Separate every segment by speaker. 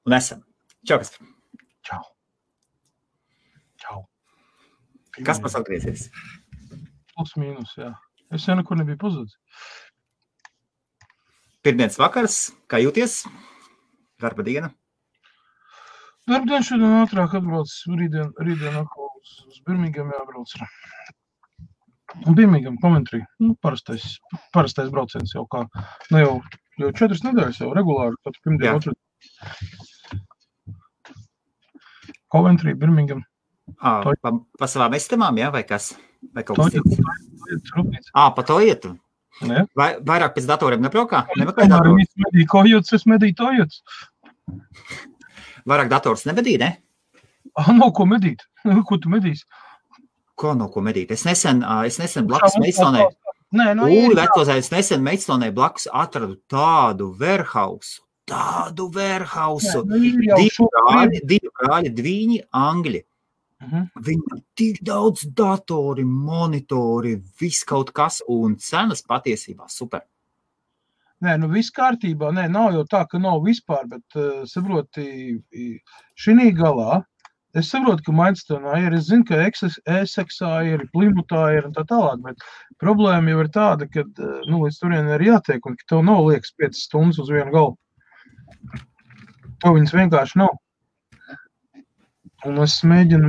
Speaker 1: Un esam. Čau, Kaspar.
Speaker 2: Čau. Čau.
Speaker 1: Kaspars atgriezies.
Speaker 2: Plus mīnus, jā. Es jau nekur nebiju pazudis.
Speaker 1: Pirmdienas vakars, kā jūties? Darba diena?
Speaker 2: Darba diena šodien ātrāk atbrauc, rītdien atkal uz Birmingham jābrauc. Un Birmingham, Coventry, parastais brauciens jau kā, jau 4 nedēļas jau regulāri, pat pirmdien otru. Coventry, Birmingham.
Speaker 1: Pa savām estamām, jā, vai kas? Vai kaut kas cits? Pa to ietu.
Speaker 2: Ne?
Speaker 1: Vairāk pēc datoriem nebraukā?
Speaker 2: Es medīju tojots.
Speaker 1: Vairāk dators nebedīja, ne?
Speaker 2: Nav ko medīt. Ko tu medīsi?
Speaker 1: Ko nav ko medīt? Es nesen blakus Meistonē. Es nesen Meistonē blakus atradu tādu warehouse. Divi brāļi, dviņi angļi. Viņam tik daudz datori, monitori, viss kaut kas, un cenas patiesībā super.
Speaker 2: Nē, viss kārtībā, nav jau tā, ka nav vispār, bet saproti, šinī galā, es saprotu, ka Mainstonā ir, es zinu, ka Essexā ir, Plymouthā ir un tā tālāk, bet problēma jau ir tāda, ka, līdz turien ir jātiek, un ka tev nav liekas 5 stundas uz vienu galvu. To viņas vienkārši nav. Un es mēģinu,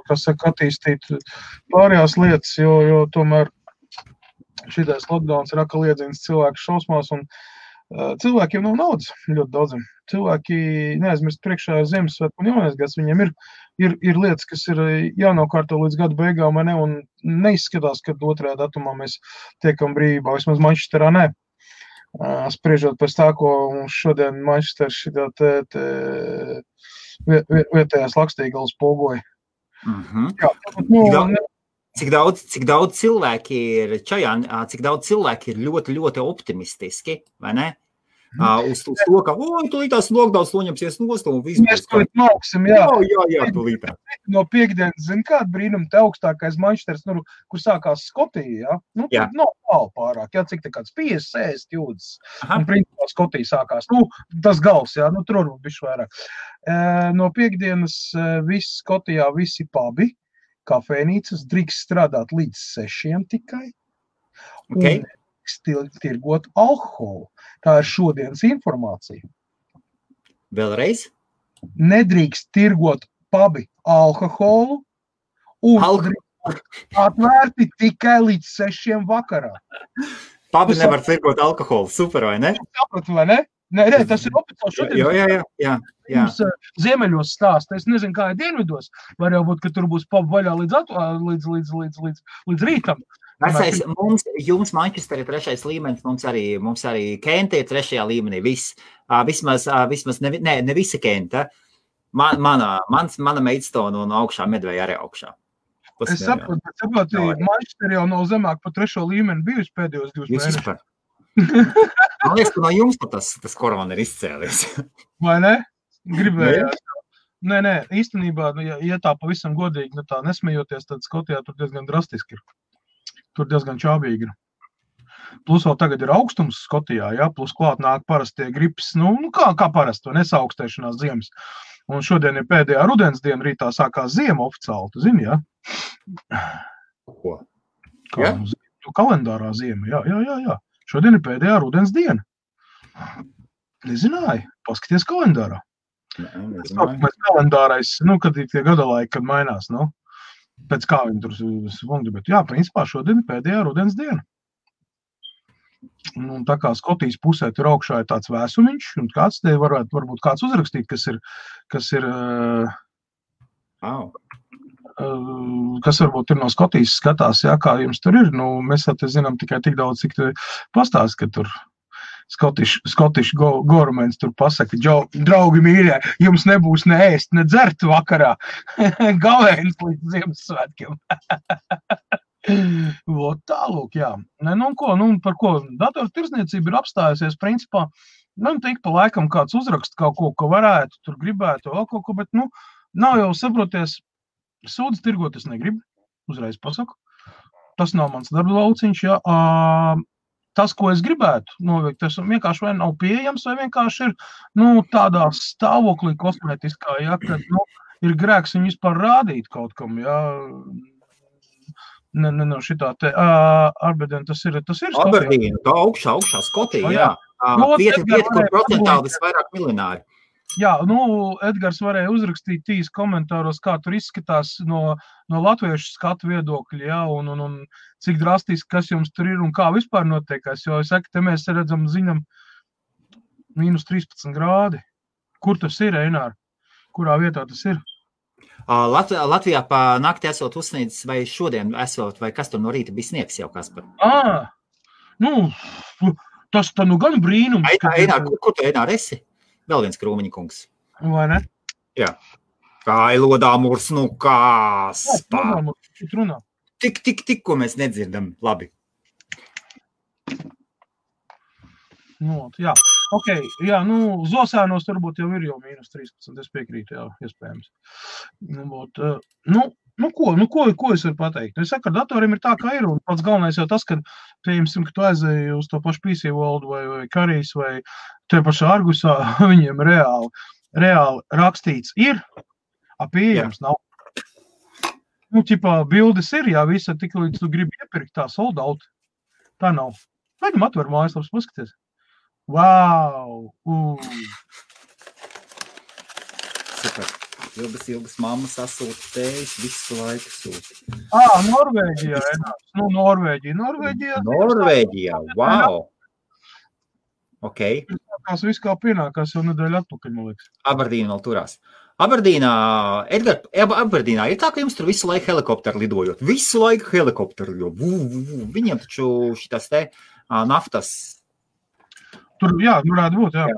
Speaker 2: kas saka, attīstīt pārējās lietas, jo tomēr šitais lockdowns ir atkal iedzīns cilvēku šausmās, un cilvēkiem nav naudas ļoti daudziem. Cilvēki neaizmirst priekšā Ziemassvētku un Jaunais gads, viņiem ir lietas, kas ir jānokārto līdz gada beigām, vai ne, un neizskatās, ka 2. datumā mēs tiekam brīvībā, vismaz Manchesterā ne. Spriežot pēc tā, ko mums šodien Manchester šitā vietējās Lakstīgals pogoja.
Speaker 1: Cik daudz cilvēki ir čajā, cik daudz cilvēki ir ļoti, ļoti optimistiski, vai ne? Uz to, ka, tūlītās lockdowns noņemsies nost un viss.
Speaker 2: Mēs to mauksim, jā.
Speaker 1: Jā, tūlītā.
Speaker 2: No piekdienas, zin kādu brīnumu, te augstākais Manchesters, kur sākās Skotija, jā? Tur nav tālu pārāk, jā, cik te kāds 50 jūdas. Un principā Skotija sākās. Tas gals, jā, tur varbūt bišķi vairāk. No piekdienas viss Skotijā, visi pubi, kafēnīcas, drīkst strādāt līdz 6 tikai.
Speaker 1: Okay.
Speaker 2: Un tirgot alkoholu. Tā ir šodienas informācija.
Speaker 1: Vēlreiz?
Speaker 2: Nedrīkst tirgot pubi alkoholu un atvērti tikai līdz 6 vakarā.
Speaker 1: Pubi nevar tirgot alkoholu, super, vai ne?
Speaker 2: Sapratu, vai ne? Nē, tas ir oficiāli šodien.
Speaker 1: Jā.
Speaker 2: Mums ziemeļos stāsta, es nezinu, kā ir dienvidos. Var jau būt, ka tur būs pubi vaļā līdz rītam.
Speaker 1: Vecais, jums Manchester ir 3. līmenis, mums arī Kenta ir 3. līmenī, viss. Vismaz ne visa Kenta. Mana Maidstone un augšā Medveja arī augšā.
Speaker 2: Es saprotu, Manchester jau nav zemāk pa 3. līmeni bijusi pēdējos 2 mēnešus.
Speaker 1: Super. Man liekas, ka no jums tas korona ir izcēlies.
Speaker 2: Vai ne? Gribējās. Nē, īstenībā, ja tā pavisam godīgi, tā nesmejoties, tad Skotijā tur diezgan drastiski ir. Tur diezgan čābīgi ir. Plus vēl tagad ir augstums Skotijā, jā, plus klāt nāk parastie gripas, kā parasti, nesaukstēšanās ziemas. Un šodien ir pēdējā rudens diena, rītā sākās ziema oficiāli, tu zini, jā?
Speaker 1: Ko?
Speaker 2: Kā kalendārā ziema, jā. Šodien ir pēdējā rudens diena. Nezināji, paskaties kalendārā. Mēs kalendārais, kad ir tie gadalaiki, kad mainās, pēc kā viņi tur svungri, bet jā, principā šodien ir pēdējā rudens diena. Un tā kā Skotijas pusē tur augšā ir tāds vēsumiņš, un kāds te varbūt kāds uzrakstīt, kas varbūt ir no Skotijas skatās, jā, kā jums tur ir. Mēs te zinām tikai tik daudz, cik te pastāst, ka tur Scottish governments tur pasaka, draugi mīļie, jums nebūs ne ēst, ne dzert vakarā. Gavēns līdz Ziemassvētkiem. Tālūk, jā. Par ko dators tirsniecība ir apstājusies, principā, tik pa laikam kāds uzrakst kaut ko, ko varētu, tur gribētu, vēl kaut ko, bet, nav jau saproties, sūdz tirgot es negribu, uzreiz pasaku. Tas nav mans darba lauciņš, jā. tas, ko es gribētu noveikt, tas vienkārši vai nav pieejams, vai vienkārši ir, tādā stāvoklī kosmētiskā, ja, kad, ir grēks viņu vispār rādīt kaut kam, ja. Šitā te, Aberdeen, tas ir Skotija.
Speaker 1: Aberdeen, tā augšā Skotija, jā. Vieta, kur procentāli visvairāk miljonāri.
Speaker 2: Jā, Edgars varēja uzrakstīt tīs komentāros, kā tur izskatās no latviešu skatu viedokļa, jā, un cik drastiski, kas jums tur ir un kā vispār notiekās, jo es saku, te mēs redzam, zinām, -13 grādi. Kur tas ir, Einār? Kurā vietā tas ir?
Speaker 1: Latvijā pa nakti esot uzsniedzis, vai šodien esot, vai kas tur no rīta bija sniegs jau, Kaspar?
Speaker 2: Tas tā gan brīnums.
Speaker 1: Einār, kur tu, Einār, esi? Vēl viens Krūmiņa kungs.
Speaker 2: Vai ne?
Speaker 1: Jā. Kailodā mūrs, Kaspar. Tik, ko mēs nedzirdam. Labi.
Speaker 2: Jā. Ok, jā, Zosēnos varbūt jau ir jau -13, es piekrītu, jā, iespējams. Ko es varu pateikt? Es saku, ar datoriem ir tā, kā ir, un pats galvenais jau tas, ka, pieņemsim, ka tu aizēji uz to pašu PC World vai Karijas vai te pašā Argusā, viņiem reāli rakstīts ir, pieejams nav. Bildes ir, jā, visa tik līdz tu gribi iepirkt tā sold out. Tā nav. Gaidam atver mājaslaps, paskaties. Wow!
Speaker 1: Super. Ilgas mammas sasūta tējas, visu laiku sūta.
Speaker 2: Norvēģijā,
Speaker 1: Norvēģijā, wow! Ok.
Speaker 2: Tās viss kā pienākās jau nedēļu atpakaļ, man liekas.
Speaker 1: Aberdīna vēl turās. Aberdīnā, Edgar, Aberdīnā ir tā, ka jums tur visu laiku helikopteru lidojot. Visu laiku helikopteru, jo viņiem taču šitas te naftas.
Speaker 2: Tur, jā, varētu būt, jā.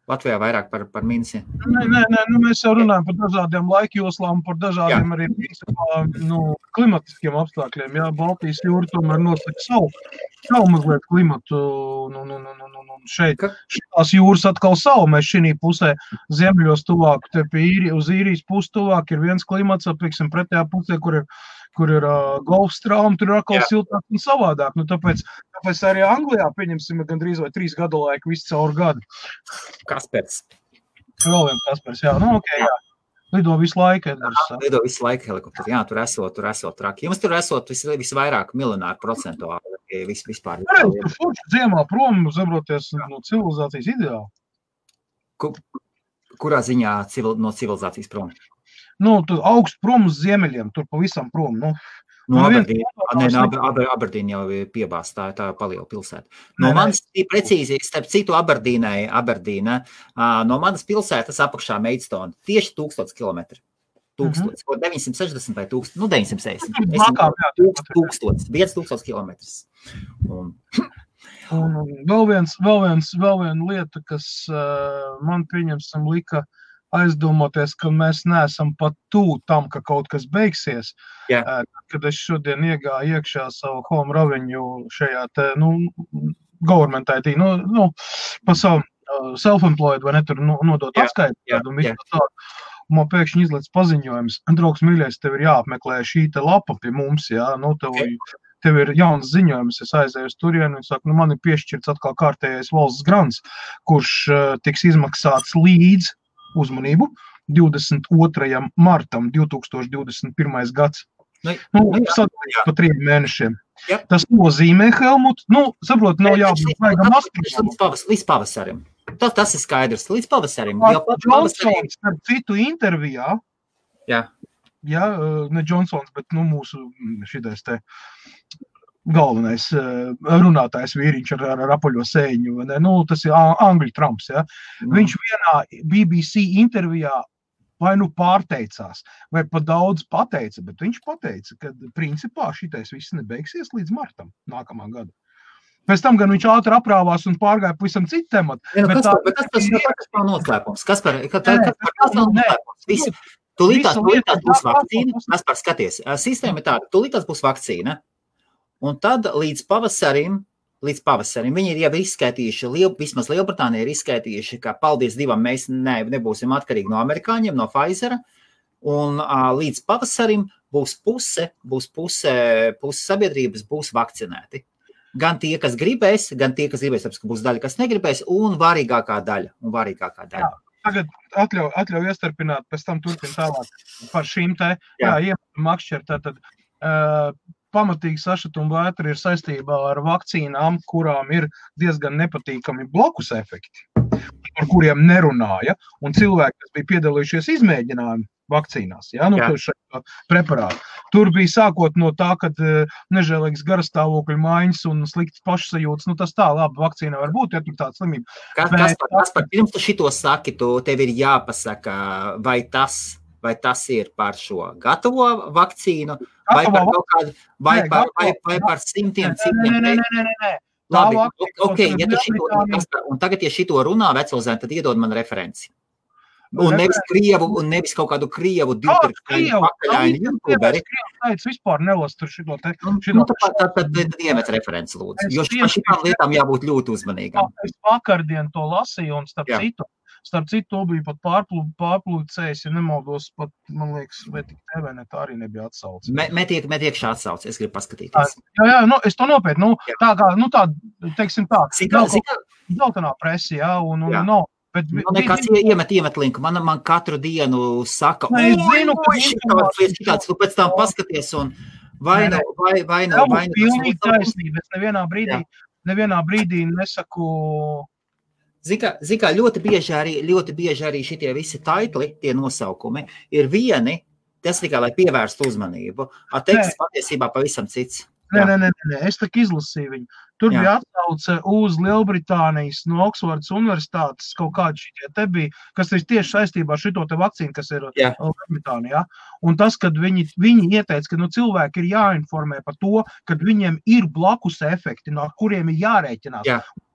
Speaker 1: Latvijā vairāk par minsi.
Speaker 2: Nē, mēs jau runājam par dažādiem laikjoslām, par dažādiem arī klimatiskiem apstākļiem. Jā, Baltijas jūra tomēr nosaka savu mazliet klimatu. Šitās jūras atkal savu. Mēs šī pusē ziemeļos tuvāk, te pie uz īrijas pusi tuvāk ir viens klimats, pieksim, pretējā pusē, kur ir Golfstrauma, tur ir atkal siltāk un savādāk. Tāpēc arī Anglijā, pieņemsim, gandrīz vai 3 gadu laiku visu caur gadu.
Speaker 1: Kaspers.
Speaker 2: Vēl viens Kaspers, jā. Ok, jā. Lido visu laiku, Edgars.
Speaker 1: Lido visu laiku helikopteri. Jā, tur esot traki. Jums tur esot visvairāk miljonāru procentuāli vispār.
Speaker 2: Tur forši dziemā prom, zabroties no civilizācijas ideāli.
Speaker 1: Kurā ziņā no civilizācijas prom?
Speaker 2: Tur augstu prom uz ziemeļiem, tur pavisam prom.
Speaker 1: Aberdīna jau ir piebāsta, tā paliela pilsēta. No manas, precīzi, starp citu Aberdīna, no manas pilsētas apakšā Maidstone, tieši 1000 kilometri. 960 vai 960. 1000 kilometrus.
Speaker 2: Vēl viena lieta, kas man pieņemsim lika aizdomoties, ka mēs neesam pat tam, ka kaut kas beigsies. Kad es šodien iegāju iekšā savu home revenue šajā te, government IT, pa savu self-employed, vai ne, tur nodot atskaitu, un visu tādu. Man pēkšņi izlēc paziņojums, draugs mīļais, tev ir jāapmeklē šī te lapa pie mums, jā, tev ir jauns ziņojums, es aizēju uz turienu un saku, man ir piešķirts atkal kārtējais valsts grants, kurš tiks izmaksāts līdz uzmanību 22. martam 2021. gads. Sadalīts pa 3 mēnešiem. Tas nozīmē, Helmut, saprot, nav jābūt vaigam astronām.
Speaker 1: Līdz pavasarim. Tas ir skaidrs, līdz pavasarim.
Speaker 2: Johnsons, starp citu intervijā, ne Johnsons, bet mūsu šitais te galvenais runātājs vīriņš ar apaļo sēņu, tas ir Angļu Trumps, ja. Viņš vienā BBC intervijā vai pārteicās, vai pa daudz pateica, bet viņš pateica, ka principā šitais viss nebeigsies līdz martam nākamā gada. Pēc tam gan viņš ātri aprāvās un pārgāja pavisam citu tematu.
Speaker 1: Bet tas nav noslēpums. Kas par noslēpums? Tūlītās būs vakcīna. Kaspar, skaties, sistēma ir tāda, tūlītās būs vakcīna. Un tad līdz pavasarim viņi ir jau izskaitījuši, vismaz Lielbritānija ir izskaitījuši, ka paldies Dievam mēs nebūsim atkarīgi no amerikāņiem, no Pfizera, un līdz pavasarim būs puse sabiedrības būs vakcinēti. Gan tie, kas gribēs, tāpēc, ka būs daļa, kas negribēs, un varīgākā daļa.
Speaker 2: Jā, tagad atļauj iestarpināt, pēc tam turpin tālāk par šīm te, makšķer, tātad pamatīgi sašutuma vētra ir saistībā ar vakcīnām, kurām ir diezgan nepatīkami blokus efekti, par kuriem nerunāja, un cilvēki, kas bija piedalījušies izmēģinājumu vakcīnās, preparātu. Tur bija sākot no tā, kad nežēlīgs garastāvokļu maiņas un slikts pašsajūtas, tas tā, labi, vakcīna var būt, ja tur tāda slimība.
Speaker 1: Kaspar, pirms tu šito saki, tev ir jāpasaka, vai tas ir par šo gatavo vakcīnu, vai par kaut kādu, vai par simtiem citiem.
Speaker 2: Nē.
Speaker 1: Labi, un tagad, ja šito runā vecilzēni, tad iedod man referenci. Un nevis kaut kādu krievu pakaļaini youtuberi.
Speaker 2: Krievs vispār nelas tur šito te.
Speaker 1: Tad iemet referenci, lūdzu. Jo šitām lietām jābūt ļoti uzmanīgām.
Speaker 2: Es vakardien to lasīju, un starp citu, to bija pat pārplūcējis, ja nemaldos, pat, man liekas, vai tik TV net arī nebija atsaucis.
Speaker 1: Metiek šā atsaucis, es gribu paskatīties.
Speaker 2: Jā, es to nopietnu, tā kā, teiksim tā, zeltenā presi, un nav.
Speaker 1: Nekas iemet linku. Man katru dienu saka, šitāds, tu pēc tam paskaties un vai nav.
Speaker 2: Pilnīgi taisnība. Es nevienā brīdī nesaku.
Speaker 1: Zikā, ļoti bieži arī šitie visi taitli, tie nosaukumi, ir vieni, tas tikai, lai pievērstu uzmanību. Teksts patiesībā pavisam cits.
Speaker 2: Nē, es tak izlasīju viņu. Tur bija atsauce uz Lielbritānijas no Oksfordas universitātes kaut kādi šitie te bija, kas ir tieši saistībā ar šito te vakcīnu, kas ir Lielbritānijā. Un tas, kad viņi ieteica, ka cilvēki ir jāinformē par to, kad viņiem ir blakus efekti, no kuriem ir jārēķinās.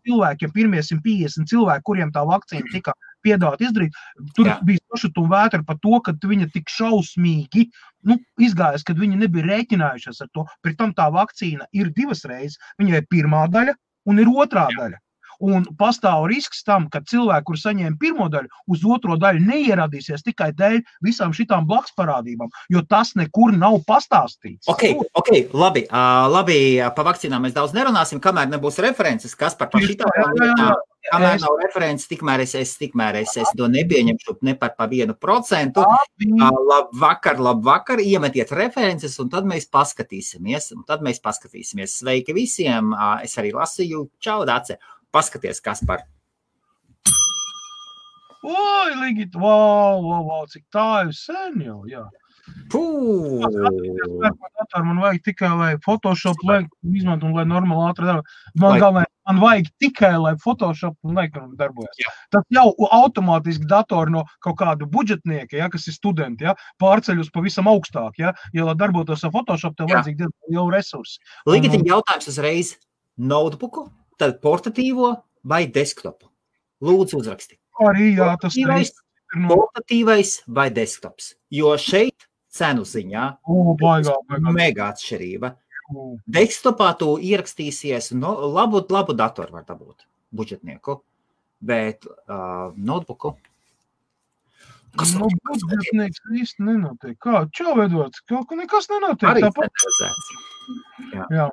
Speaker 2: Cilvēkiem, pirmie 150 cilvēki, kuriem tā vakcīna tika piedāvāt izdarīt, tur bija sašutuma vētra par to, ka viņa tik šausmīgi izgājas, kad viņi nebija rēķinājušies ar to. Pret tam tā vakcīna ir 2 reizes. Viņai ir pirmā daļa un ir otrā daļa. Un pastāv risks tam, ka cilvēki, kur saņēma pirmo daļu, uz otro daļu neieradīsies tikai dēļ visām šitām blaksparādībām, jo tas nekur nav pastāstīts.
Speaker 1: Ok, labi, pa vakcīnām mēs daudz nerunāsim, kamēr nebūs references, kas par šitām lietām. Kamēr nav references, tikmēr es to nepieņemšu ne par 1%. Labvakar, iemetiet references, un tad mēs paskatīsimies. Sveiki visiem, es arī lasīju, čau, Dace. Paskaties, kas par.
Speaker 2: Oi, Ligit, wow, cik tā ir sen jau, jā. Man vajag tikai, lai Photoshop izmantu un lai normāli ātri darbojas. Man vajag tikai, lai Photoshop un darbojas. Tas jau automātiski datori no kaut kādu budžetnieka, kas ir studenti, pārceļ uz pavisam augstāk, ja lai darbotos ar Photoshop, tev vajadzīgi diezgan jau resursi.
Speaker 1: Ligit, jautājums uzreiz notebooku, tad portatīvo vai desktopu? Lūdzu uzraksti.
Speaker 2: Arī, tas
Speaker 1: portatīvais vai desktops? Jo šeit cenu ziņā mega atšķirība. Desktopā tu ierakstīsies, labu datoru var dabūt, budžetnieku, bet notebooku.
Speaker 2: Kas budžetnieks īsti nenotiek? Kā? Čau, Edvards, nekas nenotiek.
Speaker 1: Arī centralizēts. Jā.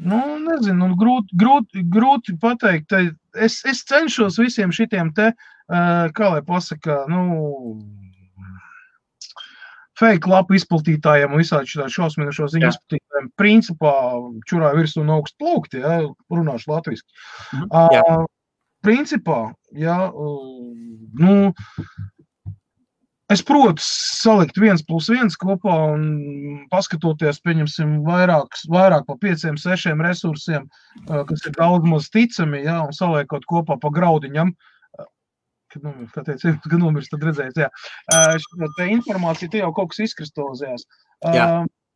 Speaker 2: Nezinu, grūti pateikt. Es cenšos visiem šitiem te, kā lai pasaka, fake lapu izplatītājiem un visādi šitā šausminošo ziņu izplatītājiem principā čurā virsū un augstu plaukti, runāšu latviski. Principā, es protu salikt 1+1 kopā un paskatoties, pieņemsim, vairāk pa 5-6 resursiem, kas ir daudz maz ticami, un saliekot kopā pa graudiņam. Kad nomirs, tad redzēs, te informācija, te jau kaut kas izkristalizējās.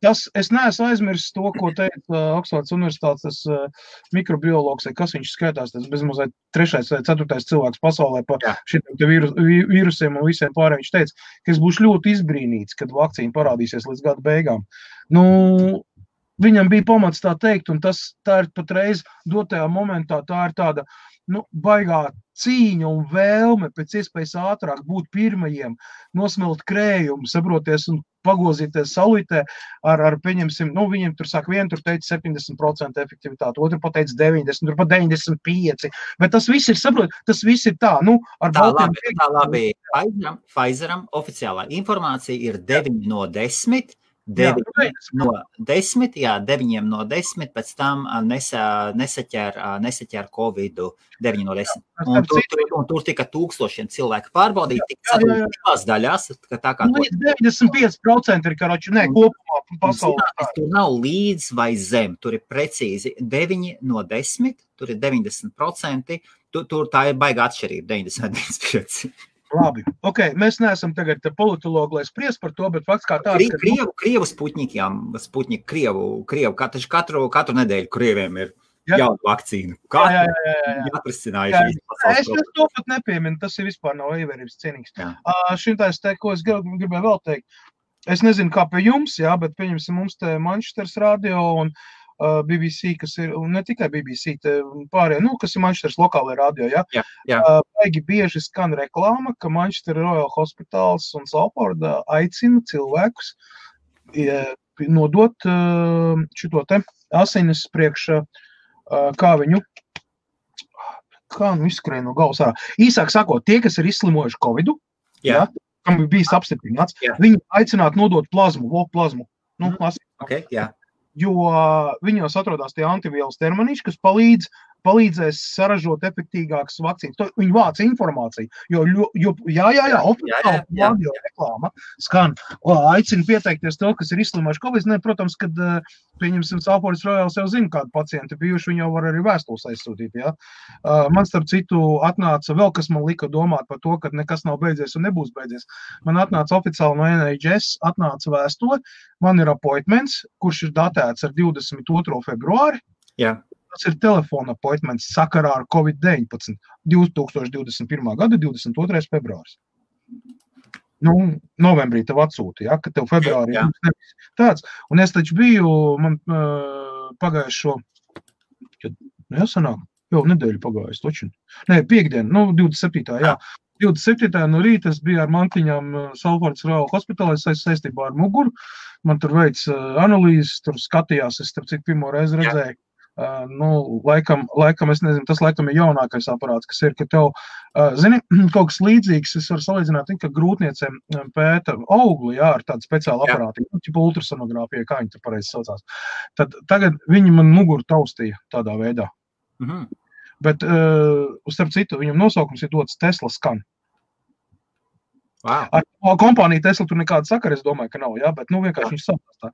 Speaker 2: Es neesmu aizmirsis to, ko teica Oksfordas universitātes mikrobiologs, kas viņš skaitās, tas bezmazliet 3. vai 4. cilvēks pasaulē par šitiem vīrusiem un visiem pārējiem. Viņš teica, ka es būšu ļoti izbrīnīts, kad vakcīna parādīsies līdz gada beigām. Viņam bija pamats tā teikt, un tā ir patreiz dotajā momentā, tā ir tāda baigā cīņa un vēlme pēc iespējas ātrāk būt pirmajiem, nosmelt krējumu, saproties un pagozīties saulītē ar pieņemsim, viņiem tur sāk vienu, tur teica 70% efektivitāti, otru pateica 90, tur pat 95, bet tas viss ir, saprot, tas viss ir tā, ar baltiem.
Speaker 1: Tā labi, Pfizeram oficiālā informācija ir 9 no 10, 9 no 10, pēc tam nesaķer Covidu 9 no 10. Un tur tika tūkstošiem cilvēku pārbaudīt, tika sadalīt divās daļās. Tā kā
Speaker 2: 95% ir, kopumā pasaulē.
Speaker 1: Tur nav līdz vai zem, tur ir precīzi 9 no 10, tur ir 90%, tur tā ir baiga atšķirība, 95%.
Speaker 2: Labi, mēs neesam tagad politologi, lai spries par to, bet fakts kā tāds, ka...
Speaker 1: Krievu Sputņiki, Krievu, katru nedēļu Krieviem ir jauna vakcīna. Jāprasinājuši.
Speaker 2: Es to pat nepieminu, tas ir vispār nav ievērības cienīgs. Šintās te, ko es gribēju vēl teikt, es nezinu, kā pie jums, bet pieņemsim mums te Manchesteras radio un BBC, kas ir, un ne tikai BBC, pārējie, kas ir Manchesteras lokālajā radio, baigi bieži skan reklāma, ka Manchester Royal Hospitals un Salford aicina cilvēkus nodot šito te asinis priekš, kā izskrēja no galvas ārā. Īsāk sakot, tie, kas ir izslimojuši Covidu, kam ir bijis apstiprināts, viņi aicinātu nodot plazmu. Jo viņos atrodas tie antivielas terminīši, kas palīdzēs saražot efektīgākas vakcīnas. Viņi vāc informāciju, jo oficiāli radio reklāma skan. Aicina pieteikties to, kas ir izslimojuši Covid. Protams, kad pieņemsim Salford Royal jau zina, kādu pacienti bijuši, viņi jau var arī vēstules aizsūtīt. Man starp citu atnāca vēl, kas man lika domāt par to, ka nekas nav beidzies un nebūs beidzies. Man atnāca oficiāli no NHS, atnāca vēstule, man ir appointments, kurš ir datēts ar 22. februāri. Tas ir telefona appointments sakarā ar Covid-19 2021. gada 22. februāris. Novembrī tev atsūta, ka tev februārī nebija tāds. Un es taču biju, man pagājušo, sanāk, jau nedēļu pagājuši, toču. Piektdien, 27. 27. no rīta es biju ar mantiņām Salfords Royal Hospitalē saistībā ar muguru. Man tur veic analīzes, tur skatījās, es starp cik pirmo reizi redzēju. Laikam, es nezinu, tas laikam ir jaunākais aparāts, kas ir, ka tev, zini, kaut kas līdzīgs, es varu salīdzināt, ka grūtniecēm pēta augli, ar tādu speciālu aparātu, tipu ultrasonogrāfiju, kā viņi tur pareizi saucās. Tad tagad viņi man muguru taustīja tādā veidā. Bet, starp citu, viņam nosaukums ir dots Tesla Scan.
Speaker 1: Wow.
Speaker 2: Ar kompāniju Tesla tur nekāda sakara, es domāju, ka nav, bet vienkārši viņš saprast tā.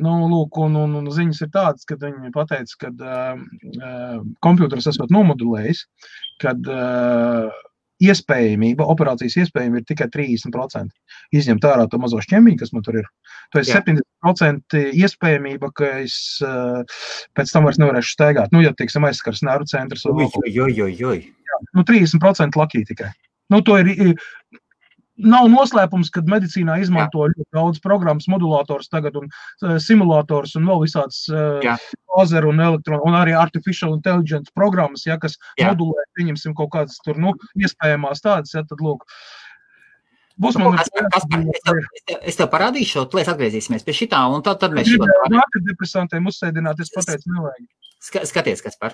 Speaker 2: Lūk, un ziņas ir tādas, kad viņi pateica, kad kompjūters esot nomodulējis, kad operācijas iespējamība ir tikai 30%. Izņemt ārā to mazo šķembiņu, kas man tur ir. To ir 70% iespējamība, ka es pēc tam vairs nevarēšu staigāt. Ja, teiksim, aizskars nervu centrs. 30% lakī tikai. To ir... Nav noslēpums, kad medicīnā izmanto ļoti daudz programmas, modulators tagad un simulators un vēl visāds lazeru un elektronu un arī artificial intelligence programmas, kas modulē, pieņemsim kaut kādas tur, iespējamās tādas, tad lūk.
Speaker 1: Es tev parādīšu, tu atgriezīsimies pie šitā, un tad mēs šitā...
Speaker 2: Depresantiem uzsēdināt, es pateicu, nevajag.
Speaker 1: Skaties, Kaspar.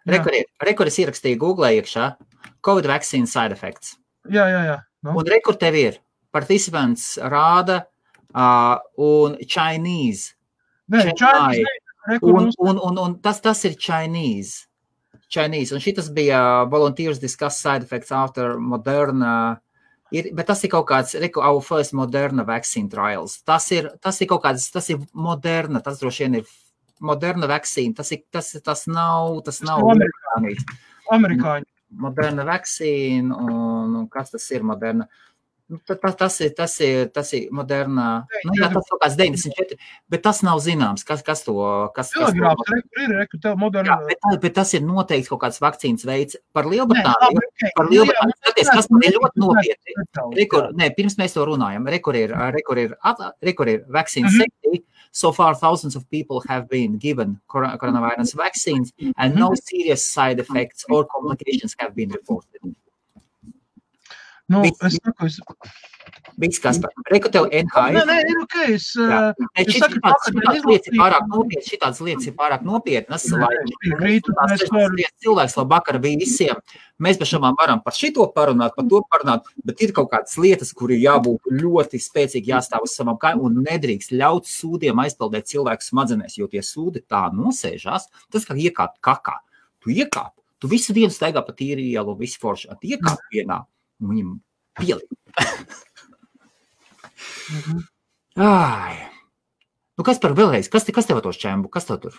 Speaker 1: Rekur es ierakstīju Google iekšā COVID vaccine side effects.
Speaker 2: Jā.
Speaker 1: Un rekur tev ir participants rāda un Chinese. Un tas ir Chinese. Un šitas bija volunteers discuss side effects after Moderna. Bet tas ir kaut kāds, our first Moderna vaccine trials. Tas ir kaut kāds, tas ir Moderna, tas droši vien ir Moderna vaccine. Tas nav
Speaker 2: amerikāņi.
Speaker 1: Moderna vaccine, un kas tas ir Moderna? Tas ir modernā, jā, tas kaut kāds 94, bet tas nav zināms, kas to...
Speaker 2: Telegrāfs ir moderna...
Speaker 1: Jā, bet tas ir noteikti kaut kāds vakcīnas veids par Lielbritāniju. Par Lielbritāniju, skaties, kas man ir ļoti nopietni. Pirms mēs to runājam, rekur ir vaccine safety. So far, thousands of people have been given coronavirus vaccines and no serious side effects or complications have been reported.
Speaker 2: Nu, es saku,
Speaker 1: Viss, Kaspar. Reku tev NHI.
Speaker 2: Nē, ir ok.
Speaker 1: Šitādas lietas ir pārāk nopietnas, lai cilvēks labāk ar visiem. Mēs pašamām varam par šito parunāt, par to parunāt, bet ir kaut kādas lietas, kur ir jābūt ļoti spēcīgi jāstāv uz savam kājām un nedrīkst ļaut sūdiem aizpildēt cilvēku smadzenēs, jo tie sūdi tā nosēžās, tas kā iekāpt kakā. Tu iekāp, tu visu dienu staigā pa tīri ielu, visu foršu, tu iekāp vienā. Viņam pielīd. Nu, kas par vēlreiz? Kas tev tos čembu? Kas tev tur?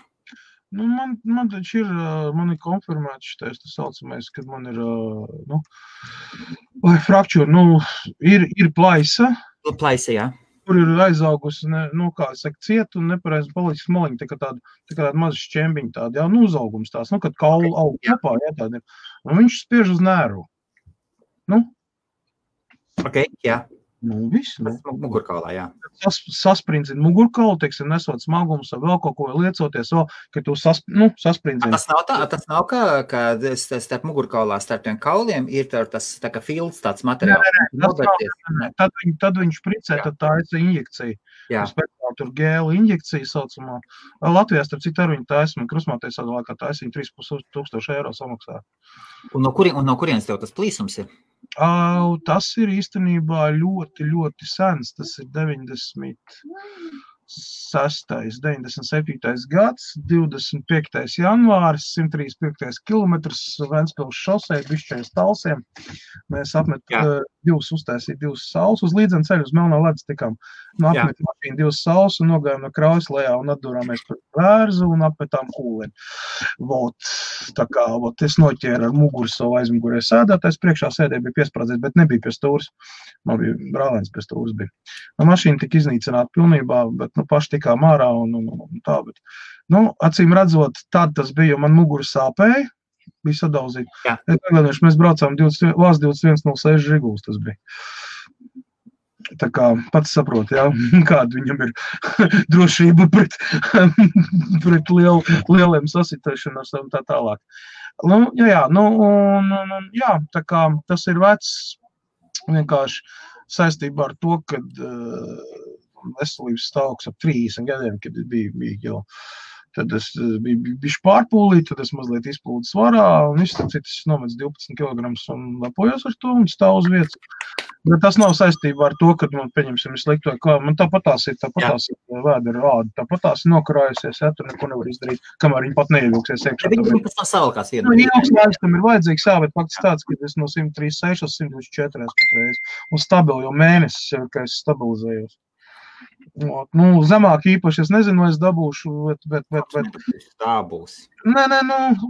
Speaker 2: Nu, man taču ir, man ir konfirmēts šitais, tas saucamais, kad man ir, frakčūra, ir plaisa.
Speaker 1: Plaisa, jā.
Speaker 2: Kur ir aizaugusi, kā saka, ciet un nepareizi palicis maliņi, tā kā tāda maza šķembiņa tāda, jā, uzaugums tās, kad kaulu aug kopā, jā, tāda ir. Un viņš spiež uz nēru.
Speaker 1: Ok, jā.
Speaker 2: Viss,
Speaker 1: Mugurkaulā, jā.
Speaker 2: Sasprindzina mugurkaulu, teiksim, nesot smagumus vai vēl kaut ko liecoties, ka tu sasprindzina.
Speaker 1: Tas nav ka starp mugurkaulā, starp tiem kauliem ir tas tā kā filts, tāds materiāls.
Speaker 2: Tad viņš špricē, tad tā ir injekcija. Tur gēlu injekcija saucamā. Latvijā, starp citu, ar viņu taismi, krusmāties atvēlēkā taismi 3,500 eiro samaksā.
Speaker 1: Un no kurienes tev tas plīsums ir?
Speaker 2: Tas ir īstenībā ļoti, ļoti sens. Tas ir 97. gads, 25. janvāris, 135. kilometrs, Ventspils šosei, bišķais talsiem. Mēs uztaisīja divas saules uz līdzenu ceļu, uz Melnā ledus tikām. Apmet mašīnu divas saules un nogājām no kraujas lejā un atdurāmies par vērzu un apmetām kūleni. Es noķēru ar muguru savu aizmugurē sēdētājs, priekšā sēdē bija piesprādzēs, bet nebija pie stūras. Man bija brālēns pie stūras bija. Mašīna tika iznīcināta pilnībā, bet paši tikām ārā un tā, bet, acīm redzot, tad tas bija, jo man muguru sāpēja, bija sadauzīta. Es neglēdēšu, mēs braucām Vās 2106 Žiguls tas bija. Tā kā pats saprot, jā, kāda viņam ir drošība pret lieliem sasitēšanās un tā tālāk. Tā kā tas ir vecs vienkārši saistībā ar to, kad veselības stāvoklis ap 30 gadiem, kad bija jau, tad es biju pārpūlīt, tad es mazliet izplūdu svarā, un viss citas nomets 12 kg un lepojos ar to un stāv uz vietas. Bet tas nav saistībā ar to, kad man, pieņemsim, ir slikti vai kā, man tāpatās ir vēdera rāda, tāpatās ir nokarājusies, ja, tur neko nevar izdarīt, kamēr viņi pat neievilksies iekšā.
Speaker 1: Viņi pēc tam savalkās vienu.
Speaker 2: Ilgs laiks tam ir vajadzīgs, jā, bet faktiski tāds, ka es no 136 uz 124 patreiz, un stabili jau mēnesis, ka es stabilizējos. Zemāk īpaši, es nezinu, vai es dabūšu, bet...
Speaker 1: Tā būs.
Speaker 2: Nē,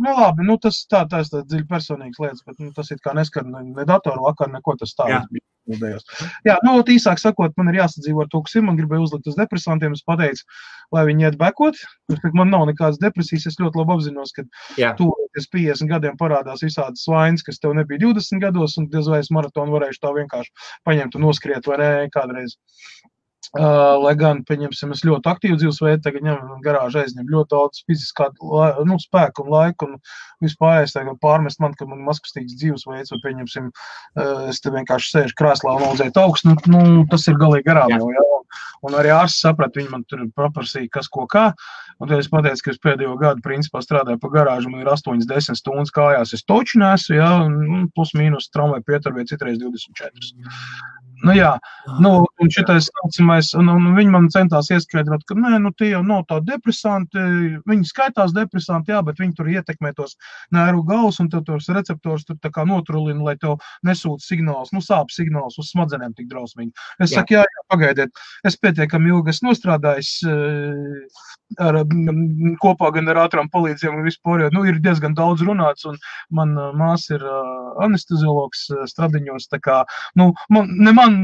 Speaker 2: labi, tas tā ir dziļi personīgas lietas, bet tas ir kā neskar ne datoru vakar, neko tas tā bija. Jā, īsāk sakot, man ir jāsadzīvo ar to, kas ir, man gribēja uzlikt uz depresantiem, es pateicu, lai viņi iet bekot, man nav nekādas depresijas, es ļoti labi apzinos, ka tuvoties 50 gadiem parādās visādas vainas, kas tev nebija 20 gados, un diez vai es maratonu varēšu tā vienkārši paņemt un noskriet, vai ne, kādreiz. Lai gan, pieņemsim, es ļoti aktīvu dzīvesveidu, tagad ņem garāžu aizņem ļoti daudz fiziskā spēku un laiku un vispārējais tagad pārmest man, ka man mazkustīgs dzīvesveids, vai pieņemsim, es te vienkārši sēžu krēslā un audzēt augstu, tas ir galīgi garām jau, jā. Un arī ārsts saprat, viņi man tur paprasīja, kas ko kā, un tad es pateicu, ka es pēdējo gadu principā strādāju pa garāžu, man ir 8-10 stundas kājās, es toču nesu, jā, plus mīnus tramvai pieturvie citreiz 24. Un šitais saucamais, un viņi man centās ieskaidrot, ka tie jau nav tā depresanti, viņi skaitās depresanti, jā, bet viņi tur ietekmē tos nervu galus, un tev tos receptors tur tā kā notrulina, lai tev nesūta signāls, sāp signāls uz smadzenēm tik drausmīgi. Es saku, jā, pagaidiet, es pietiekami ilgi esmu nostrādājis kopā gan ar ātrām palīdzībām un vispār, ir diezgan daudz runāts, un man māsa ir anesteziologs Stradiņos, tā kā, man man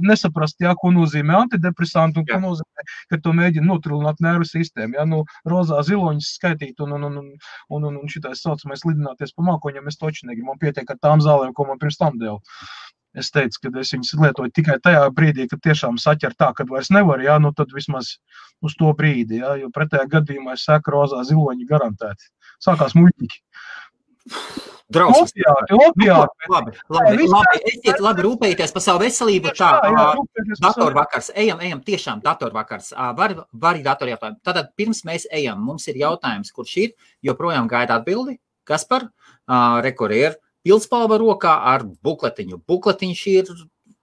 Speaker 2: nesaprast, jā, ko nozīmē antidepresanti un ko nozīmē, ka to mēģina notrilināt nervu sistēmu. Jā, rozā ziloņas skaitīt un šitais saucamais lidināties pa mākoņiem, es toči negribu. Man pietiek ar tām zālēm, ko man pirms tam dēļ. Es teicu, ka es viņas lietoju tikai tajā brīdī, kad tiešām saķer tā, kad vairs nevar, jā, tad vismaz uz to brīdi, jā, jo pretējā gadījumā es saku rozā ziloņi garantēti. Sākās muļķīgi.
Speaker 1: Drausmas.
Speaker 2: Opiāti.
Speaker 1: Esiet labi rūpējieties par savu veselību. Tā, datorvakars, ejam tiešām datorvakars. Var datori jautājumu. Tātad pirms mēs ejam, mums ir jautājums, kurš ir, joprojām gaida atbildi. Kaspar, rekur ir pildspalva rokā ar bukletiņu. Bukletiņš ir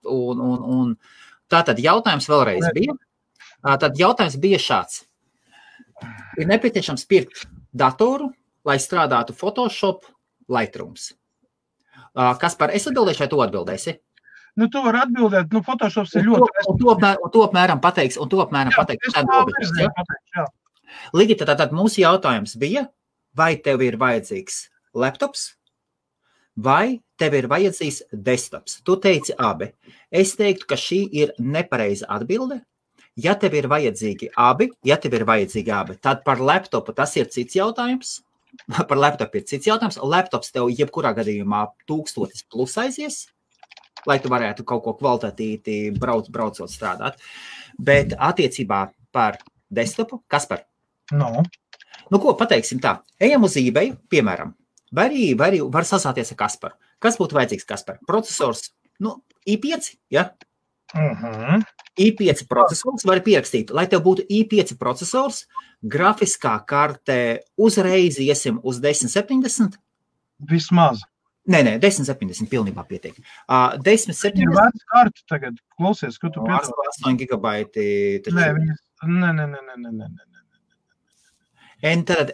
Speaker 1: un tātad jautājums vēlreiz bija. Tad jautājums bija šāds. Ir nepieciešams pirkt datoru, lai strādātu Photoshop, Lightrooms. Kaspar, es atbildēšu, vai tu atbildēsi?
Speaker 2: Tu vari atbildēt, Photoshops ir ļoti...
Speaker 1: Un to apmēram pateiks. Ligita, tātad mūsu jautājums bija, vai tev ir vajadzīgs laptops, vai tev ir vajadzīgs desktops? Tu teici abi. Es teiktu, ka šī ir nepareiza atbilde. Ja tev ir vajadzīgi abi, tad par laptopu tas ir cits jautājums. Laptops tev jebkurā gadījumā 1000 plus aizies, lai tu varētu kaut ko kvalitatīvi braucot strādāt. Bet attiecībā par desktopu, Kaspar? Ko pateiksim tā? Ejam uz eBay, piemēram. Vai var sasāties ar Kasparu. Kas būtu vajadzīgs, Kaspar? Procesors, i5, ja? i5 procesors var pierakstīt. Lai tev būtu i5 procesors, grafiskā karte uzreiz iesim uz 1070.
Speaker 2: Vismaz.
Speaker 1: Nē, 1070 pilnībā pietiek. 1070.
Speaker 2: Ir vērts kartu tagad. Klausies, ko tu piedod?
Speaker 1: 8 gigabaiti.
Speaker 2: Nē.
Speaker 1: Tad,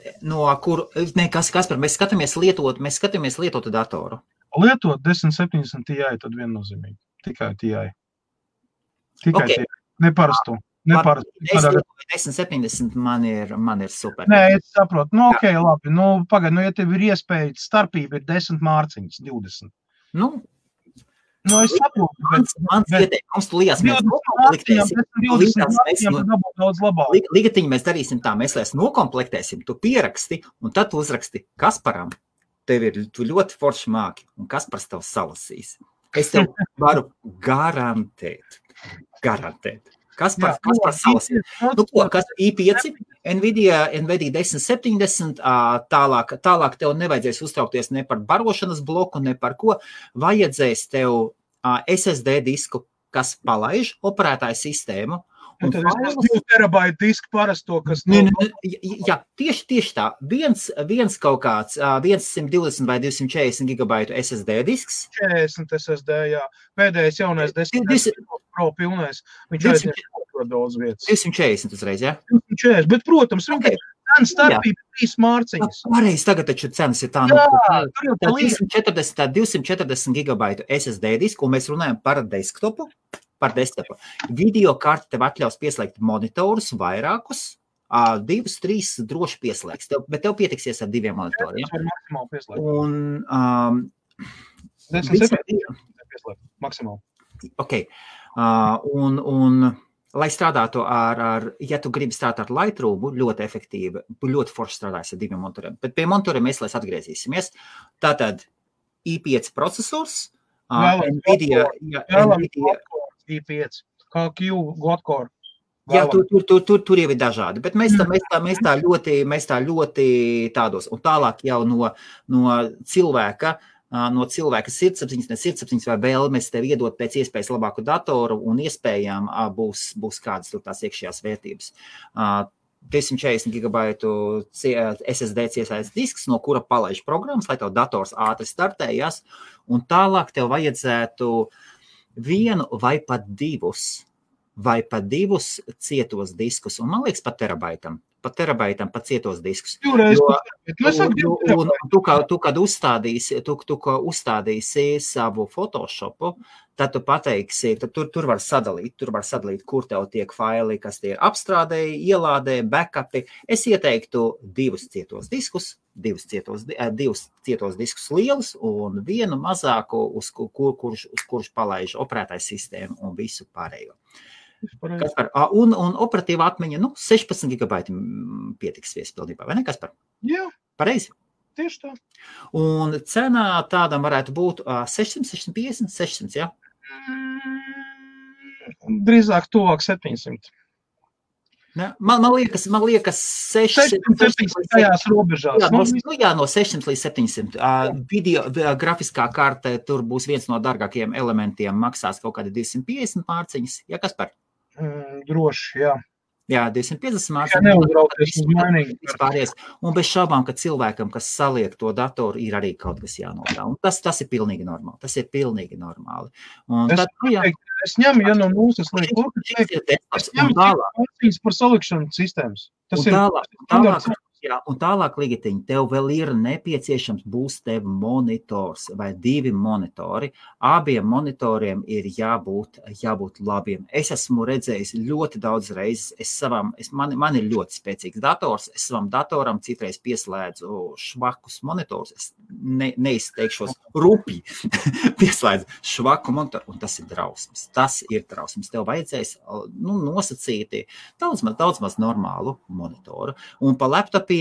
Speaker 1: Kaspar, mēs skatāmies lietotu datoru.
Speaker 2: Lietot 1070 Ti, tad viennozīmīgi. Tikai Ti.
Speaker 1: Okay.
Speaker 2: Neparastu. 1070
Speaker 1: man ir super.
Speaker 2: Nē, es saprotu. Ok, labi. Pagaid, ja tev ir iespēja, starpība ir 10 mārciņas, 20. Es saprotu.
Speaker 1: Mans ieteikums, tu Lijas, mēs Ligatiņi mēs darīsim tā, mēs nokomplektēsim, tu pieraksti, un tad tu uzraksti Kasparam. Tu ļoti forši māki, un Kaspars tev salasīs. Es tev varu garantēt. Kaspars salasīs. Kas i5, Nvidia 1070, tālāk tev nevajadzēs uztraukties ne par barošanas bloku, ne par ko. Vajadzēs tev SSD disku, kas palaiž operētāju sistēmu.
Speaker 2: Un tad es 2 terabaitu disku parasto, kas...
Speaker 1: Jā, tieši tā. Viens kaut kāds 120 vai 240 gigabaitu SSD disks.
Speaker 2: 40 SSD, jā. Pēdējais jaunais 10 Pro pilnais. Viņš aizņem ļoti daudz vietas.
Speaker 1: 240 uzreiz, jā?
Speaker 2: 240, bet, protams, viņa cena starpība 3 mārciņas.
Speaker 1: Pareizi, tagad taču cenas ir tā. Tā 240 gigabaitu SSD disku, un mēs runājam par desktopu. Video karti tev atļaus pieslēgt monitorus vairākus, 2, 3 droši pieslēgs, bet tev pietiksies ar 2 monitoriem.
Speaker 2: Maksimāli pieslēgt.
Speaker 1: Un
Speaker 2: 10 pieslēgt, maksimāli.
Speaker 1: Ok, un lai strādātu ja tu gribi strādāt ar Lightroom, ļoti efektīvi, ļoti forši strādājas ar 2 monitoriem, bet pie monitoriem mēs atgriezīsimies. Tātad i5 procesors, Nvidia
Speaker 2: i5, kā Q, Godcore.
Speaker 1: Jā, tur jau ir dažādi, bet mēs tā ļoti tādos, un tālāk jau no cilvēka sirdsapziņas vai vēlmes tev iedot pēc iespējas labāku datoru, un iespējām būs kādas tur tās iekšējās vērtības. 240 gigabaitu SSD ciesājas disks, no kura palaiž programmas, lai tev dators ātri startējas, un tālāk tev vajadzētu 1 vai pat 2 cietos diskus, un man liekas pat terabaitam pat cietos diskus. Tu, kad uzstādīsi savu Photoshopu, tad tu pateiksi, tad tur var sadalīt, kur tev tiek faili, kas tie ir apstrādēji, ielādēji, backupi. Es ieteiktu 2 cietos diskus, divus cietos diskus lielus un vienu mazāku, uz kurš palaiž operētājs sistēmu un visu pārējo. Kaspar, un operatīva atmiņa, 16 gigabaiti pietiks viespildībā, vai ne, Kaspar?
Speaker 2: Jā.
Speaker 1: Pareizi?
Speaker 2: Tieši tā.
Speaker 1: Un cenā tādam varētu būt 600, 650, 600, jā?
Speaker 2: Drīzāk tuvāk 700.
Speaker 1: Ne? Man liekas
Speaker 2: 600 tajās robežās.
Speaker 1: Jā, no 600 līdz 700. Video grafiskā karte, tur būs viens no dārgākajiem elementiem, maksās kaut kādi 250 mārciņas. Jā, Kaspar?
Speaker 2: Droši, jā.
Speaker 1: Jā, 250
Speaker 2: mārciņas. Jā, neuzrauties uz mainīgi.
Speaker 1: Un bez šaubām, ka cilvēkam, kas saliek to datoru, ir arī kaut kas jānotā. Un tas ir pilnīgi normāli. Tas ir pilnīgi normāli. Un
Speaker 2: es ņemu, ja no mūsas liek, es ņemu mārciņas par salikšanu sistēmas. Tas ir standarts. Jā, un tālāk, Ligitiņ, tev vēl ir nepieciešams būs tev monitors vai 2 monitori. Abiem monitoriem ir jābūt labiem. Es esmu redzējis ļoti daudz reizes. Man ir ļoti spēcīgs dators. Es savam datoram citreiz pieslēdzu švakus monitors. Es neizteikšos rupi. Pieslēdzu švaku monitoru, un tas ir drausmas. Tas ir drausmas. Tev vajadzēs nosacīti daudz maz normālu monitoru. Un pa laptopiem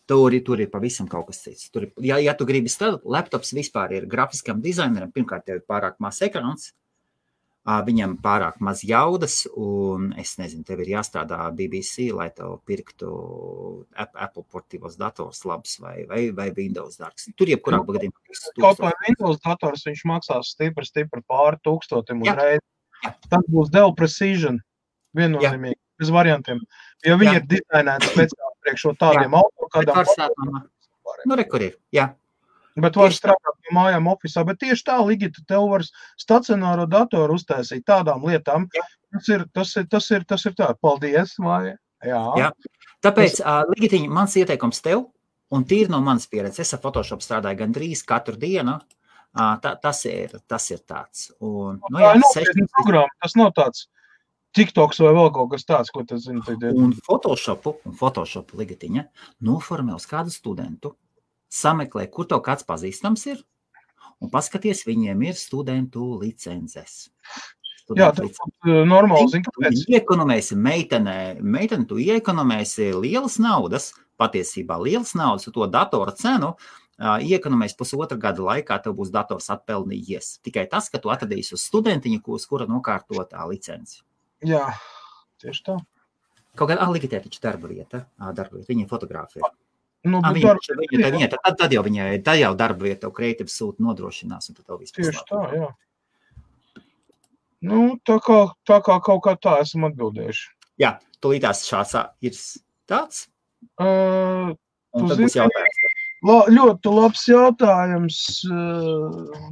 Speaker 2: tur ir pavisam kaut kas cits. Ja tu gribi strādāt, laptops vispār ir grafiskam dizaineram, pirmkārt tev ir pārāk maz ekrāns, viņam pārāk maz jaudas, un es nezinu, tev ir jāstrādā BBC, lai tev pirktu Apple portīvos dators labs vai Windows dārgs. Tur jebkurā gadījumā. Kaut vai Windows dators viņš maksās stipri pāri 1000 uzreiz. Tas būs Dell Precision, viennozīmīgi. Bez variantiem, jo viņi ir dizainēti speciāli priekš tādiem autokādām.
Speaker 1: Rekur ir, jā.
Speaker 2: Bet var strādāt no mājām ofisā, bet tieši tā, Ligita, tev var stacionāro datoru uztaisīt tādām lietām. Tas ir tā. Paldies, Māja. Jā.
Speaker 1: Tāpēc, Ligitiņ, mans ieteikums tev, un tīri no manas pieredzes, es ar Photoshop strādāju gandrīz katru dienu, tas ir tāds. Un,
Speaker 2: tas nav tāds. TikToks vai vēl kaut kas tāds, ko tas zina.
Speaker 1: Un Photoshop Ligitiņa noformē uz kādu studentu, sameklē, kur tev kāds pazīstams ir, un paskaties, viņiem ir studentu licences.
Speaker 2: Jā, tas ir normāli, zini, kāpēc.
Speaker 1: Tu iekonomēsi meiteni, tu iekonomēsi lielas naudas, patiesībā lielas naudas, to datora cenu, iekonomēs 1,5 gada laikā, tev būs dators atpelnījies. Tikai tas, ka tu atradīsi uz studentiņu, kura nokārtotā licenci.
Speaker 2: Jā, tieši tā.
Speaker 1: Kaut kādā Ligitē taču darba vieta, viņa fotogrāfija. Tad jau darba vieta, tev kreatīvs sūta nodrošinās, un tad tev viss
Speaker 2: tieši tā, jā. Tā kā kaut kā tā esam atbildējuši.
Speaker 1: Jā, tūlītās šāds ir tāds.
Speaker 2: Un
Speaker 1: tad būs jautājums.
Speaker 2: Ļoti labs jautājums.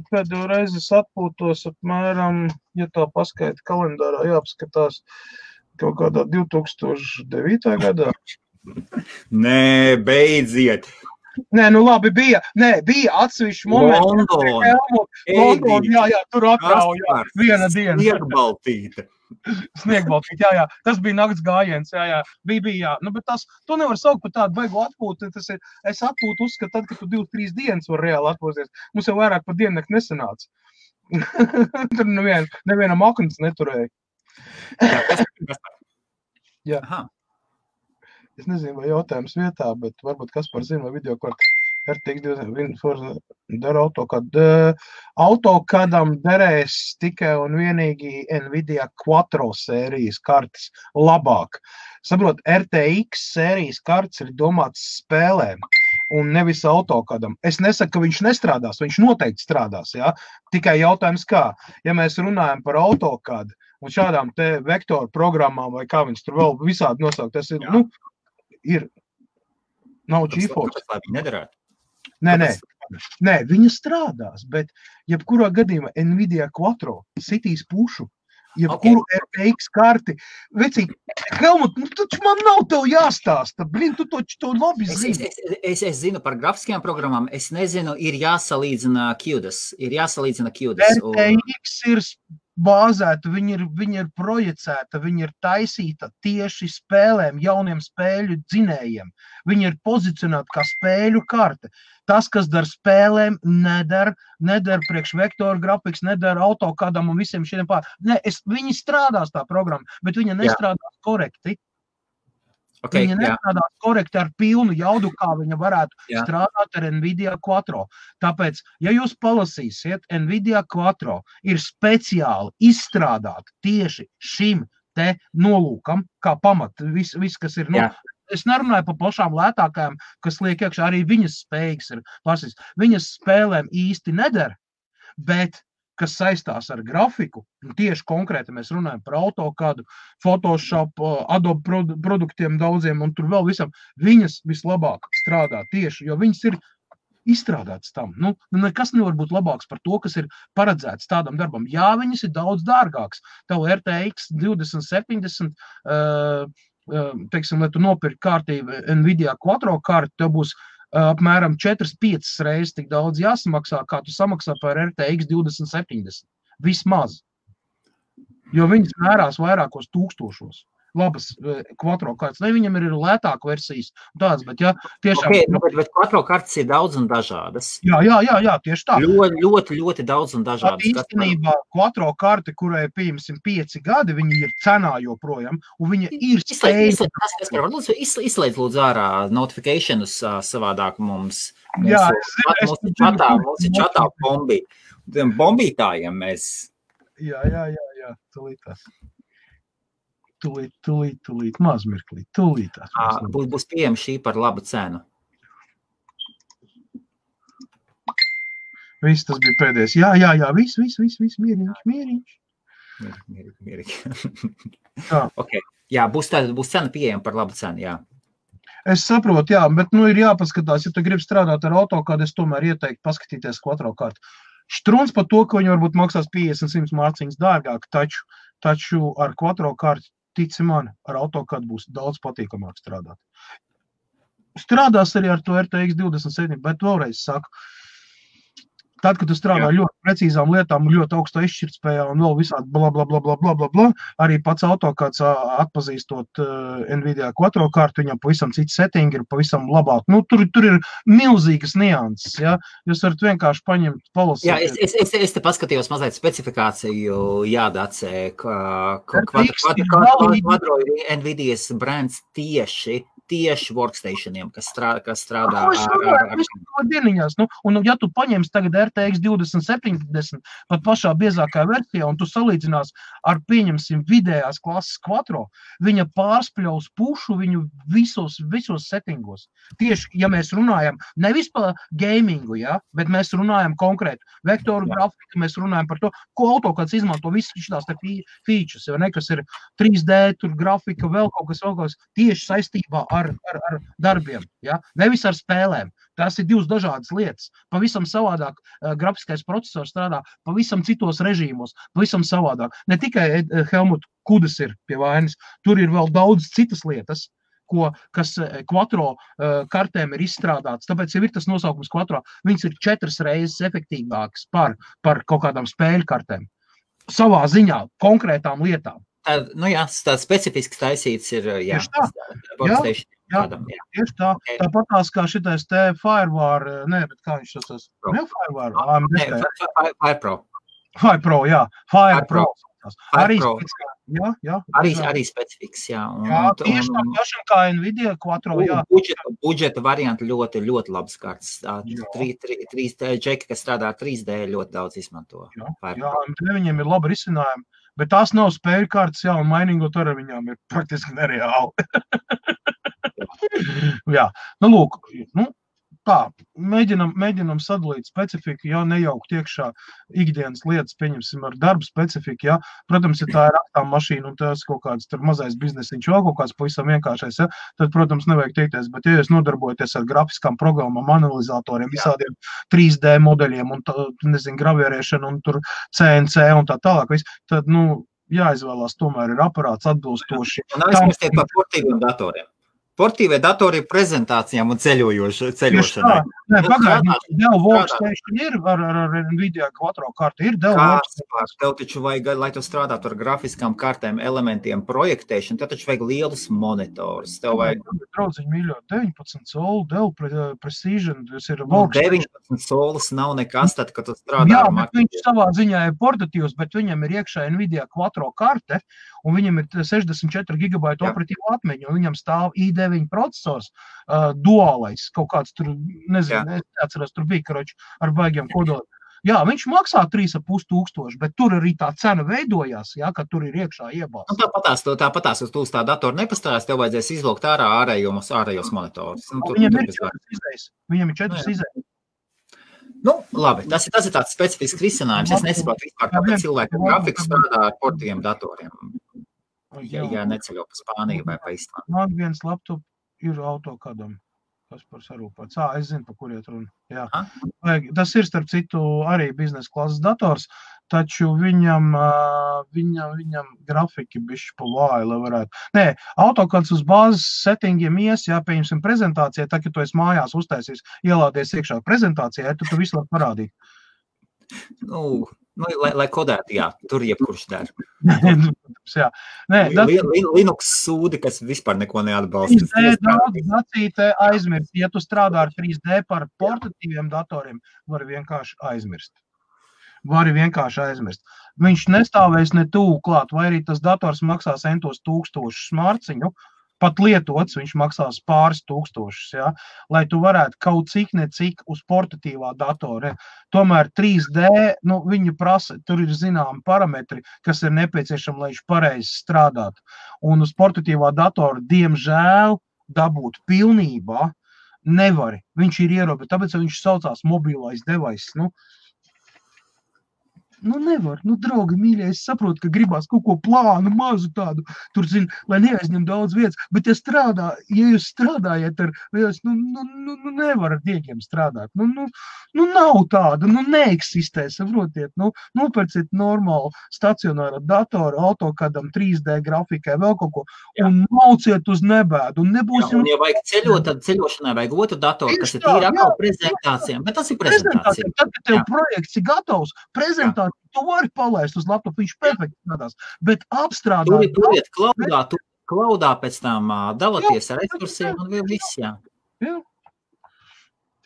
Speaker 2: Pēdējo reizi es atpūtos apmēram, ja tā paskaita kalendārā, jāapskatās kaut kādā 2009. gadā.
Speaker 1: Nē, beidziet.
Speaker 2: Nē, labi, bija atsevišķi momenti. London, jā, tur atrauja viena diena. Sniegbaltīt, jā. Tas bija nakts gājiens, jā. Bija. Bet to nevar saukt par tādu baigu atpūtu. Es atpūtu uzskatu tad, ka tu 2-3 dienas var reāli atpūsties. Mums jau vairāk par diennakti nesanāca. Tur nevienam aknas neturēja. Jā. Es nezinu, vai jautājums vietā, bet varbūt Kaspar zina, vai videokārta dara AutoCADam derēs tikai un vienīgi Nvidia Quattro sērijas kartes labāk. Saprot, RTX sērijas kartes ir domāts spēlēm un nevis AutoCADam. Es nesaku, ka viņš nestrādās, viņš noteikti strādās, jā. Tikai jautājums kā, ja mēs runājam par AutoCAD un šādām te vektoru programmām vai kā viņas tur vēl visādi nosaukt, tas ir, nav GeForce.
Speaker 1: Lai viņi nedarētu.
Speaker 2: Nē, viņa strādās, bet jebkurā gadījumā Nvidia Quattro sitīs pušu, jebkuru RTX karti. Vecīgi, Helmut, taču man nav tev jāstāsta, tu to labi zini.
Speaker 1: Es zinu par grafiskajām programmām, es nezinu, ir jāsalīdzina QDAS.
Speaker 2: RTX ir bāzēta, viņa ir projicēta, viņa ir taisīta tieši spēlēm, jauniem spēļu dzinējiem. Viņa ir pozicionēta kā spēļu karte. Tas, kas dar spēlēm, nedara priekš vektoru grafikas, nedara AutoCADam un visiem šiem pār. Viņi strādās tā programma, bet viņa nestrādās korekti.
Speaker 1: Okay,
Speaker 2: viņa nestrādās korekti ar pilnu jaudu, kā viņa varētu strādāt ar NVIDIA Quattro. Tāpēc, ja jūs palasīsiet, NVIDIA Quattro ir speciāli izstrādāta tieši šim te nolūkam, kā pamat, viss kas ir. Es nerunāju par pašām lētākajām, kas liek iekšā, arī viņas spējīgas ir pasīs. Viņas spēlēm īsti nedara, bet kas saistās ar grafiku, tieši konkrēti mēs runājam par AutoCAD, Photoshop, Adobe produktiem daudziem un tur vēl visam, viņas vislabāk strādā tieši, jo viņas ir izstrādāts tam. Nekas nevar būt labāks par to, kas ir paredzēts tādam darbam. Jā, viņas ir daudz dārgāks. Tev RTX 2070, teiksim, lai tu nopirki kārtību NVIDIA Quattro karti, tev būs apmēram 4-5 reizes tik daudz jāsamaksā, kā tu samaksā par RTX 2070. Vismaz. Jo viņas mērās vairākos tūkstošos. Labas Quattro kartes. Viņam ir lētāka versijas tādas, bet tiešām...
Speaker 1: Bet Quattro kartes ir daudz un dažādas.
Speaker 2: Jā, tieši tā.
Speaker 1: Ļoti daudz un dažādas.
Speaker 2: Īstenībā Quattro karte, kurai pieņemsim 5 gadi, viņa ir cenā joprojām, un viņa ir spēja...
Speaker 1: Izslēdz lūdzu ārā notificationus savādāk mums.
Speaker 2: Jā,
Speaker 1: mums ir čatā bombītājiem mēs... Jā,
Speaker 2: tulītās. Tūlīt, mazmirklīt, tūlītās.
Speaker 1: Būs pieejama šī par labu cenu.
Speaker 2: Viss tas bija pēdējais. Jā, viss, mieriņš.
Speaker 1: Okay. Jā, būs cena pieejama par labu cenu, jā.
Speaker 2: Es saprotu, jā, bet ir jāpaskatās, ja tu gribi strādāt ar AutoCAD, es tomēr ieteiktu paskatīties Quattro kartu. Štruns par to, ka viņi varbūt maksās 50-100 mārciņas dārgāk, taču ar Quattro kartu, tici man, ar AutoCAD būs daudz patīkamāk strādāt. Strādās arī ar to RTX 27, bet vēlreiz saku, tad, kad tu strādā ļoti precīzām lietām, ļoti augstā izšķirtspējā un vēl visādi bla, arī pats AutoCAD atpazīstot NVIDIA Quattro kartu, viņam pavisam cits setting ir pavisam labāk. Tur ir milzīgas nianses, ja? Jūs varat vienkārši paņemt, palasīt.
Speaker 1: Jā, es te paskatījos mazliet specifikāciju, jādacē, Quattro ir NVIDIAs brands tieši workstationiem, kas strādā ar
Speaker 2: dieniņās. Un ja tu paņemsi tagad RTX 2070 pat pašā biezākā versijā, un tu salīdzinās ar, pieņemsim, vidējās klases Quattro, viņa pārspļaus pušu viņu visos settingos. Tieši, ja mēs runājam nevis par gamingu, bet mēs runājam konkrēti vektoru grafiku, mēs runājam par to, ko AutoCAD izmanto visas šitās te features, kas ir 3D, tur grafika, vēl kaut kas tieši saistībā ar darbiem, nevis ar spēlēm. Tās ir divas dažādas lietas. Pavisam savādāk grafiskais procesors strādā pavisam citos režīmos, pavisam savādāk. Ne tikai Helmut Kudas ir pie vainas, tur ir vēl daudz citas lietas, kas Quattro kartēm ir izstrādāts. Tāpēc ir tas nosaukums Quattro. Viņas ir 4 reizes efektīvākas par kaut kādām spēļu kartēm. Savā ziņā, konkrētām lietām.
Speaker 1: Tāds specifisks taisīts ir,
Speaker 2: tieši tā. Tāpatās kā šitais te Firewire, bet kā viņš tas Firepro, jā. Firepro.
Speaker 1: Arī specifiks, jā.
Speaker 2: Tieši tā pašam kā NVIDIA Quattro, jā.
Speaker 1: Budžeta varianti ļoti labas kartas. 3D džeki, kas strādā 3D, ļoti daudz izmanto.
Speaker 2: Jā, viņiem ir labi risinājumi. Bet tās nav spēļu kartas, un mainīgot ar viņām ir praktiski nereāli. Jā, lūk, tā, mēģinam sadalīt specifiku, nejaukt iekšā ikdienas lietas, pieņemsim ar darbu specifiku, Protams, ja tā ir raktām mašīna un tas kaut kāds tur mazais biznesiņš, vēl kaut kāds pavisam vienkāršais, tad, protams, nevajag teikties, bet ja jūs nodarbojaties ar grafiskām programmām, analizatoriem, visādiem 3D modeļiem un, gravierēšanu un tur CNC un tā tālāk, tad, jāizvēlās tomēr ir aparāts atbilstoši.
Speaker 1: Un aizmirstiet par portīviem datoriem. Portīvie datori prezentācijām un ceļošanai.
Speaker 2: Nē, pagaidi, Dell Workstation ir ar Nvidia Quattro karti, ir Dell Workstation.
Speaker 1: Tev taču vajag, lai tu strādātu ar grafiskām kartēm, elementiem, projektēšanu, tev taču vajag lielus monitorus. Tev vajag...
Speaker 2: Draudziņi mīļo, 19 soli, Dell Precision, tas ir
Speaker 1: Workstation. 19 solis nav nekas, tad, kad tu strādā ar
Speaker 2: bet viņš savā ziņā ir portatīvs, bet viņam ir iekšā Nvidia Quattro karte, un viņam ir 64 GB operatīva atmiņa, un viņam stāv i9 procesors, duālais, kaut kāds tur, nezinu, es neatceros, tur bija, karoči, ar baigiem kodoliem. Jā, viņš maksā 3,5 tūkstoši, bet tur arī tā cena veidojās, jā, ka tur ir iekšā iebāzts.
Speaker 1: Tāpatās, tu uz tā datoru nepastāvēs, tev vajadzēs izlūkt ārā ārējos monitorus.
Speaker 2: Viņam ir 4 izējas.
Speaker 1: Nu, labi, tas ir tāds specifisks risinājums. Es nesaprotu vispār, kāpēc cilvēki grafikas strādā ar portīviem datoriem. Ja neceļo pa Spāniju vai pa Islandu.
Speaker 2: Man viens laptop ir AutoCADam. Tas par sarūpāts. Es zinu, pa kur iet runa. Jā. Tas ir, starp citu, arī biznesa klases dators, taču viņam grafiki bišķi pa vāju, lai varētu. Nē, AutoCADs uz bāzes settingiem pieņemsim prezentācijai, tā, ka tu esi mājās uztaisīs, ielādies iekšā prezentācijā, tad tu visu var parādīt.
Speaker 1: Lai kodētu, jā, tur jebkurš der. Linux sūdi, kas vispār neko neatbalsta.
Speaker 2: 3D dacīte aizmirst. Ja tu strādā ar 3D par portatīviem datoriem, vari vienkārši aizmirst. Viņš nestāvēs ne tuvu klāt, vai arī tas dators maksās centos tūkstošus mārciņu, pat lietots, viņš maksās pāris tūkstošus, ja? Lai tu varētu kaut cik necik uz portatīvā datora. Tomēr 3D, viņu prasa, tur ir zināmi parametri, kas ir nepieciešami, lai viņš pareizi strādātu. Un uz portatīvā datora, diemžēl, dabūt pilnībā nevari. Viņš ir ierobežots, tāpēc viņš saucās mobilais device. Nevar, draugi, mīļie, es saprotu, ka gribās kaut ko plānu, mazu tādu, tur, lai neaizņem daudz vietas, bet ja jūs strādājat ar, nevar ar diegiem strādāt, nav tāda, neeksistē, saprotiet, nopērciet normālu stacionāru datoru, AutoCADam, 3D grafikai, vēl kaut ko, un mauciet uz nebēdu, un nebūs
Speaker 1: jums... Ja vajag ceļot, tad ceļošanai vajag otru datoru, kas ir tīri atkal prezentācijām, bet tas ir prezentācija.
Speaker 2: Tad, kad tev projekts ir gatavs, prezentācija, tu vari palaist uz laptopu, viņš perfekti strādās, bet apstrādāt...
Speaker 1: Turiet klaudā pēc tam dalaties ar resursiem un vēl viss, jā.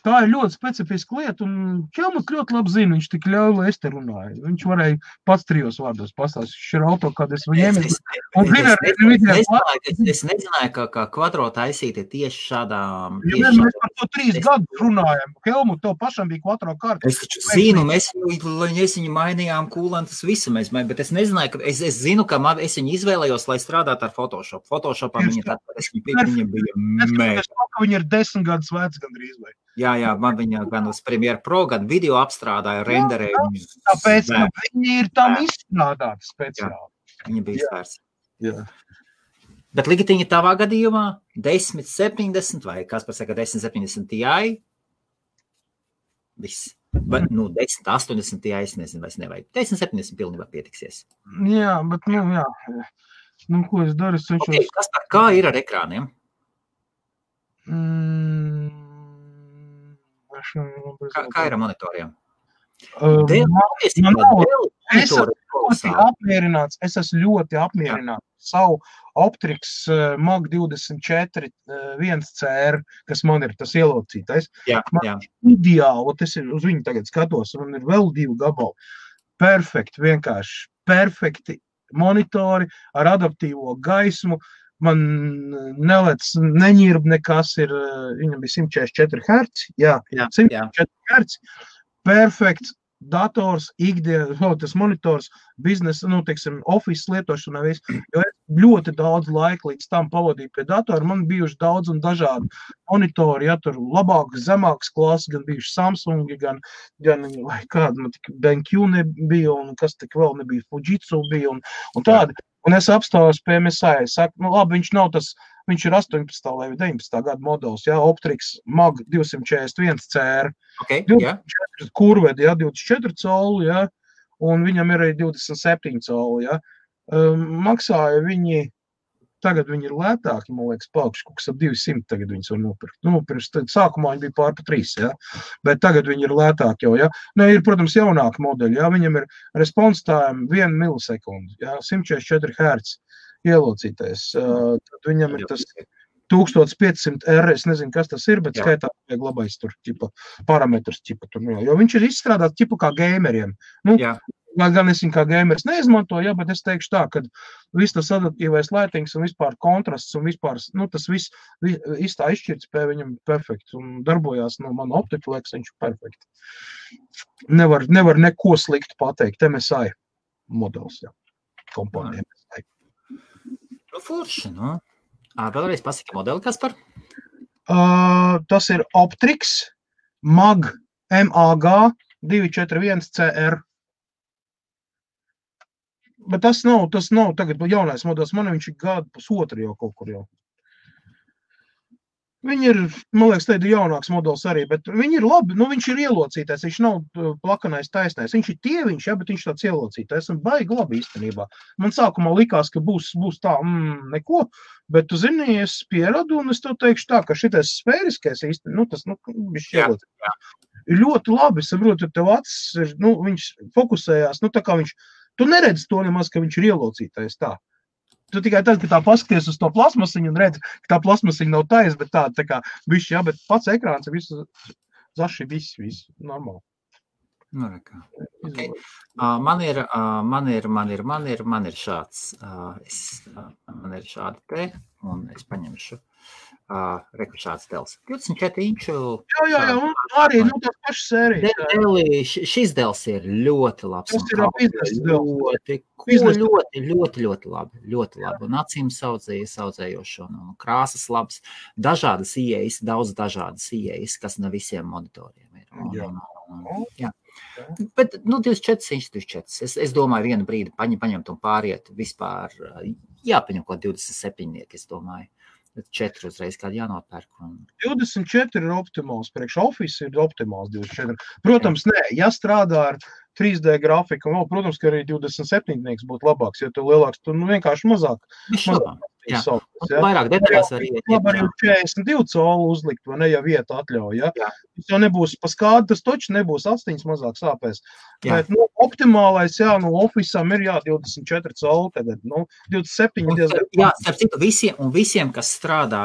Speaker 2: Tā ir ļoti specifiska lieta, un Čelmas ļoti labi zina, viņš tik ļauj, lai es te runāju. Viņš varēja pats 3 vārdos pastāstīt, viņš ir AutoCAD, es viņiem...
Speaker 1: Es nezināju, ka Quattro taisīti tieši šādām...
Speaker 2: Mēs par to 3 gadus runājam. Helmut, tev pašam bija Quattro karta.
Speaker 1: Es taču zinu, mēs viņu mainījām kūlantas visu, bet es nezināju, ka es zinu, ka es viņu izvēlējos, lai strādātu ar Photoshop. Photoshopā viņa bija mēģi.
Speaker 2: Viņa ir 10 gadus vecs gandrīz vai.
Speaker 1: Jā, man viņa gan uz Premiere Pro, gan video apstrādāja, renderēja.
Speaker 2: Tāpēc viņi ir tam izstrādāti speciāli.
Speaker 1: Viņa bija svērts. Bet Ligitiņa tavā gadījumā 1070 vai kas par saka 1070 Ti? Viss. 1080 Ti, es nezinu, vairs nevajag. 1070 pilnībā pietiksies.
Speaker 2: Jā, bet, jā. Ko es daru?
Speaker 1: Kā ir ar ekrāniem? Kā ir ar monitoriem?
Speaker 2: Es esmu ļoti apmierināts savu Optrix Mag 24 1CR, kas man ir tas ielocītais. Ideāli, es uz viņu tagad skatos, man ir vēl 2 gabali. Vienkārši perfekti monitori ar adaptīvo gaismu. Man neņirb nekas ir, viņam bija 144 Hz, 144 Hz, perfekts dators, tas monitors, biznesa, office lietošanā viss, jo es ļoti daudz laika līdz tam pavadīju pie datora, man bijuši daudz un dažādi monitori, tur labāks, zemāks klases, gan bijuši Samsungi, gan vai kāda, man tik BenQ nebija, un kas tik vēl nebija, Fujitsu bija, un tādi. Un es apstāvos pie MSI, saku, labi, viņš nav tas, viņš ir 18. vai 19. gada modelis, Optrix Mag 241 CR, 24 kurvedi, 24 coli, un viņam ir arī 27 coli, maksāja viņi tagad viņi ir lētāki, man liekas, paaugšu, kaut kas ap 200 tagad viņas var nopirkt. Nu, pirms sākumā viņi bija pār pa 3, ja? Bet tagad viņi ir lētāki jau, ja? Nu, ir, protams, jaunāki modeļi, ja? Viņam ir response time 1 milisekundi, ja? 144 Hz ielocītais. Tad viņam ir tas 1500 R, es nezinu, kas tas ir, bet skaitā vajag labais tur, ķipa, parametrus, ķipa, tur, jo viņš ir izstrādāts ķipa kā gameriem. Nu, gan es viņu kā gameris neizmantoju, bet es teikšu tā, ka viss tas adaptīvais laitings un vispār kontrasts un vispār, nu, tas viss tā izšķirtspēja viņam perfekts un darbojās no mana optika, liekas, viņš perfekti. Nevar neko sliktu pateikt, MSI modelis, jā, kompānija MSI.
Speaker 1: Nu, forši, nu. Vēlreiz pasaki modeli, Kaspar?
Speaker 2: Tas ir Optrix MAG 241 CR. Bet tas nav tagad jaunais modelis, man viņš ir gadu pusotru jau kaut kur jau. Viņi ir, man liekas, tādi jaunāks modelis arī, bet viņi ir labi, nu viņš ir ielocītais, viņš nav plakanais taisnais, viņš ir tieviņš, ja, bet viņš tāds ielocītais un baigi labi īstenībā. Man sākumā likās, ka būs tā, neko, bet tu zini, es pieradu un es tev teikšu tā, ka šitais sfēriskais īstenībā, nu tas, viņš ielocītais. Ļoti labi, saprotu, tev acis ir, nu viņš fokusējās, nu tā kā viņš, tu neredzi to nemaz, ka viņš ir ielocītais tā. Tu tikai tad, ka tā paskaties uz to plasmasiņu un redzi, ka tā plasmasiņa nav taisa, bet tā kā bišķi, jā, bet pats ekrāns ir visu zaši, viss normāli.
Speaker 1: Nu, rekā. Okay. Man ir šāds, man ir šādi te, un es paņemšu. Reku šāds dels. 24 inču. Jā,
Speaker 2: arī, nu, tās pašas sērijas.
Speaker 1: Šis dels ir ļoti labs.
Speaker 2: Tas ir biznesa
Speaker 1: dels. Ļoti labi. Un acīm saudzējošo, un krāsas labs. Dažādas ieejas, daudz dažādas ieejas, kas ne visiem monitoriem ir. Jā. Bet, 24 inču, 24. Es domāju, vienu brīdi paņemt un pāriet vispār, jāpaņem ko 27, es domāju. 4 uzreiz kādi jānopērk.
Speaker 2: 24 ir optimāls, priekš Office ir optimāls 24. Protams, ja strādā ar 3D grafiku, protams, ka arī 27 būtu labāks, jo tu lielāks, tu vienkārši mazāk.
Speaker 1: Vairāk detaļās var iet.
Speaker 2: Labi arī 42 colu uzlikt, vai ne, ja vieta atļauj, ja? Tas jau nebūs pa skādi, tas toči nebūs astiņas mazāk sāpēs. Bet, optimālais, Office'am ir, 24 colu tagad, 27 diezgan.
Speaker 1: Jā, starp citu, visiem, kas strādā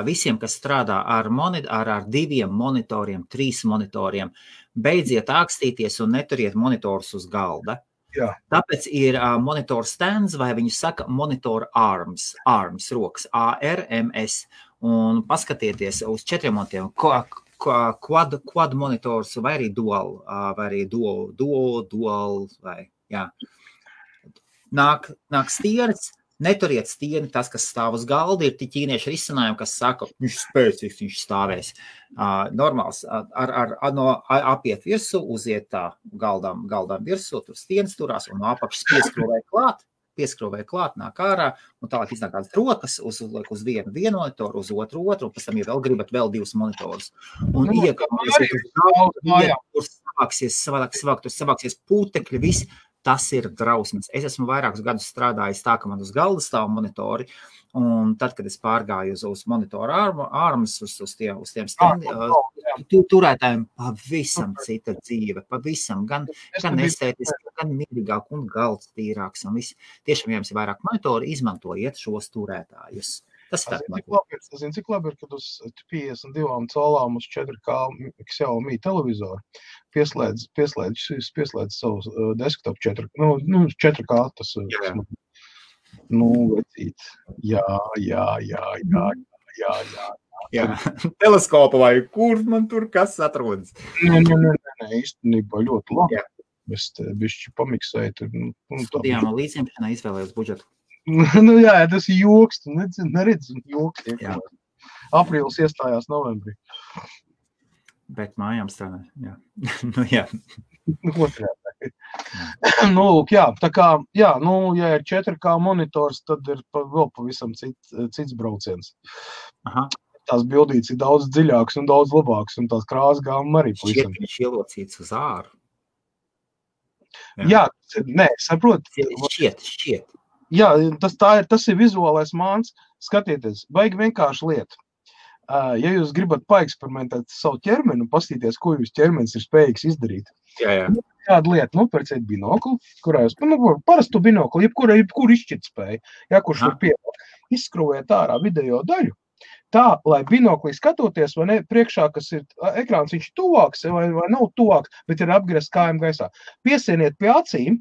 Speaker 1: ar 2 monitoriem, 3 monitoriem, beidziet ākstīties un neturiet monitorus uz galda.
Speaker 2: Jā.
Speaker 1: Tāpēc ir monitor stands, vai viņi saka monitor arms rokas, ARMS, un paskatieties uz 4 monitoriem, quad monitors, vai arī dual, vai, jā. Nāk stieris, neturiet stieni, tas, kas stāv uz galda, ir ķīnieši risinājumi, kas saka, viņš spēcīgs, viņš stāvēs. Normāls, apiet virsu, uziet tā galdām virsu, tur stienas turās, un no apakšas pieskrūvē klāt, nāk ārā, un tālāk iznāk kādas rokas, uzliek uz vienu monitoru, uz otru, un pēc tam, ja vēl gribat, vēl 2 monitorus. Un tur savāksies putekļi, viss. Tas ir drausmas. Es esmu vairākus gadus strādājis tā, ka man uz galda stāv monitori, un tad, kad es pārgāju uz monitoru armas, uz tiem turētājiem pavisam cita dzīve, pavisam, gan estētiski, gan mierīgāk un galds tīrāks, un viss. Tiešām, ja jums ir vairāk monitori, izmantojiet šos turētājus. Tas ir
Speaker 2: cik labi ir, kad uz 52 colām uz 4K Xiaomi televizoru pieslēdz savu desktop 4K tas. Vecīt. Jā.
Speaker 1: Teleskopa vai kur man tur kas atrodas?
Speaker 2: Nē, īstenībā ļoti labi. Es te bišķi pamiksēju.
Speaker 1: Studijām un līdzjemšanā izvēlējos budžetu.
Speaker 2: Jā, tas ir joks, tu neredzi joks. Aprīlis iestājās novembrī.
Speaker 1: Bet mājām strādā, jā. Jā.
Speaker 2: Lūk, jā, tā kā, ja ir 4K monitors, tad ir vēl pavisam cits brauciens.
Speaker 1: Aha.
Speaker 2: Tās bildītes ir daudz dziļākas un daudz labākas, un tās krāsas gāma arī pavisam.
Speaker 1: Šķiet, viņš ielocīts uz āru.
Speaker 2: Jā, saprot.
Speaker 1: Šķiet.
Speaker 2: Jā, tas ir vizuālais māns. Skatieties, baigi vienkārši lieta. Ja jūs gribat paeksperimentēt savu ķermeni un pastīties, ko jūs ķermenis ir spējīgs izdarīt.
Speaker 1: Jā.
Speaker 2: Kāda lieta, nopērciet binokli, kurā jūs, parastu binokli, jebkuru izšķirtspēju, ja, kurš var pievērt, izskrūvēt ārā video daļu, tā, lai binoklī skatoties, vai ne, priekšā, kas ir ekrāns, viņš tuvāks vai nav tuvāks, bet ir apgriezt kājām gaisā. Piesieniet pie acīm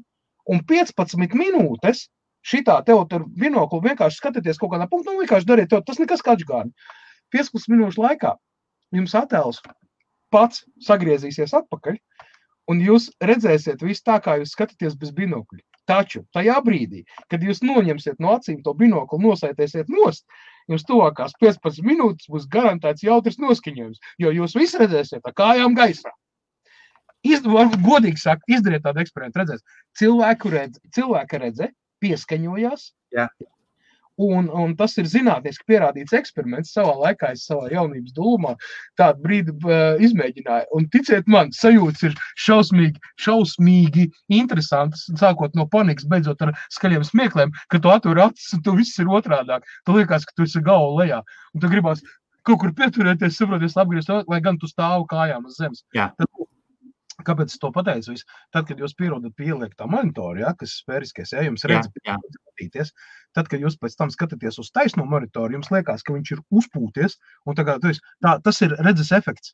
Speaker 2: un 15 minūtes šitā tev tur binokli vienkārši skatieties kaut kādā punktā, vienkārši dariet tev, tas nekas kačgārni. 15 minūšu laikā jums attēls pats sagriezīsies atpakaļ, un jūs redzēsiet visu tā, kā jūs skatāties bez binokļa. Taču tajā brīdī, kad jūs noņemsiet no acīm to binokli, nosaitēsiet nost, jums tuvākās 15 minūtes būs garantēts jautrs noskaņojums, jo jūs visi redzēsiet ar kājām gaisā. Godīgi sakt, izdariet tādu eksperimentu, redzēs. Cilvēka redze pieskaņojās.
Speaker 1: Jā.
Speaker 2: Un tas ir zinātniski pierādīts eksperiments. Savā laikā es savā jaunības dūmā tādu brīdi izmēģināju. Un ticiet man, sajūtas ir šausmīgi interesantas, sākot no panikas, beidzot ar skaļiem smiekliem, ka tu atver acis un tu viss ir otrādāk. Tu liekas, ka tu esi galva lejā. Un tu gribās kaut kur pieturēties, saproties, apgriezt, lai gan tu stāvu kājām uz zemes.
Speaker 1: Jā.
Speaker 2: Kāpēc es to pateicu? Tad, kad jūs pierodat pie ieliktā monitora, ja, kas sfēriskais, ja, jums redz, skatīties, tad, kad jūs pēc tam skatāties uz taisno monitoru, jums liekas, ka viņš ir uzpūties, un tas ir redzes efekts.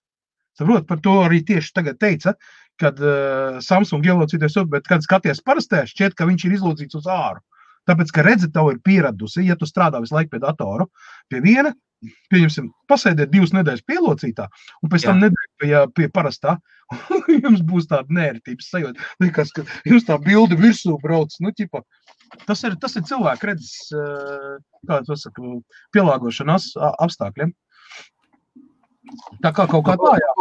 Speaker 2: Saprot, par to arī tieši tagad teica, kad Samsung ielocīties, bet kad skaties parastē, šķiet, ka viņš ir izlocīts uz āru. Tāpēc, ka redze tev ir pieradusi, ja tu strādā visu laiku pie datoru, pie viena, pieņemsim, pasēdiet 2 nedēļas pielocītā, un pēc tam nedēļu pie parastā, jums būs tāda nērtības sajūta. Liekas, ka jums tā bilde virsū brauc, tas ir cilvēku redzes, kā to saka, pielāgošanās apstākļiem. Tā kā kaut kā tā, jā.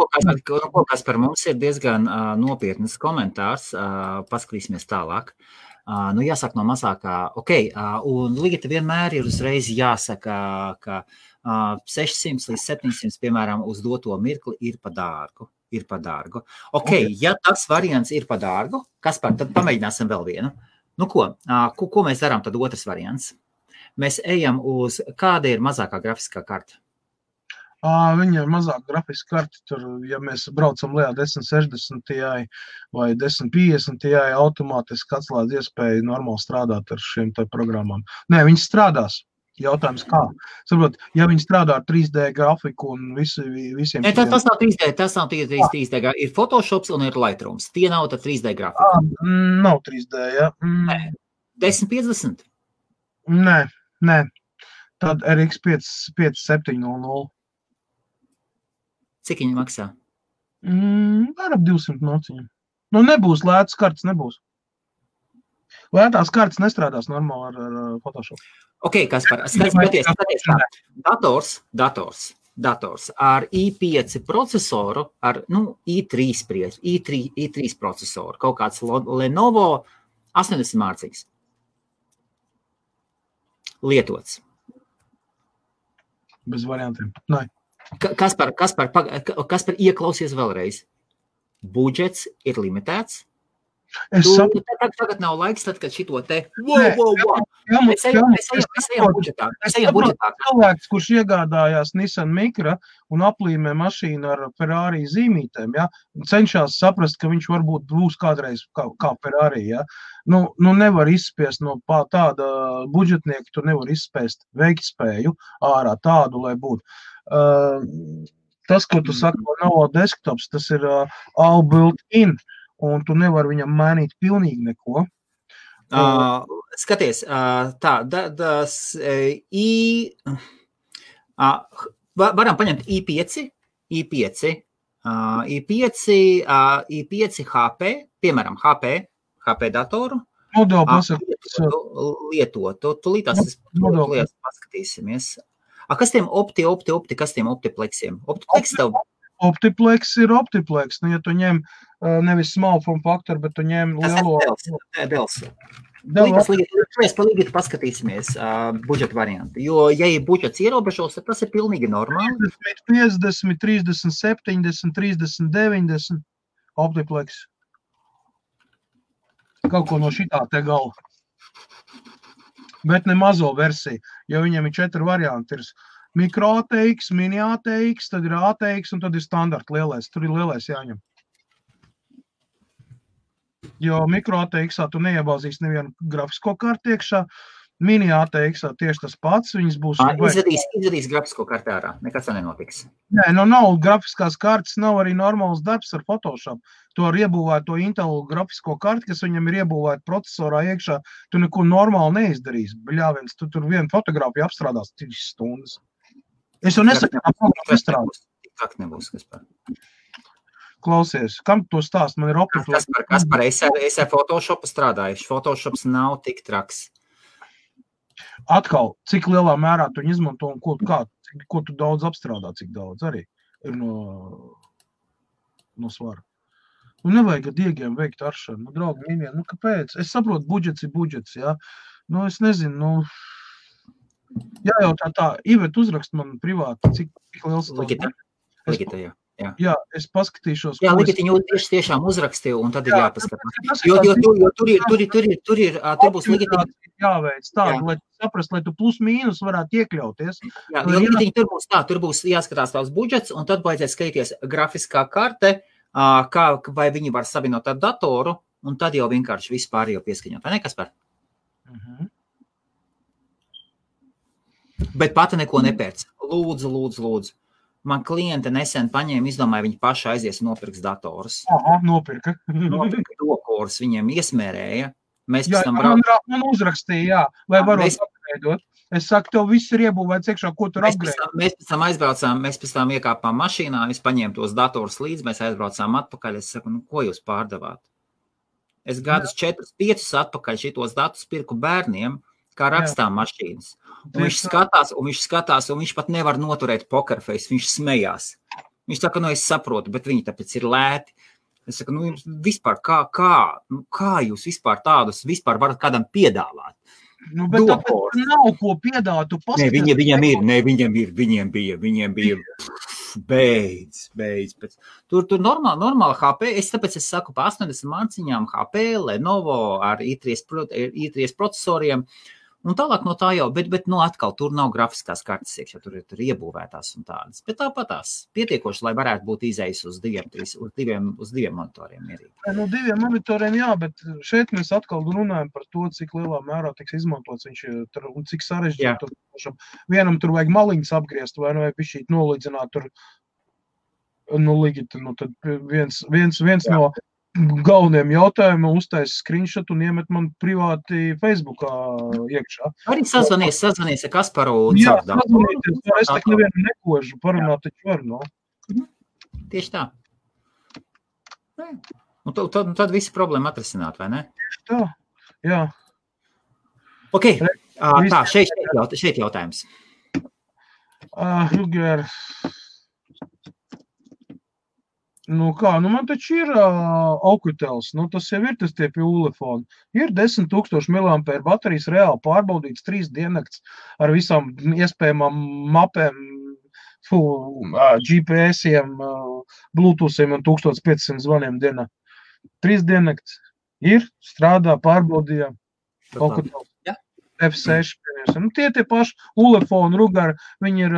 Speaker 1: Kas par mums ir diezgan nopietnas komentārs, paskatīsimies tālāk. Jāsaka no mazākā, un lieta vienmēr ir uzreiz jāsaka, ka 600 līdz 700, piemēram, uz doto mirkli ir pa dārgu. Ja tas variants ir pa dārgu, tad pamēģināsim vēl vienu. Ko mēs darām tad otrs variants? Mēs ejam uz, kāda ir mazākā grafiskā karta?
Speaker 2: Viņa ir mazāk grafiska karta, tur, ja mēs braucam lejā 1060 Ti vai 1050 Ti, automātiski atslēdz iespēju normāli strādāt ar šiem te programmām. Nē, viņas strādās. Jautājums kā? Saprot, ja viņi strādā ar 3D grafiku un visiem...
Speaker 1: Nē, tas nav 3D, ir Photoshops un ir Lightrooms. Tie nav tad 3D grafika.
Speaker 2: Nav 3D, ja.
Speaker 1: Nē. 1050?
Speaker 2: Nē. Tad RX 5700.
Speaker 1: Cik viņi maksā?
Speaker 2: Ar ap 200 nociņiem. Nebūs lētas kartas, nebūs. Lētās kartas nestrādās normāli ar Photoshop.
Speaker 1: Kaspar, skaties tā. Dators ar i5 procesoru, ar i3 procesoru, kaut kāds Lenovo 80 mārciņas. Lietots.
Speaker 2: Bez variantiem. Nē.
Speaker 1: Kaspar, ieklausies vēlreiz. Budžets ir limitēts. Tagad nav laiks, tad, kad šito te... Mēs ejam budžetā.
Speaker 2: Cilvēks, kurš iegādājās Nissan Micra un aplīmē mašīnu ar Ferrari zīmītēm, ja, cenšas saprast, ka viņš varbūt būs kādreiz kā Ferrari. Ja. Nevar izspiest no tāda budžetnieka, tu nevar izspiest veiktspēju ārā tādu, lai būtu. Tas, ko tu saki, nav desktops, tas ir all built-in. Un tu nevar viņam mainīt pilnīgi neko.
Speaker 1: Skaties, varam paņemt i5 HP, piemēram, HP datoru. Lietotu. Tūlītās paskatīsimies. Kas tiem kas tiem optipleksiem?
Speaker 2: Optiplex ir optiplex. Ja tu ņem nevis small form factor, bet tu ņem lielo...
Speaker 1: Dels. Palīdīt paskatīsimies budžeta variantu. Jo, ja ir budžets ierobežos, tad tas ir pilnīgi normāli.
Speaker 2: 50, 30, 70, 30, 90 optiplex. Kaut ko no šitā te gala. Bet ne mazo versiju, jo viņiem ir 4 varianti. Ir mikro ATX, mini ATX, tad ir ATX un tad ir standarta lielais. Tur ir lielais jāņem. Jo mikro ATX-ā tu neiebāzīsi nevienu grafisko karti iekšā. Mini ATX-ā tieši tas pats. Viņas būs...
Speaker 1: Izvedīs grafisko karti ārā. Nekas tā nenotiks.
Speaker 2: Nē, nav grafiskās kartes, nav arī normāls darbs ar Photoshop. Tu ar iebūvēt to Intel grafisko karti, kas viņam ir iebūvēt procesorā iekšā, tu neko normāli neizdarīsi. Bļāviens, tu tur vienu fotogrāfiju apstrādās 3 stundas. Es jau nesaku, kā programma strādās.
Speaker 1: Tik nebūs, kas par.
Speaker 2: Klausies, kam to stāst? Man ir
Speaker 1: Kas par es ar Photoshopu strādājuši. Photoshops nav tik traks.
Speaker 2: Atkal, cik lielā mērā tu izmanto un ko tu daudz apstrādā, cik daudz arī ir no svara. Nevajag ar diegiem veikt aršanu. Draugi, mīļie, kāpēc? Es saprotu, budžets ir budžets, jā. Es nezinu, jājautā tā. Ivet uzrakst man privāti, cik liels
Speaker 1: Ligita, jā.
Speaker 2: Jā, es paskatīšos.
Speaker 1: Jā, Ligitiņu tiešām uzrakstīju, un tad ir jāpaskatās. Jo tur būs Ligitiņu.
Speaker 2: Jāveic tādu, lai saprast, lai tu plus mīnus varētu iekļauties.
Speaker 1: Jā, jo Ligitiņu tur būs jāskatās tavs budžets, un tad vajadzēs skatīties grafiskā karte, vai viņi var savienot ar datoru, un tad jau vienkārši vispār jau pieskaņot. Vai ne, Kaspar? Bet pati neko nepērc. Lūdzu. Man kliente nesen paņēma, izdomāja, viņi paši aizies un nopirks datorus.
Speaker 2: Aha, nopirka.
Speaker 1: Nopirka dokorus, viņiem iesmērēja. Mēs
Speaker 2: jā, man uzrakstīja, jā. Vai varot apgreidot? Es saku, tev viss ir iebūvēts iekšā, ko tur apgreidot.
Speaker 1: Mēs pēc tam aizbraucām, mēs pēc tam iekāpām mašīnā, es paņēmu tos datorus līdz, mēs aizbraucām atpakaļ. Es saku, ko jūs pārdevāt? Es gadus 4-5 atpakaļ šitos datus pirku bērniem, kā rakstām mašīnas. Un viņš skatās, un viņš pat nevar noturēt pokerface, viņš smējās. Viņš saka, es saprotu, bet viņi tāpēc ir lēti. Es saku, vispār, kā jūs vispār tādus vispār varat kādam piedāvāt?
Speaker 2: Bet tāpēc nav ko piedāvāt, tu paskaties.
Speaker 1: Viņiem bija, beidz. Tur normāli HP, tāpēc es saku, pa 80 marciņām HP, Lenovo ar i3 procesoriem, un tālāk no tā jau, bet atkal tur nav grafiskās kartes iekšā, tur iebūvētās un tādas. Bet tāpatās pietiekoši, lai varētu būt izējis uz diviem monitoriem.
Speaker 2: No 2 monitoriem, jā, bet šeit mēs atkal runājam par to, cik lielā mērā tiks izmantots viņš un cik sarežģīt. Vienam tur vajag maliņas apgriezt, vai vajag bišķīt nolīdzināt tur, tad viens no galvenajiem jautājumiem uztais screenshot un iemet man privāti Facebookā iekšā.
Speaker 1: Arī sazvanies ar Kasparu.
Speaker 2: Jā, sazvanieties, es tak nevienu nekožu, parunāt taču var,
Speaker 1: Tieši tā. Un tad visi problēma atrisināt, vai ne?
Speaker 2: Tieši tā, jā.
Speaker 1: Ok, tā, šeit jautājums.
Speaker 2: Ruger... man taču ir Okutels, tas jau ir tas tie pie Ulefona. Ir 10,000 mAh baterijas reāli pārbaudīts 3 diennakts ar visām iespējamām mapēm, GPS-iem, Bluetoothiem un 1500 zvaniem dienā. 3 diennakts ir, strādā, pārbaudījām. Okutels. F6, tie paši Ulefona, Rugar, viņi ir,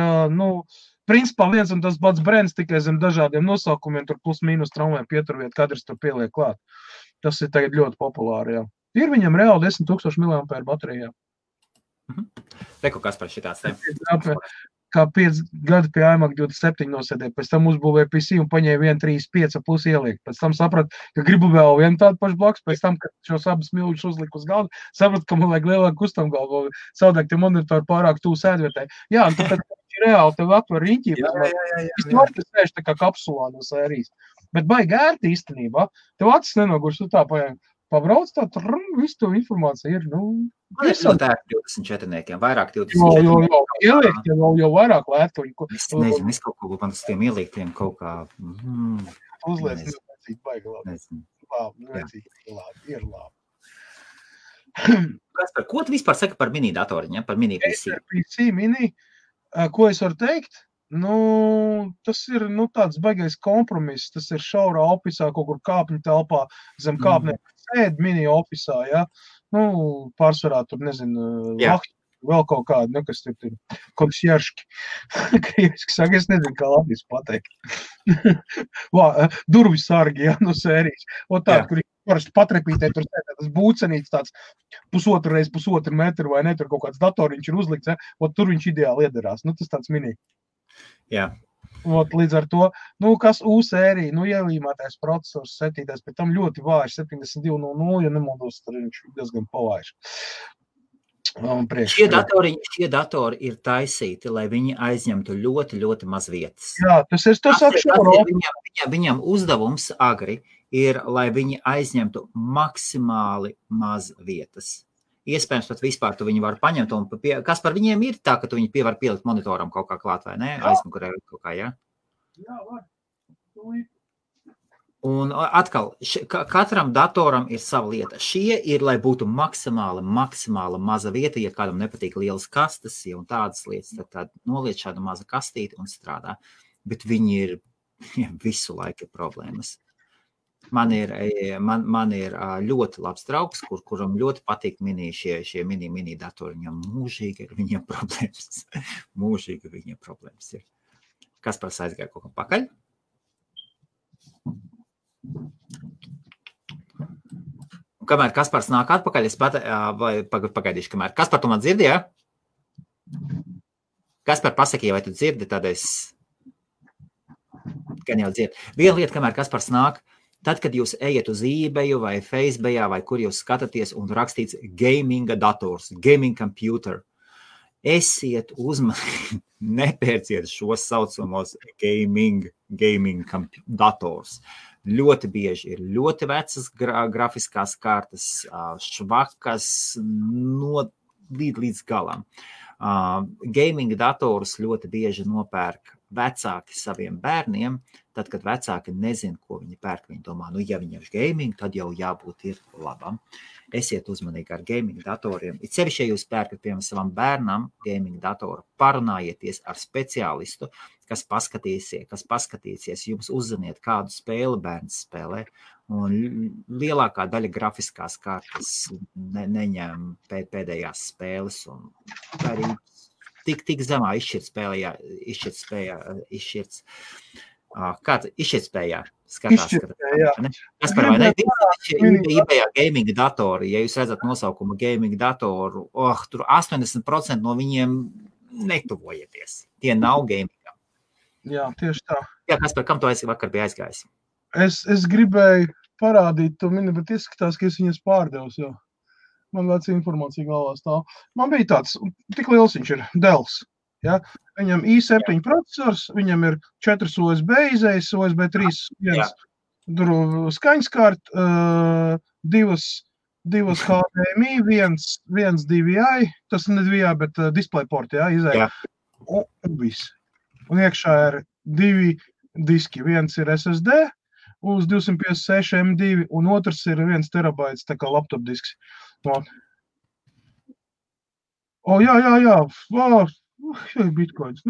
Speaker 2: principā viens un tas pats brands tikai zem dažādiem nosaukumiem, tur plus mīnus traumēm pieturviet, kadrs tur pieliek klāt. Tas ir tagad ļoti populāri, jā. Ir viņam reāli 10,000 mAh baterijā.
Speaker 1: Reku, kas par šitāds te?
Speaker 2: Kā 5 gadi pie iMac 27 nosēdēja, pēc tam uzbūvēja PC un paņēja 1,35 plus ieliekt. Pēc tam saprat, ka gribu vēl vienu tādu pašu blakus, pēc tam, kad šos abas milžus uzliku uz galdu, saprat, ka man vajag lielāku kustamgalvu, savādāk tie monitori pārāk tūs sēdvietē. Jā, un tāpēc reāli tev atver riņķī. Es var, ka sēž tā kā kapsulā no sērijas. Bet baigi ērti īstenībā. Tev acis nenogurs, tu tā pabrauc tā, visu to informāciju ir,
Speaker 1: Man ir ļoti ērti 24-niekiem, vairāk 24-niekiem.
Speaker 2: Ieliekt jau vairāk lētuņu.
Speaker 1: Es nezinu, es kaut ko man uz tiem ieliektiem kaut kā...
Speaker 2: Uzliec, nevajadzīgi baigi labi. Labi, ir labi.
Speaker 1: Ko tu vispār saki par mini datoriņiem, par mini PC?
Speaker 2: PC mini, ko es varu teikt? Tas ir tāds baigais kompromiss, tas ir šaurā ofisā, kaut kur kāpņu telpā, zem kāpnēm sēd mini ofisā, ja? pārsvarā tur, nezinu, vēl kaut kādi, kas tur ir konsjerški. Krieviski saka, es nezinu, kā latvijas pateikt. Durvis sargi, no sērijas. O tādi, kur parasti patrepītē, tur tas būcenīts tāds pusotru metru vai ne, tur kaut kāds datoriņš ir uzlikts, tur viņš ideāli iederās. Tas tāds mini.
Speaker 1: Jā.
Speaker 2: Līdz ar to, kas U-sērija, ielīmētais procesors, setītais, pēc tam ļoti vājš, 7200, ja nemaldos, tad viņš diezgan pavājš.
Speaker 1: Šie datori ir taisīti, lai viņi aizņemtu ļoti, ļoti maz vietas.
Speaker 2: Jā, tas
Speaker 1: viņam uzdevums agri ir, lai viņi aizņemtu maksimāli maz vietas. Iespējams, pat vispār tu viņi var paņemt, un kas par viņiem ir tā, ka tu viņi var pielikt monitoram kaut kā klāt, vai ne? Aizmugurē kaut kā, jā?
Speaker 2: Jā, var.
Speaker 1: Un atkal, katram datoram ir sava lieta. Šie ir, lai būtu maksimāli maza vieta, ja kādam nepatīk lielas kastes, ja un tādas lietas, tad noliec šādu mazu kastīti un strādā. Bet viņi ir visu laiku problēmas. Man ir ļoti labs draugs, kuram ļoti patīk šie mini datori. Viņam mūžīgi ir viņiem problēmas. Mūžīgi viņiem problēmas ir. Kas par aizgāja kaut kā pakaļ? Un kamēr Kaspars nāk atpakaļ, es pagaidīšu, kamēr. Kaspar, tu man dzirdi, ja? Kaspar, pasaki, vai tu dzirdi, tad es gan jau dzirdi. Viena lieta, kamēr Kaspars nāk, tad, kad jūs ejat uz eBay vai Facebookā vai kur jūs skatāties un rakstīts gaming dators, gaming computer, esiet uzmanīgi, nepērciet šos saucamos gaming dators. Ļoti bieži ir ļoti vecas grafiskās kartas, švakas līdz galam. Gaming datorus ļoti bieži nopērk vecāki saviem bērniem, tad, kad vecāki nezin, ko viņi pērk, viņi domā, ja viņam ir gaming, tad jau jābūt ir labam. Esiet uzmanīgi ar gaming datoriem. It sevišķi, ja jūs pērkat, piemēram, savam bērnam gaming datoru, parunājieties ar speciālistu, kas paskatīsies, jums uzziniet, kādu spēli bērns spēlē, un lielākā daļa grafiskās kartas neņem pēdējās spēles, un arī tik zemā izšķirtspējā skatās. Kas par vai ne? eBay gaming datori, ja jūs redzat nosaukumu gaming datoru, tur 80% no viņiem netuvojieties. Tie nav gamingam.
Speaker 2: Jā, tieši tā.
Speaker 1: Jā, kas par kam tu vakar bija aizgājis?
Speaker 2: Es gribēju parādīt to mini, bet izskatās, ka es viņas pārdevus jau. Man veca informācija galvā stāv. Man bija tāds, tik liels viņš ir, Dells. Ja? Viņam i7 procesors, viņam ir 4 USB izējas, USB 3, skaņskart, 2 HDMI, 1 DVI, tas ne DVI, bet DisplayPort, izēja. Un viss. Un iekšā ir 2 diski. Viens ir SSD uz 256 M2, un otrs ir 1 terabaits, tā kā laptop disks. Jā, bitcoins.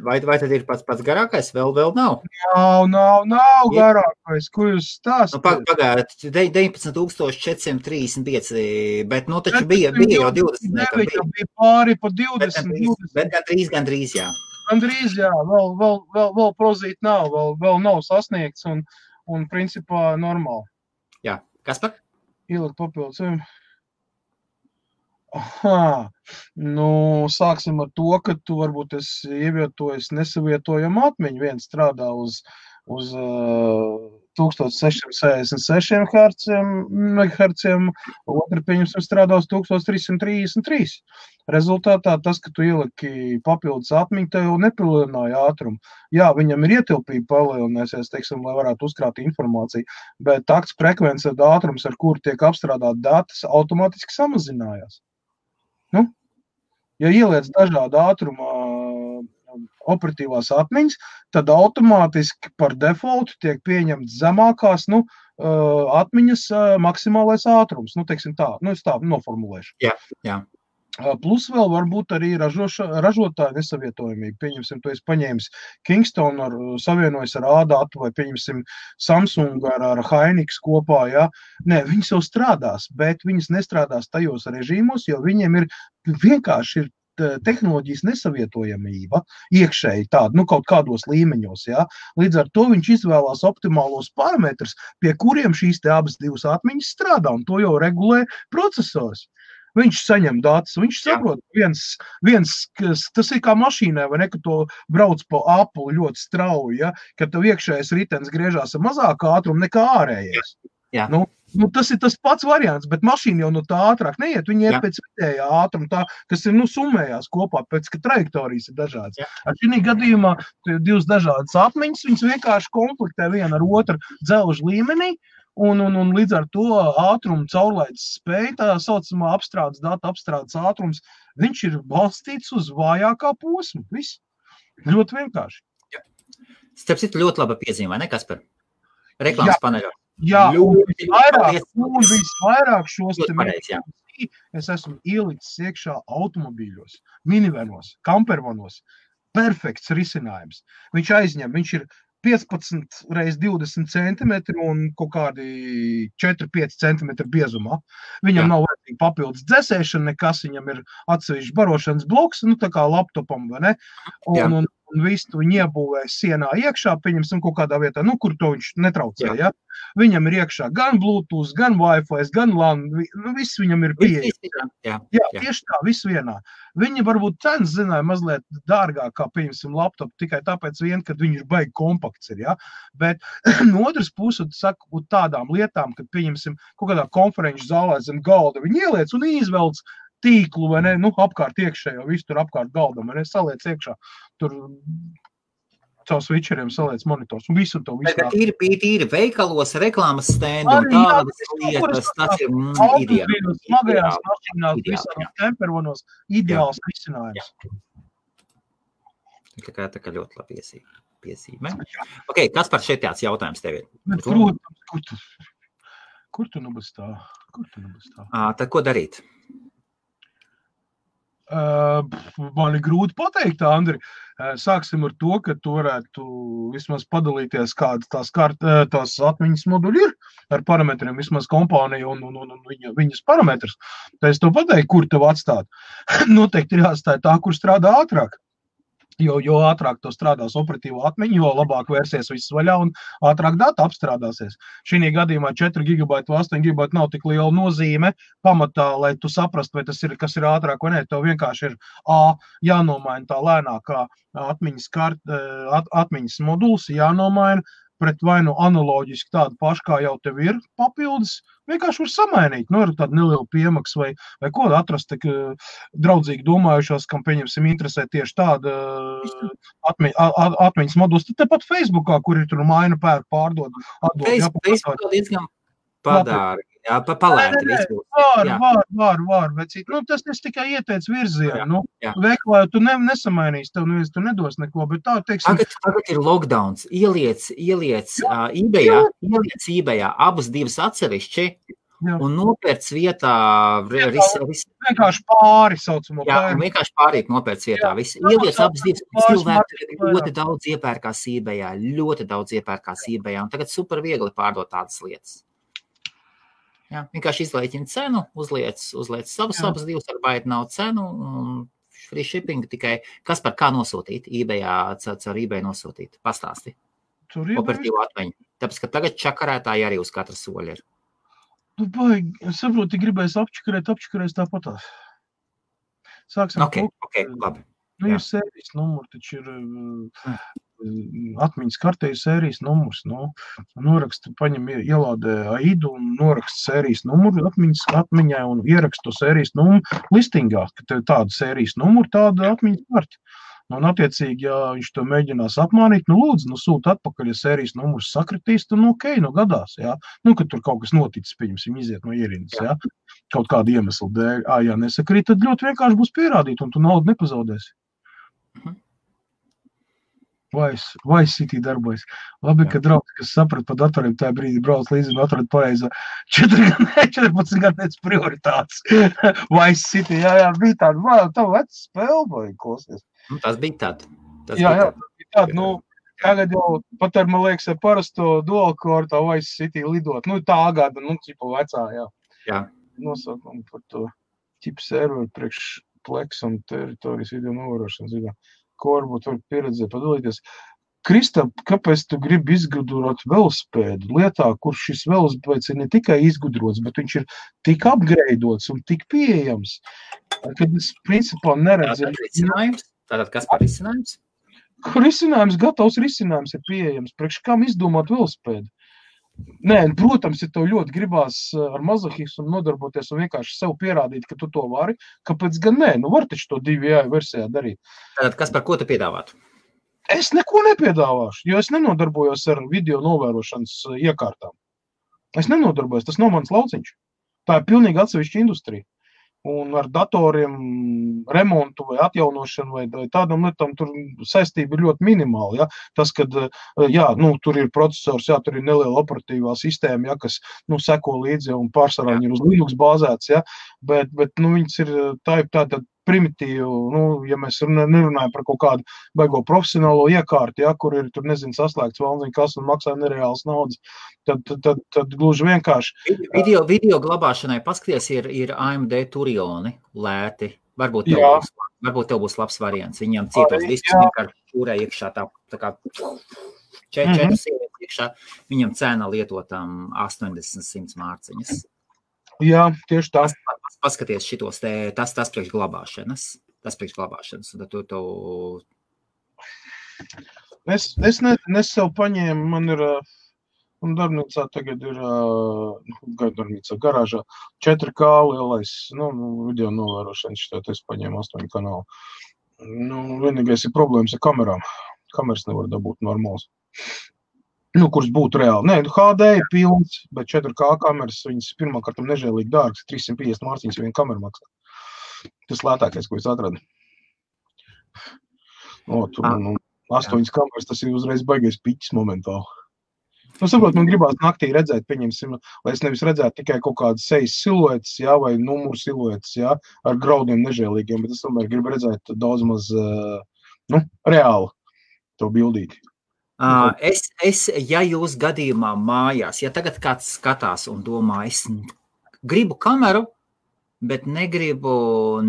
Speaker 1: Vai tad ir pats garākais? Vēl nav?
Speaker 2: Nav garākais. Ko jūs stāstat?
Speaker 1: Pagājiet, 19,435, bet taču bija jau 20.
Speaker 2: Bija pāri pa 20.
Speaker 1: Bet gandrīz, jā.
Speaker 2: Gandrīz, jā. Vēl prozīt nav, vēl nav sasniegts un principā normāli.
Speaker 1: Jā. Kas par?
Speaker 2: Ielikt papildus. Sāksim ar to, ka tu varbūt esi ievietojies nesavietojamu atmiņu. Viens strādā uz 1666 MHz, otru pieņemsim strādā uz 1333. Rezultātā tas, ka tu ieliki papildus atmiņu, tev jau nepalielināja ātrumu. Jā, viņam ir ietilpība palielinājusies, teiksim, lai varētu uzkrāt informāciju, bet takts frekvence ātrums, ar kuru tiek apstrādāt datus, automātiski samazinājās. Ja ieliec dažādu ātruma operatīvās atmiņas, tad automātiski par defaultu tiek pieņemts zemākās atmiņas maksimālais ātrums. Teiksim tā, es tā noformulēšu.
Speaker 1: Jā.
Speaker 2: Plus vēl varbūt arī ražotāja nesavietojamība. Pieņemsim, tu esi paņēmis Kingston, savienojas ar A-datu, vai pieņemsim Samsung ar Hynix kopā, ja? Nē, viņas jau strādās, bet viņas nestrādās tajos režīmos, jo viņiem vienkārši ir tehnoloģijas nesavietojamība iekšēji tāda, kaut kādos līmeņos, ja? Līdz ar to viņš izvēlās optimālos parametrus, pie kuriem šīs te abas divas atmiņas strādā, un to jau regulē procesors. Viņš saņem datus, viņš saprot, tas ir kā mašīnai, vai ne, ka to brauc pa apli ļoti strauji, ja, kad tev iekšējais ritens griežās ar mazāku ātrumu nekā ārējais. Tas ir tas pats variants, bet mašīna jau no tā ātrāk neiet, viņi iet pēc vidējā ātruma, kas ir summējās kopā, pēc ka trajektorijas ir dažādas. Ar šī gadījumā divas dažādas atmiņas, viņas vienkārši konfliktē viena ar otru dzelžu līmenī, un līdz ar to ātrumu caurlaides spēja, tā saucamā datu apstrādes ātrums, viņš ir balstīts uz vājākā posmu. Viss. Ļoti vienkārši.
Speaker 1: Starp citu ļoti laba piezīme, vai ne, Kaspar? Reklāmas paneļā.
Speaker 2: Jā, un visvairāk šos es esmu ielicis iekšā automobīļos, minivanos, kampervanos. Perfekts risinājums. Viņš ir 15 reiz 20 centimetri un kaut kādi 4-5 centimetri biezumā. Viņam nav vajadzīgi papildus dzesēšana, nekas, viņam ir atsevišķi barošanas bloks, tā kā laptopam, vai ne? Un visu viņu iebūvē sienā iekšā, pieņemsim kaut kādā vietā, kur to viņš netraucē, ja? Viņam ir iekšā gan Bluetooth, gan Wi-Fi, gan LAN, viss viņam ir pieejams. Jā, tieši tā, viss vienā. Viņi varbūt cenas zināja mazliet dārgāk, kā, pieņemsim, laptopu, tikai tāpēc kad viņš ir baigi kompakts ir, ja? Bet no otras puses, saku, tādām lietām, kad, pieņemsim, kaut kādā konferenču zālē zem galda, viņi ieliec un izvelc tīklu, vai ne, apkārt iekšējo, visu tur apkārt galdam, vai ne, saliec iekšā, tur caur switcheriem saliec monitors, un visu to visu.
Speaker 1: Tīri veikalos, reklāmas stendi un tādas lietas, tas ir ideāls.
Speaker 2: Smagajās mašīnās, visādās campervanos, ideāls risinājums.
Speaker 1: Tā kā ļoti labi piezīme. Ok, Kaspar, šeit tāds jautājums tev ir?
Speaker 2: Kur tu nu bez tā?
Speaker 1: Tad ko darīt?
Speaker 2: Man ir grūti pateikt, Andri. Sāksim ar to, ka tu varētu vismaz padalīties, kādas tās atmiņas moduļi ir ar parametriem, vismaz kompānija un viņas parametrus. Tā es to pateiktu, kur tev atstāt. Noteikti ir jāatstāja tā, kur strādā ātrāk. Jo ātrāk to strādās operatīvo atmiņu, jo labāk vērsies viss vaļā un ātrāk data apstrādāsies. Šī gadījumā 4 GB vai 8 GB nav tik liela nozīme pamatā, lai tu saprastu, vai tas ir, kas ir ātrāk vai nē. Tev vienkārši ir jānomaina tā lēnākā atmiņas moduls, jānomaina pret vai nu analoģiski tādu pašu, kā jau tev ir papildus, vienkārši var samainīt, ar tādu nelielu piemaksu vai ko atrast, draudzīgi domājušos, kam, pieņemsim, interesē tieši tāda atmiņas moduls. Tad tepat Facebookā, kur ir tur maina, pērk, pārdod, atdod.
Speaker 1: Facebookā diezgan padārgi. Jā, palēti visu.
Speaker 2: Var, bet tas es tikai ieteicu virzienu. Veiklā tu nesamainīs, tev neviens tu nedos neko, bet tā, teiksim...
Speaker 1: Tagad ir lockdowns, ieliec eBayā abas divas atsevišķi un nopērc vietā...
Speaker 2: Vienkārši pāri saucamo.
Speaker 1: Jā, un vienkārši pārīt nopērc vietā. Ieliec abas divas. Cilvēki ļoti daudz iepērkās eBayā, un tagad super viegli pārdot tādas lietas. Jā, vienkārši izlēķina cenu, uzliec abas divas, ar baiti nav cenu, un free shipping tikai. Kaspar, kā nosūtīt? eBayā, caur eBay nosūtīt? Pastāsti. Operatīvu atmiņu. Tāpēc, ka tagad čakarētāji arī uz katra soļa ir.
Speaker 2: Es saprotu, gribēs apčakarēs tāpatās. Sāksim.
Speaker 1: Ok, labi.
Speaker 2: Ir sērijas numuri, taču ir... atmiņas kartē ir sērijas numurs. Noraksta, paņem, ielādē AIDu un noraksta sērijas numuru atmiņai un ieraksta to sērijas numuru listingā, ka tev tāda sērijas numuru, tāda atmiņas karti. Un attiecīgi, ja viņš to mēģinās apmānīt, lūdzu, sūta atpakaļ, ja sērijas numurs sakritīs, tad gadās, jā. Kad tur kaut kas noticis, pieņemsim, iziet no ierindas, jā. Kaut kādu iemeslu dēļ, ja nesakrīt, tad ļoti vienkārši būs pierādīt, un tu naudu nepazaudēsi. Vai City darbojas. Labi, ka draugs, kas saprat par datoriem, tajā brīdī brauc līdzi un atrod pareizo 14 gadniec prioritātes. Vai City, jā, bija tāda, vai tā veca spēle, vai klausies.
Speaker 1: Tas bija tāda.
Speaker 2: Jā, tāda, nu, tagad jau pat ar, man liekas, ar parasto dual core tā vai City lidot. Nu, tā gada, nu, cipa vecā, jā.
Speaker 1: Jā.
Speaker 2: Nosaukumu par to ķipu serveru priekš Plex un teritorijas video novērošanas video. Ko varbūt var pieredzēt, padalīties. Kristap, kāpēc tu gribi izgudrot velospēdu lietā, kur šis velospēds ir ne tikai izgudrots, bet viņš ir tik upgradeots un tik pieejams, kad es principā neredzu.
Speaker 1: Tātad kas par risinājums?
Speaker 2: Risinājums, gatavs risinājums ir pieejams. Priekš kam izdomāt velospēdu? Nē, protams, ja tev ļoti gribās ar mazohismu nodarboties un vienkārši sev pierādīt, ka tu to vari, kāpēc gan nē? Nu, var taču to 2 versijā darīt.
Speaker 1: Tātad, kas par ko tu piedāvātu?
Speaker 2: Es neko nepiedāvāšu, jo es nenodarbojos ar video novērošanas iekārtām. Es nenodarbojos, tas nav mans lauciņš. Tā ir pilnīgi atsevišķa industrija. Un ar datoriem remontu vai atjaunošanu vai tādam lietām tur saistība ir ļoti minimāla. Ja? Tas, kad jā, nu, tur ir procesors, jā, tur ir neliela operatīvā sistēma, ja, kas nu, seko līdzi un pārsvarā viņi ir uz Linux bāzēts, ja? bet nu, viņas ir tāda primitīva, nu, ja mēs nerunājam par kaut kādu baigo profesionālo iekārtu, ja, kur ir, tur nezinu, saslēgts valdziņu kas un maksā nereāls naudas, tad gluži vienkārši.
Speaker 1: Video glabāšanai paskaties ir AMD Turioni lēti. Varbūt tev būs labs variants. Viņam cietos diskus vienkārši šūrē iekšā tā kā 4 sievietes iekšā. Viņam cena lietotām 80-100 mārciņas.
Speaker 2: Jā, tieši tā.
Speaker 1: Paskaties šitos te, tas priekš glabāšanas. Un tad tu...
Speaker 2: Es sev paņēmu, man ir, un darbnīcā tagad ir, garāžā 4K lielais, nu, video novērošanas, šitāt es paņēmu 8 kanālu. Nu, vienīgais ir problēmas ar kamerām. Kameras nevar dabūt normāls. Nu, kurš būtu reāli. Nē, HD ir pilns, bet 4K kameras, viņas pirmkārt nežēlīgi dārgas, 350 mārciņas viena kamera maksā. Tas lētākais, ko es atradu. Tur 8 kameras, tas ir uzreiz baigais piķis momentāli. Nu, saprot, man gribās naktī redzēt, pieņemsim, lai es nevis redzētu tikai kaut kādas sejas siluetes, jā, vai numuru siluetes, jā, ar graudiem nežēlīgiem, bet es tomēr gribu redzēt daudz maz, reāli to bildīti.
Speaker 1: Ja jūs gadījumā mājās, ja tagad kāds skatās un domā, es gribu kameru, bet negribu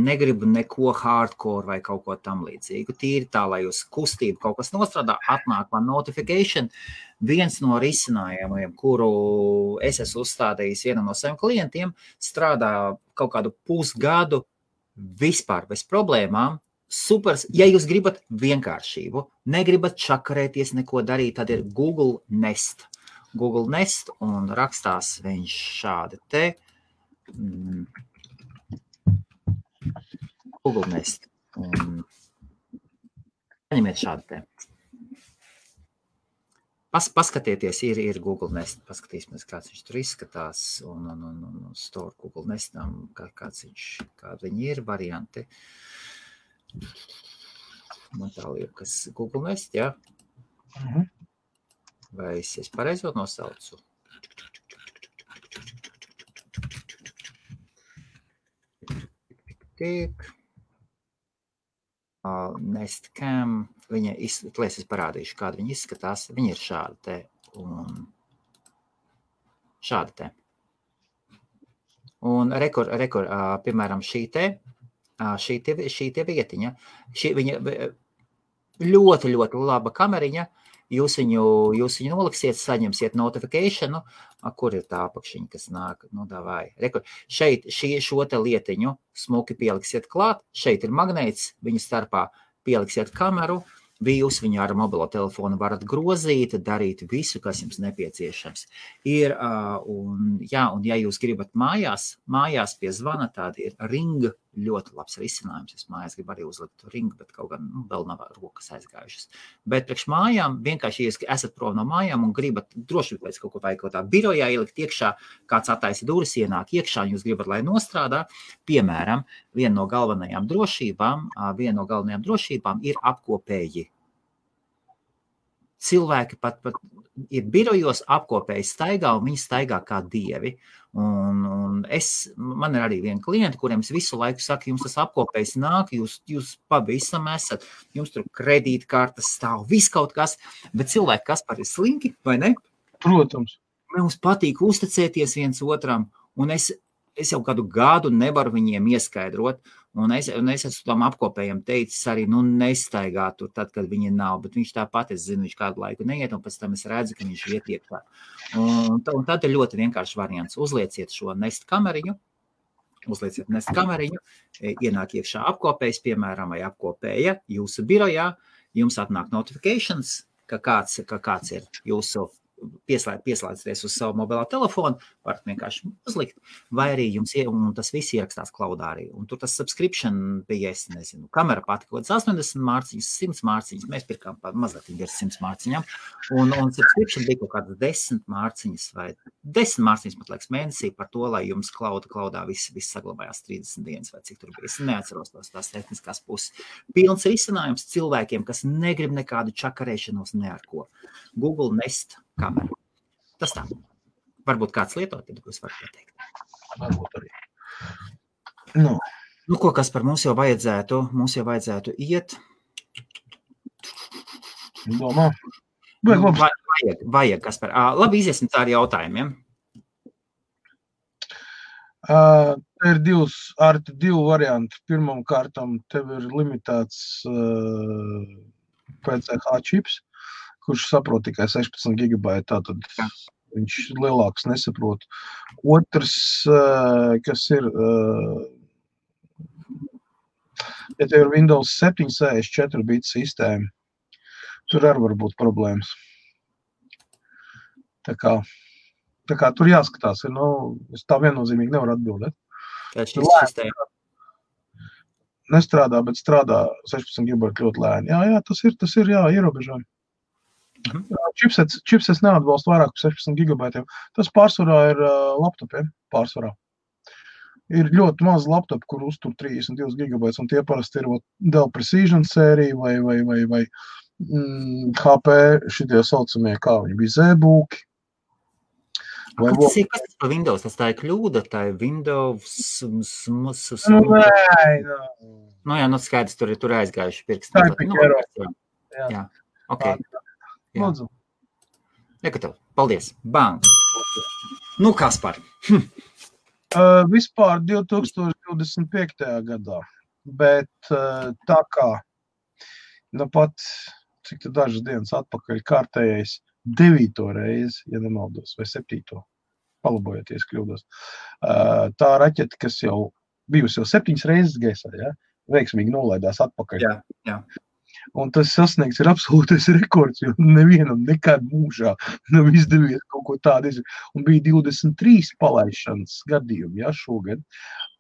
Speaker 1: neko hardcore vai kaut ko tam līdzīgu. Tīri tā, lai uz kustību kaut kas nostrādā, atnāk man notification. Viens no risinājumiem, kuru es esmu uzstādījis vienam no saviem klientiem, strādā kaut kādu pusgadu vispār bez problēmām. Supers, ja jūs gribat vienkāršību, negribat čakarēties, neko darīt, tad ir Google Nest. Google Nest un rakstās viņš šādi te. Google Nest. Paņemiet šādi te. Paskatieties, ir Google Nest. Paskatīsimies, kāds viņš tur izskatās. Un store Google Nestam, kādi viņi ir varianti. Man tā liekas Google Nest, jā? Vai es pareizot nosaucu? Nest Cam, es parādīšu, kāda viņa izskatās. Viņa ir šāda te un šāda te. Un piemēram, šī te vietiņa, viņa ļoti, ļoti laba kameriņa, jūs viņu noliksiet, saņemsiet notificationu, kur ir tā apakšiņa, kas nāk, nu davai. Šeit šo te lietiņu smuki pieliksiet klāt, šeit ir magnēts, viņu starpā pieliksiet kameru, jūs viņu ar mobilo telefonu varat grozīt, darīt visu, kas jums nepieciešams. Un ja jūs gribat mājās pie zvana, tāda ir Ring, ļoti labs risinājums. Es mājās gribu arī uzlikt Ring, bet kaut gan vēl nav rokas aizgājušas. Bet priekš mājām, vienkārši, ja esat prom no mājām un gribat droši pēc kaut ko vai kaut tā birojā ielikt iekšā, kāds attaisa durvis, ienāk iekšā, un jūs gribat, lai nostrādā, piemēram, viena no galvenajām drošībām ir apkopēji. cilvēki pat ir birojos apkopēji staigā, un viņi staigā kā dievi. Un man ir arī viena klienta, kuriem es visu laiku saku, jums tas apkopējs nāk, jūs pavisam esat, jums tur kredītkartes stāv, viss kaut kas, bet cilvēki, kas par ir slinki, vai ne?
Speaker 2: Protams.
Speaker 1: Mums patīk uzticēties viens otram, un es jau kādu gadu nevaru viņiem ieskaidrot, un es esmu tam apkopējiem teicis arī, nestaigā tur tad, kad viņi nav, bet viņš tāpat, es zinu, viņš kādu laiku neiet, un pēc tam es redzu, ka viņš iet iekšā. Un tad ir ļoti vienkārši variants. Uzlieciet šo Nest kameriņu, ienāk iekšā apkopējs, piemēram, vai apkopēja jūsu birojā, jums atnāk notifications, ka kāds ir jūsu pieslēdzties uz savu mobilā telefonu, varat vienkārši uzlikt, vai arī jums un tas viss ierakstās klaudā arī. Un tur tas subscription bija, es nezinu, kamera pati kaut kāds 80 mārciņas, 100 mārciņas, mēs pirkām mazliet ar 100 mārciņām, un subscription bija kaut kādas 10 mārciņas vai 10 mārciņas, pat liekas, mēnesī par to, lai jums klaudā viss saglabājās 30 dienas vai cik tur bija. Es neatceros tās tehniskās puses. Pilns risinājums cilvēkiem, kas negrib nekādu čakarēšanos ne ar ko. Google Nest kameru. Tas tā. Varbūt kāds lietot, tad jūs varat pateikt.
Speaker 2: Varbūt arī.
Speaker 1: Ko, kas par mums jau vajadzētu iet?
Speaker 2: Domā?
Speaker 1: Vajag, kas par... Labi, iziesim tā ar jautājumiem.
Speaker 2: Ir divi varianti. Pirmam kārtam tev ir limitēts PCH čips, kurš saprot tikai 16 gigabaiti, tātad viņš lielāks nesaprot. Otrs, kas ir, ja tev ir Windows 7 64 bit sistēma, tur arī var būt problēmas. Tā kā tur jāskatās, es tā viennozīmīgi nevaru atbildēt. Nestrādā, bet strādā 16 gigabaiti ļoti lēni. Jā, tas ir ierobežojumi. Chipsets neatbalsta vairāk par 16 gigabaitiem. Tas pārsvarā ir laptopiem. Ir ļoti maz laptopu, kur uztur 32 gigabaitus, un tie parasti ir Dell Precision sērija vai HP šitie saucamie, kā viņi bija, ZBooki.
Speaker 1: Kas tas par Windows? Tas tā ir kļūda, tā ir Windows... skaidrs, tur aizgājuši pirksti.
Speaker 2: Tā ir pikēro.
Speaker 1: Jā, ok.
Speaker 2: Lūdzu.
Speaker 1: Nekatav, paldies. Bang. Kaspar.
Speaker 2: Vispār 2025. gadā, bet tā kā, pat, cik tā dažas dienas atpakaļ kārtējais 9. reizi, ja nemaldos, vai 7. Palabojoties kļūdos. Tā raķete, kas jau bijusi jau 7 reizes gaisā, veiksmīgi nolaidās atpakaļ.
Speaker 1: Jā.
Speaker 2: Un tas sasniegts ir absolūtais rekords, jo nevienam nekad mūžā nav izdevies kaut ko tādu izdarīt. Un bija 23 palaišanas gadījumi, šogad.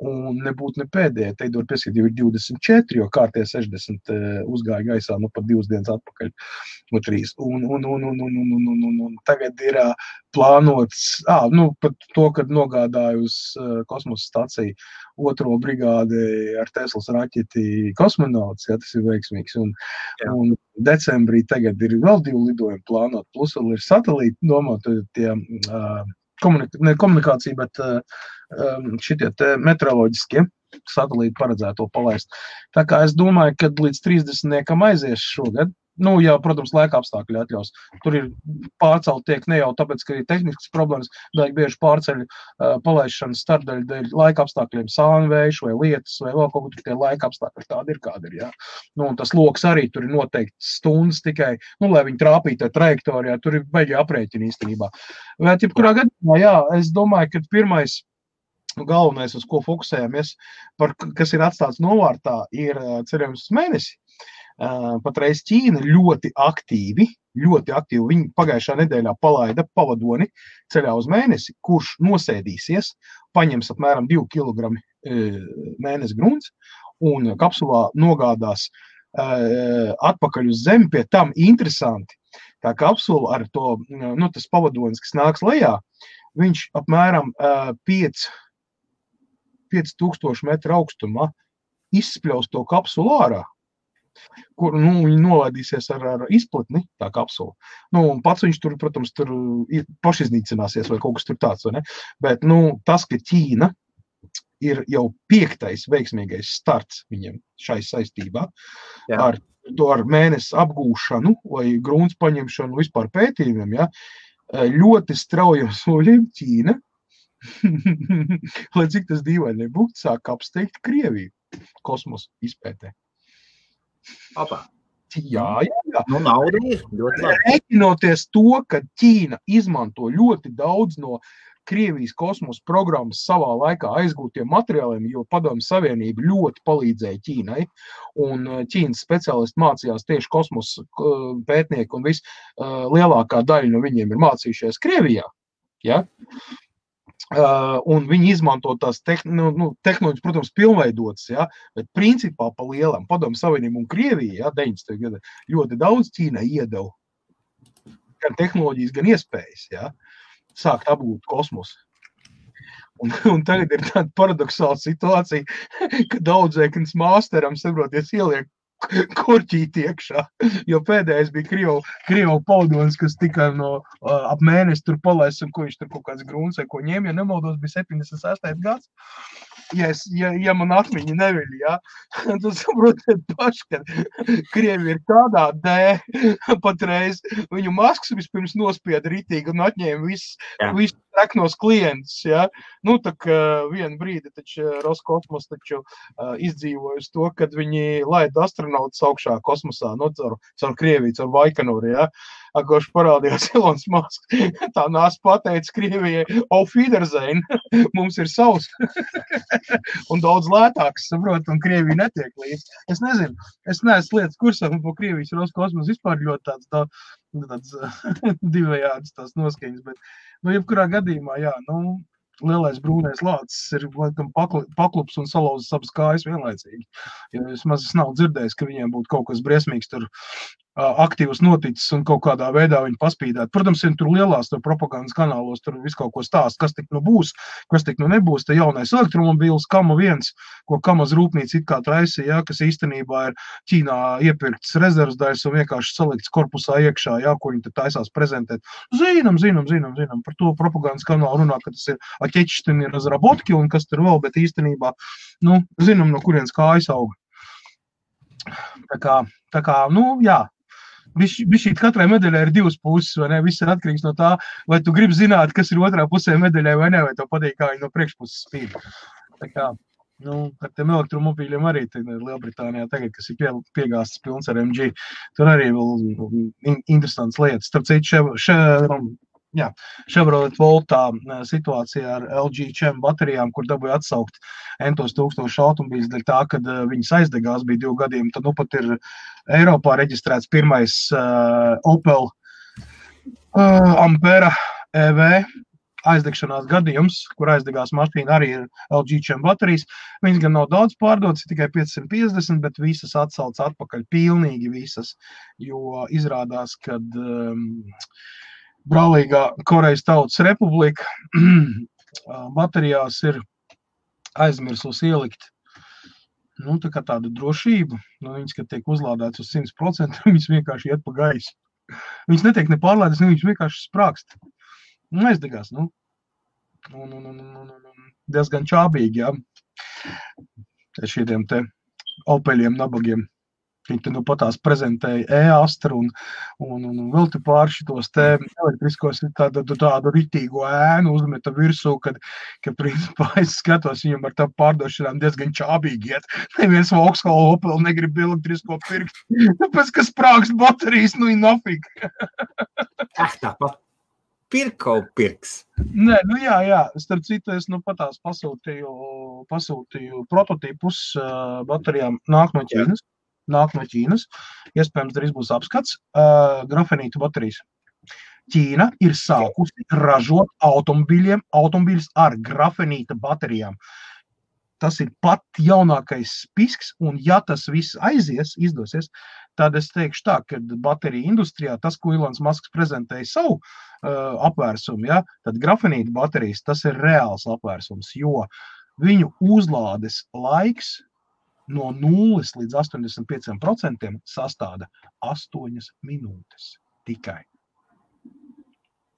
Speaker 2: Un nebūtu ne pēdējā, teidot pieskatīt, jau ir 24, jo kārtie 60 uzgāja gaisā, pat 2 dienas atpakaļ, 3. Un tagad ir plānots, pat to, kad nogādāju uz kosmosa staciju 2. brigādi ar Teslas raķeti kosmonauts, tas ir veiksmīgs. Un decembrī tagad ir vēl 2 lidojumi plānot, plus vēl ir satelīti domāt tie komunikācija, bet šitie meteoroloģiskie satelīti paredzēto palaist. Tā kā es domāju, ka līdz 30 aizies šogad, protams, laika apstākļi atļaus. Tur ir pārcelt tiek ne jau tāpēc, ka ir tehniskas problēmas, bet bieži pārceļ palaišanas starpdaļu dēļ laika apstākļiem, sānvējš vai lietas, vai vēl kaut kur tie laika apstākļi tādi ir, kādi ir, un tas loks arī tur ir noteikti stundas tikai, lai viņi trāpītu trajektorijā, tur ir baigi aprēķini īstenībā. Bet, jebkurā gadījumā, es domāju, ka pirmais galvenais, uz ko fokusējamies, kas ir atstāts novārtā, ir ceļojums uz mēnesi. Patreiz Ķīna ļoti aktīvi, viņi pagājušā nedēļā palaida pavadoni ceļā uz mēnesi, kurš nosēdīsies, paņems apmēram 2 kilogrami mēnesi grunts un kapsulā nogādās atpakaļ uz Zemi. Pie tam interesanti, tā kapsula ar to, tas pavadonis, kas nāks lejā, viņš apmēram 5000 metru augstumā izspļaus to kapsulu ārā. kur, viņi nolaidīsies ar izplatni, tā kapsula. Un pats viņš tur, protams, tur pašiznīcināsies vai kaut kas tur tāds, vai ne? Bet, tas, ka Ķīna ir jau 5. veiksmīgais starts viņiem šai saistībā ar mēnesi apgūšanu vai grūns paņemšanu vispār pētījumiem, ļoti straujiem soļiem Ķīna, lai cik tas dīvaini nebūtu, sāk apsteigt Krieviju kosmosa izpētē.
Speaker 1: Opa.
Speaker 2: Jā.
Speaker 1: Nauda ir ļoti labi.
Speaker 2: Rēķinoties to, ka Ķīna izmanto ļoti daudz no Krievijas kosmosa programmas savā laikā aizgūtiem materiāliem, jo Padomju Savienība ļoti palīdzēja Ķīnai, un Ķīnas speciālisti mācījās tieši kosmosa pētnieki, un lielākā daļa no viņiem ir mācījušies Krievijā. Ja? Un viņi izmanto tās tehnoloģijas, protams, pilnveidotas, bet principā pa lielam Padomju Savienību un Krieviju, 90. gada, ļoti daudz Ķīnai iedeva gan tehnoloģijas, gan iespējas, sākt apgūt kosmosu. Un tagad ir tāda paradoxāla situācija, ka daudzēknis māsteram, saproties, ieliek korķīti iekšā, jo pēdējais bija Krievu paudonis, kas tikai ap mēnesi tur palaists, un ko viņš tur kaut kāds grūns vai ko ņēma, ja nemaldos, bija 76. gads. Ja man atmiņa neviļ, tad saprotiet paši, ka Krievi ir tādā patreiz, viņu Masks vispirms nospieda ritīgi un atņēma visus treknos klientus, tā kā vienu brīdi taču Roskosmos taču izdzīvojas to, kad viņi laida astronautus augšā kosmosā, caur Krieviju, caur Baikonūru, Koš parādījās Elons Masks, tā nāc pateica Krievijai, auf Wiedersehen, mums ir savs, un daudz lētāks, saprot, un Krievija netiek līdz. Es nezinu, es neesmu lietas kursā, un po Krievijas Roskosmos vispār ļoti tāds divējāds tās noskaņas, bet, jebkurā gadījumā, lielais brūnais lācis ir laikam paklups un salauzis abas kājas vienlaicīgi. Jo es maz nav dzirdējis, ka viņiem būtu kaut kas briesmīgs tur aktīvs noticis un kaut kādā veidā viņi paspīdēt. Protams, tur lielās propagandas kanālos tur visu kaut ko stāst, kas tik būs, kas tik nebūs. Te jaunais elektromobīls Kama 1, ko Kamas rūpnīca it kā traisīja, kas īstenībā ir Ķīnā iepirkts rezervas daļas un vienkārši salikts korpusā iekšā, ko viņi te taisās prezentēt. Zinām, par to propagandas kanālu runā, ka tas ir Atečštini razrabotki un kas tur vēl, bet īstenībā, zinām, no kurienes kājas auga. Tā kā, jā. Bišķīt katrai medaļai ir divas puses, vai ne? Viss ir atkarīgs no tā, vai tu gribi zināt, kas ir otrā pusē medaļai vai ne, vai tev patīk, kā viņi no priekšpuses spīd. Tā kā, ar tiem elektromobīļiem arī Lielbritānijā tagad, kas ir piegāstas pilns ar MG, tur arī vēl interesants lietas. Starp citu, Chevrolet Voltā situācijā ar LG Chem baterijām, kur dabūja atsaukt entos 1000 automobīļus dēļ tā, kad viņas aizdegās bija 2 gadiem, tad pat ir Eiropā reģistrēts pirmais Opel Ampera EV aizdegšanās gadījums, kur aizdegās mašīna arī ir LG Chem baterijas. Viņas gan nav daudz pārdotas, tikai 550, bet visas atsauc atpakaļ, pilnīgi visas, jo izrādās, kad brālīgā Korejas Tautas Republika baterijās ir aizmirsus ielikt tā kā tādu drošību. Viņas, kad tiek uzlādēts uz 100%, viņas vienkārši iet pa gaisu. Viņas netiek nepārlēdas, viņas vienkārši sprākst. Aizdegās, diezgan čābīgi, šiem te Opeļiem, nabagiem. Viņi patās prezentēja e-Astra un vēl te pār šitos te elektriskos tādu ritīgo ēnu uzmeta virsū, kad principā es skatos viņam ar tā pārdošanām diezgan čābīgi iet. Neviens Vauxhall Opel negrib elektrisko pirkt, tāpēc, ka sprākst baterijas, nafig.
Speaker 1: Tāpat pirkau pirks.
Speaker 2: Nē, jā. Starp citu, es patās pasūtīju prototipus baterijām nāk no Ķīnas. Iespējams, drīz būs apskats. Grafenītu baterijas. Ķīna ir sākusi ražot automobīļus ar grafenīta baterijām. Tas ir pat jaunākais spisks, un ja tas viss izdosies, tad es teikšu tā, ka bateriju industrijā tas, ko Elons Masks prezentēja savu apvērsumu, tad grafenīta baterijas, tas ir reāls apvērsums, jo viņu uzlādes laiks no 0 līdz 85% sastāda 8 minūtes tikai.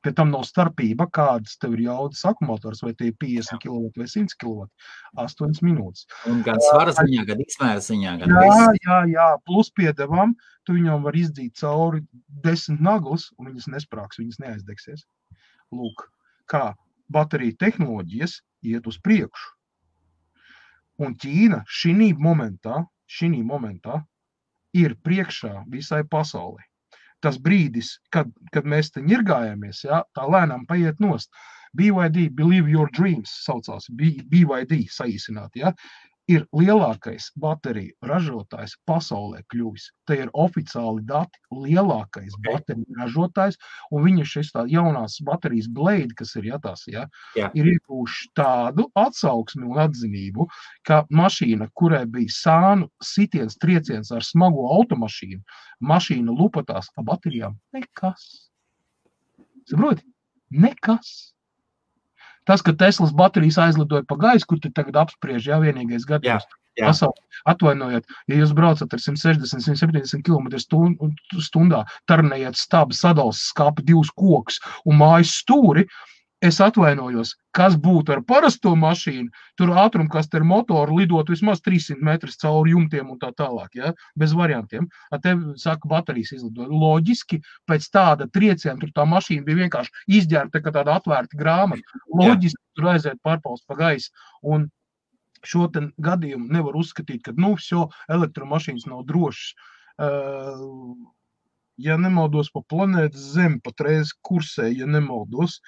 Speaker 2: Pie tam nav starpība, kādas tev ir jaudas akumulators, vai tie ir 50 kW vai 100 kW, 8 minūtes.
Speaker 1: Un gan svara ziņā, gan izmēra ziņā, gan viss.
Speaker 2: Jā, plus piedevām, tu viņam var izdzīt cauri 10 naglas, un viņas nesprāks, viņas neaizdegsies. Lūk, kā bateriju tehnoloģijas iet uz priekšu. Un Ķīna šī momentā ir priekšā visai pasaulē. Tas brīdis, kad mēs te ņirgājāmies, ja, tā lēnām paiet nost. BYD, Believe Your Dreams, saucās, BYD saīsināt, ja, ir lielākais bateriju ražotājs pasaulē kļuvis. Te ir oficiāli dati, lielākais bateriju ražotājs, un viņa šis tā jaunās baterijas Blade, kas ir jātās, ja, ir iegūši tādu atsauksmi un atzinību, ka mašīna, kurai bija sānu sitiens, trieciens ar smago automašīnu, mašīna lupatās ar baterijām, nekas. Saproti? Nekas. Tas, ka Teslas baterijas aizlidoja pa gaisu, kur te tagad apspriež, jā, vienīgais gadījums. Atvainojiet, ja jūs braucat ar 160-170 km stundā, tarnējat stabu, sadals skāpi 2 kokus un mājas stūri, es atvainojos, kas būtu ar parasto mašīnu, tur ātrumkaste ar motoru lidot vismaz 300 metrus cauri jumtiem un tā tālāk, ja? Bez variantiem. Te, saka, baterijas izlidoja. Loģiski, pēc tāda trieciena, tur tā mašīna bija vienkārši izģērta, kā tāda atvērta grāmata. Loģiski tur aiziet pārpausts pa gaisu. Un šo gadījumu nevar uzskatīt, ka, elektromašīnas nav drošas. Ja nemaldos pa planētas Zemi, patreiz kursē, ja nemaldos,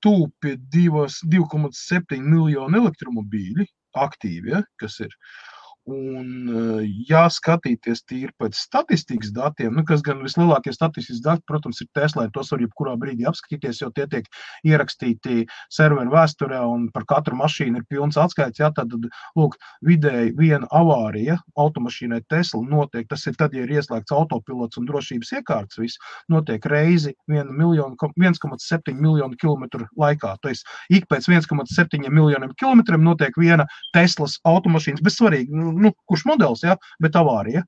Speaker 2: tūpi 2,7 miljonu elektromobīļi aktīvi, ja, kas ir. Un jāskatīties tīri pēc statistikas datiem, kas gan vislielākie statistikas dati, protams, ir Tesla, tos var jebkurā brīdī apskatīties, jo tie tiek ierakstīti serveru vēsturē un par katru mašīnu ir pilns atskaits, tad, lūk, vidēji viena avārija automašīnai Tesla notiek, tas ir tad, ja ir ieslēgts autopilots un drošības iekārtas, viss notiek reizi 1,7 miljonu kilometru laikā, to es ik pēc 1,7 miljoniem kilometriem notiek viena Teslas automašīnas, bez svarīgi, kurš modelis, ja, bet avārija.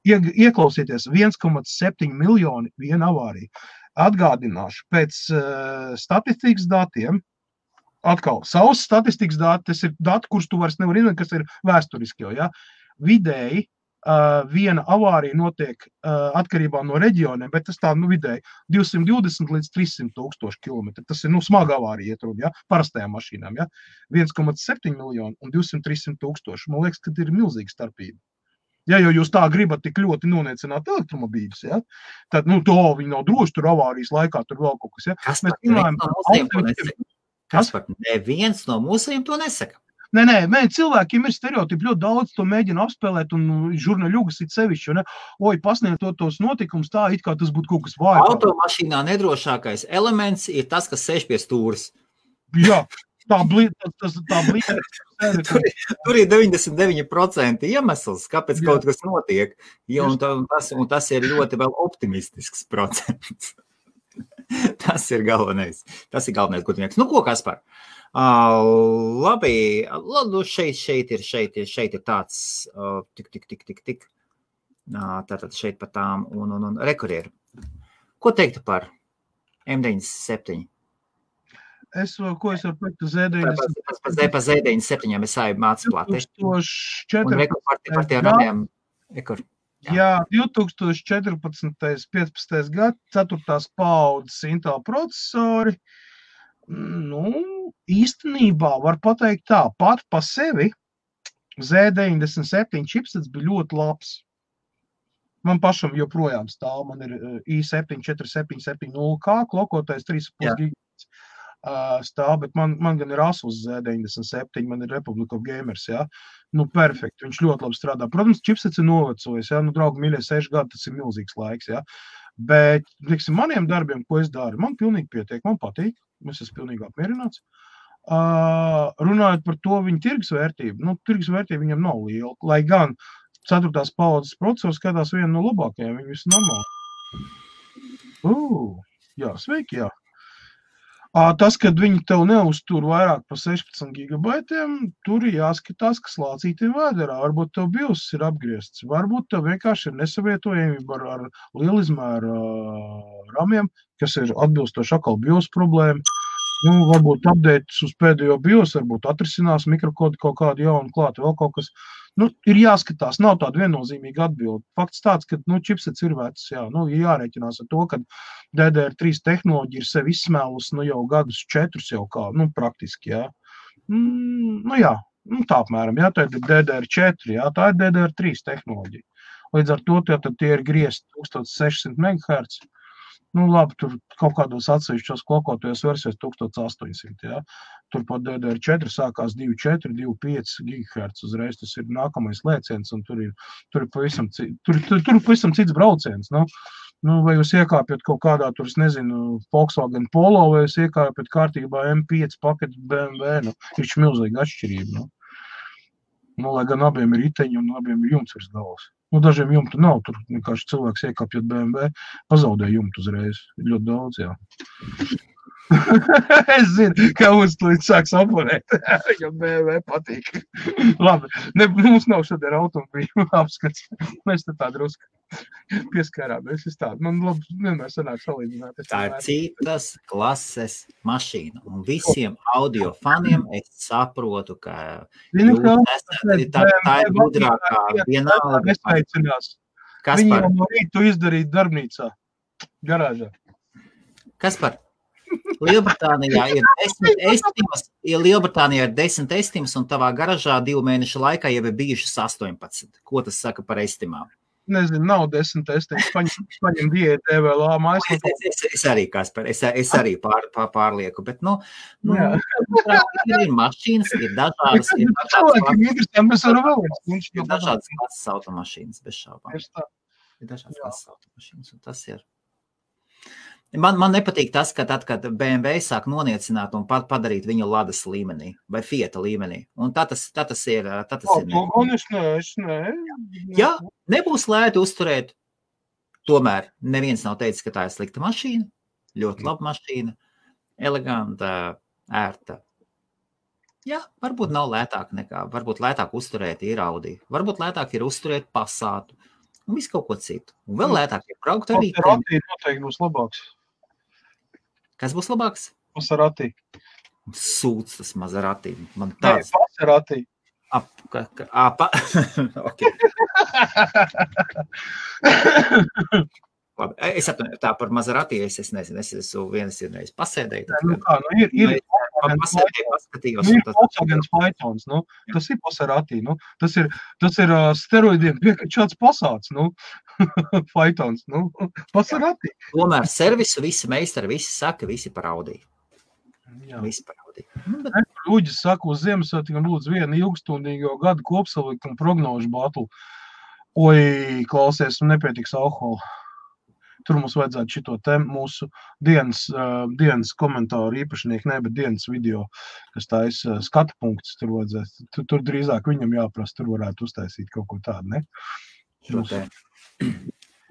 Speaker 2: Ieklausieties, 1,7 miljoni viena avārija. Atgādināšu, pēc statistikas datiem, atkal, savs statistikas dati, tas ir dati, kurus tu vairs nevar izmantot, kas ir vēsturiski, ja. Vidēji viena avārija notiek atkarībā no reģioniem, bet tas tā, vidēji 220 līdz 300 tūkstoši kilometri. Tas ir, smaga avārija iet runa, ja, parastajām mašīnām, ja. 1,7 miljonu un 200-300 tūkstoši. Man liekas, ka ir milzīga starpība. Ja jau jūs tā gribat tik ļoti noniecināt elektromobīļus, ja, tad, viņi nav droši, tur avārijas laikā, tur vēl kaut kas, ja.
Speaker 1: Neviens no mūsējiem to nesaka.
Speaker 2: Nē, cilvēkiem ir stereotipi, ļoti daudz to mēģina apspēlēt un žurnāļugas it sevišķi, ne? Pasniegt tos notikumus tā, it kā tas būtu kaut kas vājāk.
Speaker 1: Automašīnā nedrošākais elements ir tas, kas sēž pie stūres.
Speaker 2: Jā, tā blīd.
Speaker 1: Tur ir 99% iemesls, kāpēc kaut kas notiek, un tas ir ļoti vēl optimistisks procents. Tas ir galvenais, ko tu nieks. Ko, Kaspar? Labi, šeit ir tāds tik. Tātad šeit par tām un rekurieru. Ko teiktu par M97?
Speaker 2: Ko es varu pateikt Z97?
Speaker 1: Par Z97 es sāju mācu plāti.
Speaker 2: 2014. Jā, 2014. 15. gadu, 4. paudzes Intel procesori. Īstenībā var pateikt tā, pat pa sevi Z97 chipsets bija ļoti labs. Man pašam joprojām stāv, man ir i7-4770K, klokotais 3,5 gigabits stāv, bet man gan ir Asus Z97, man ir Republic of Gamers, jā. Perfekti, viņš ļoti labi strādā. Protams, chipsets ir novecojis, jā, draugi mīļie 6 gadi, tas ir milzīgs laiks, jā. Bet, maniem darbiem, ko es daru, man pilnīgi pietiek, man patīk, es esmu pilnīgi apmierināts. Runājot par to viņa tirgus vērtību, tirgus vērtība viņam nav liela, lai gan 4. paudzes procesors skatās vienu no labākajiem, viņi visi normāli. Jā, sveiki, jā. Tas, kad viņi tev neuztur vairāk par 16 gigabaitiem, tur ir jāskatās, kas lācītiem vēderā. Varbūt tev BIOS ir apgriezts, varbūt tev vienkārši ir nesavietojamība ar lielizmēra ramiem, kas ir atbilstoši atkal BIOS problēma. Varbūt updates uz pēdējo BIOS, varbūt atrisinās mikrokodu kaut kādu jaunu klātu, vēl kaut kas. Ir jāskatās, nav tāda viennozīmīga atbilde. Fakts tāds, ka čipsets ir vecs, jā, ir jārēķinās ar to, ka DDR3 tehnoloģija ir sevi izsmēlus, jau gadus 4 jau kā, praktiski, jā. Jā, tā apmēram, jā, tā ir DDR4, jā, tā ir DDR3 tehnoloģija. Līdz ar to tie ir griezt 1600 MHz. Labi, tur kaut kādos atsevišķos klokotajos versijos 1800, jā. Tur pat DDR4 sākās 2,4, 2,5 GHz uzreiz, tas ir nākamais lēciens, un tur ir pavisam cits brauciens, vai jūs iekāpjat kaut kādā, tur, es nezinu, Volkswagen Polo, vai jūs iekāpjat kārtībā M5 paketu BMW, ir milzīga atšķirība, lai gan abiem ir riteņi un abiem ir jumts virs galvas. Dažiem jumtu nav, tur vienkārši cilvēks iekāpjot BMW, pazaudē jumtu uzreiz. Ir ļoti daudz, jā. Es zinu, ka mums līdz sāks oponēt, jo BMW patīk. Labi, mums nav šodien automobīļu apskats. Mēs tā drusku pieskārāmies. Man labi, vienmēr sanāk salīdzināt.
Speaker 1: Tā ir citas klases mašīna. Un visiem audio faniem es saprotu, ka tā ir gudrākā vienalga. Kas
Speaker 2: Viņi
Speaker 1: par?
Speaker 2: jau no rītu izdarīt darbnīcā, garāžā.
Speaker 1: Kas par? Lielbritānijā ir 10 estimas, Lielbritānijā ir 10 estimas, un tavā garažā 2 mēnešu laikā jau ir bijušas 18. Ko tas saka par estimām?
Speaker 2: Nezinu, nav 10 estimas, paņem diētu EVLA mājas.
Speaker 1: Es arī, Kaspar, es arī pārlieku, bet, ir mašīnas, ir dažādas, ir dažādas klases automašīnas, bez šaubām. Ir dažādas klases automašīnas, un tas ir. Man nepatīk tas, ka tad, kad BMW sāk noniecināt un padarīt viņu Ladas līmenī vai Fiata līmenī. Un tas ir.
Speaker 2: Es ne.
Speaker 1: Jā, nebūs lēti uzturēt. Tomēr neviens nav teicis, ka tā ir slikta mašīna. Ļoti laba mašīna. Eleganta, ērta. Jā, varbūt nav lētāk nekā. Varbūt lētāk uzturēt ir Audi. Varbūt lētāk ir uzturēt Passatu. Un visu kaut ko citu. Un vēl lētāk ir braukt arī.
Speaker 2: Maserati noteikti būs labāks.
Speaker 1: Kas būs labāks?
Speaker 2: Maserati.
Speaker 1: Sūds tas Maserati. Man
Speaker 2: Nē, Maserati.
Speaker 1: Okay. Labi, es atvainu, tā par Maserati, es nezinu, es esmu vienas reiz pasēdēju.
Speaker 2: Ir
Speaker 1: paskatījos.
Speaker 2: Ir Volkswagen Phaetons, tas ir Maserati, tas ir steroidiem piekačāts Passats, Phaetons, Maserati.
Speaker 1: Tomēr servisu visi meistari, visi saka, visi par Audi. Visi par Audi.
Speaker 2: Ļuģis saka, uz Ziemassvētkiem lūdzu vienu ilgstundīgo gadu kopsalikumu prognožu batlu. Oi, klausies, nepietiks alkohola. Tur mums vajadzētu šito te mūsu dienas komentāru īpašnieku, bet dienas video, kas tā ir skatu punkts, tur vajadzētu. Tur drīzāk viņam jāprasa, tur varētu uztaisīt kaut ko tādu, ne?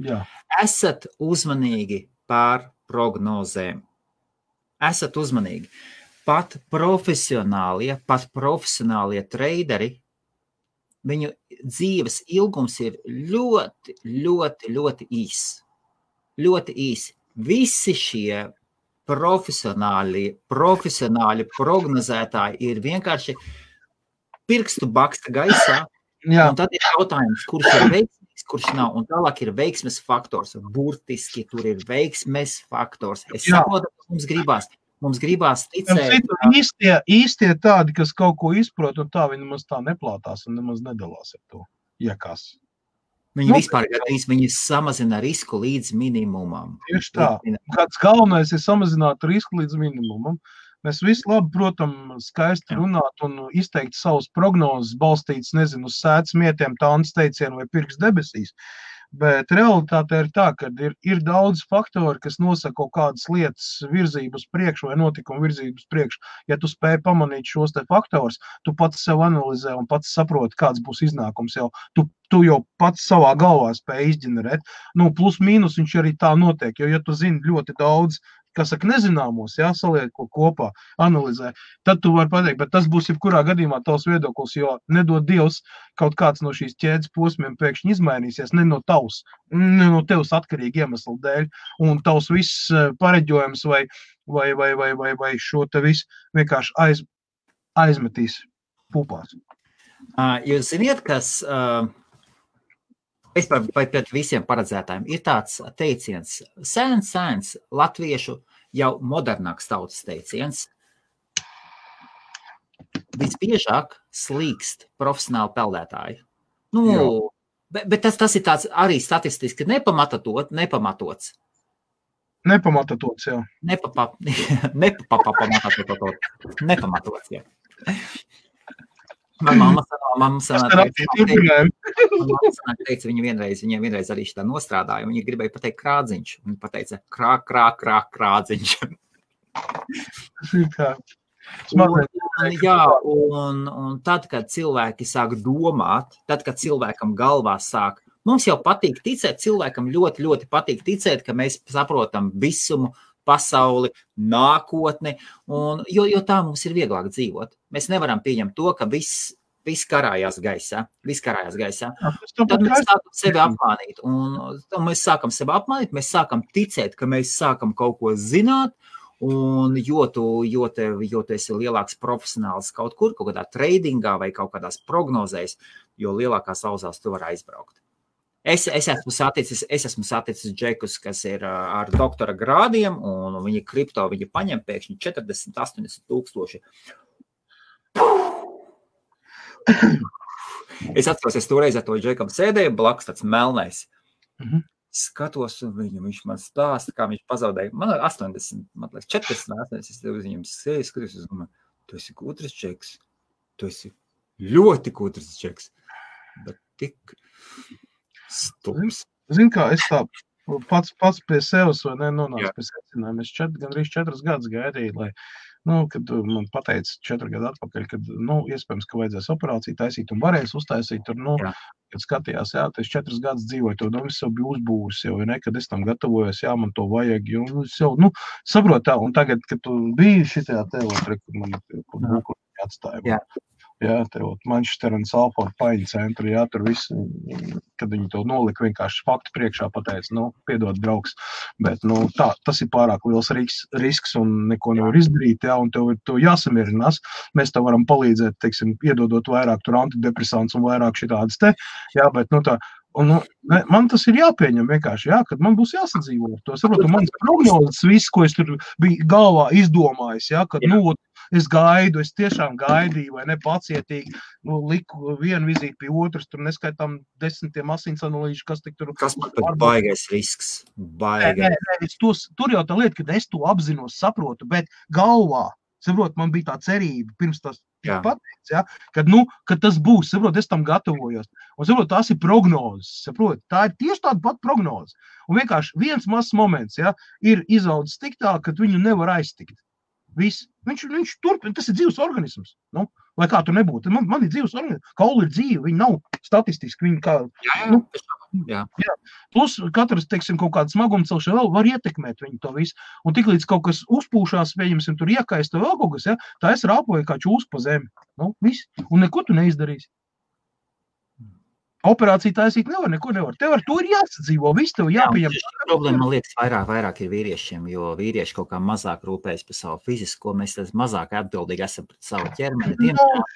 Speaker 2: Jā.
Speaker 1: Esat uzmanīgi pār prognozēm. Esat uzmanīgi. Pat profesionālie treideri, viņu dzīves ilgums ir ļoti, ļoti, ļoti īss. Ļoti īsi. Visi šie profesionāli prognozētāji ir vienkārši pirkstu baksta gaisā. Un tad ir jautājums, kurš ir veiksmīgs, kurš nav. Un tālāk ir veiksmes faktors. Burtiski tur ir veiksmes faktors. Es saprotu, ka mums gribās ticēt.
Speaker 2: Īstie tādi, kas kaut ko izprot, un tā viņi nemaz tā neplātās un nemaz nedalās ar to. Iekas.
Speaker 1: Viņi vispār viņi samazina risku līdz minimumam.
Speaker 2: Tieši tā. Kāds galvenais ir samazināt risku līdz minimumam. Mēs visi labi, protams, skaisti runāt un izteikt savus prognozes, balstīts, nezinu, uz sēdz mietiem, tāns teicienu vai pirks debesīs. Bet realitāte ir tā, ka ir daudz faktori, kas nosaka kaut kādas lietas virzību uz priekšu vai notikumu virzību uz priekšu. Ja tu spēj pamanīt šos te faktors, tu pats sev analizē un pats saproti, kāds būs iznākums jau. Tu jau pats savā galvā spēj izģenerēt. Plus mīnus viņš arī tā notiek, jo ja tu zini ļoti daudz, kā saka, nezināmos, jā, saliek ko kopā, analizē, tad tu vari pateikt, bet tas būs jebkurā gadījumā tavs viedoklis, jo nedod Dievs kaut kāds no šīs ķēdes posmiem pēkšņi izmainīsies, ne no tevs atkarīgi iemeslu dēļ, un tavs viss pareģojums vai šo te visu vienkārši aizmetīs pupās.
Speaker 1: Jūs ziniet, kas pret visiem paredzētājiem ir tāds teiciens, sēns, latviešu jau modernāks tautas teiciens. Visbiežāk slīkst profesionāli peldētāji. Bet tas ir tāds arī statistiski nepamatots.
Speaker 2: Nepamatots, jā.
Speaker 1: Nepamatots, jā. Mamma teica, viņiem vienreiz arī šitā nostrādāja, un viņa gribēja pateikt krādziņš. Viņa pateica krādziņš. Un tad, kad cilvēki sāk domāt, tad, kad cilvēkam galvā sāk, mums jau patīk ticēt, cilvēkam ļoti, ļoti patīk ticēt, ka mēs saprotam visumu, pasauli, nākotni, jo tā mums ir vieglāk dzīvot. Mēs nevaram pieņemt to, ka viss karājās gaisā. Tad mēs sākam sevi apmānīt. Un mēs sākam sevi apmānīt, mēs sākam ticēt, ka mēs sākam kaut ko zināt, un jo tu esi lielāks profesionāls kaut kādā tradingā vai kaut kādās prognozēs, jo lielākās auzās tu vari aizbraukt. Es esmu saticis džekus, kas ir ar doktora grādiem, un viņi kripto, viņi paņem pēkšņi 40-80 tūkstoši. Es atceros, es toreiz ar to džekam sēdēju, blakus tāds melnais. Skatos, un viņš man stāsta, kā viņš pazaudēja. Man 80, man liekas, 40, es viņam sēju, skatos, un domāju, tu esi gudrs džeks. Tu esi ļoti gudrs džeks. Bet tik stums.
Speaker 2: Zini kā, es tā pats pie sevis vai nenonācu pie secinājuma. Es gandrīz 4 gadus gaidīju, lai, kad man pateica 4 gadu atpakaļ, kad, iespējams, ka vajadzēs operāciju taisīt un varēs uztaisīt, tur, kad skatījās, es 4 gadus dzīvoju, to domu es jau biju uzbūris jau, kad es tam gatavojos, man to vajag, un es jau, saprotu tā, un tagad, kad tu biji šitajā teotrē, kur man būkuļi atstāja. Jā, tev Manchester un Salford paiņu centru, tur viss, kad viņi to nolika vienkārši faktu priekšā pateica, piedod draugs, bet, tas ir pārāk liels risks un neko nevar izdarīt, un tev ir to jāsamierinās. Mēs tev varam palīdzēt, teiksim, iedodot vairāk tur antidepresants un vairāk šitādas te, bet, man tas ir jāpieņem vienkārši, kad man būs jāsadzīvo ar to. Saprotu, manas prognozes, viss, ko es tur biju galvā izdomājis, kad, es gaidu, es tiešām gaidīju, vai nepacietīgi, liku vienu vizīti pie otras, tur neskaitām 10 asins analīžu, kas tik tur...
Speaker 1: Kas man pat baigais risks?
Speaker 2: Tur jau tā lieta, kad es to apzinos, saprotu, bet galvā, saprot, man bija tā cerība, pirms tas pateicis, kad tas būs, saprot, es tam gatavojos. Un, saprot, tās ir prognozes, saprot, tā ir tieši tāda pat prognoze. Un vienkārši viens mazs moments, ir izaudzis tik tā, ka viņu nevar aiztikt. Viss. Viņš turpina, tas ir dzīves organisms. Lai kā tur nebūtu. Man ir dzīves organisms. Kauli ir dzīve, viņi nav statistiski. Viņi kā,
Speaker 1: Jā.
Speaker 2: Plus katrs, teiksim, kaut kāda smagumcelšana vēl var ietekmēt viņu to visu. Un tiklīdz kaut kas uzpūšās, pieņemsim, tur iekaista vēl kaut kas, tā es rāpoju kā čūs pa zemi. Viss. Un neko tu neizdarīsi. Operāciju taisīt neko nevar. Tev ar to ir jāsadzīvo, viss tev jāpieņem.
Speaker 1: Problēma, man liekas, vairāk ir vīriešiem, jo vīrieši kaut kā mazāk rūpējas par savu fizisko, mēs mazāk atbildīgi esam pret savu ķermeni.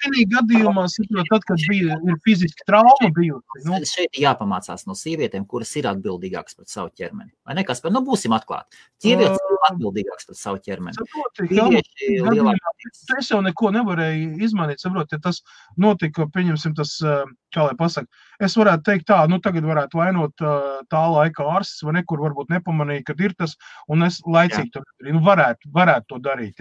Speaker 2: Šī gadījumā, tad, kad ir fiziski trauma bijusi.
Speaker 1: Šeit jāpamācās no sievietēm, kuras ir atbildīgākas pret savu ķermeni. Vai nekas, bet būsim atklāti. Sievietes ir atbildīgākas pret savu ķermeni.
Speaker 2: Es jau neko nevarēju izmainīt, saprot, ja tas notika, pieņemsim tas, kā lai pasaka, es varētu teikt tā, tagad varētu vainot tā laika ārsts, vai nekur varbūt nepamanīja, kad ir tas, un es laicīgi to darīju. Varētu to darīt,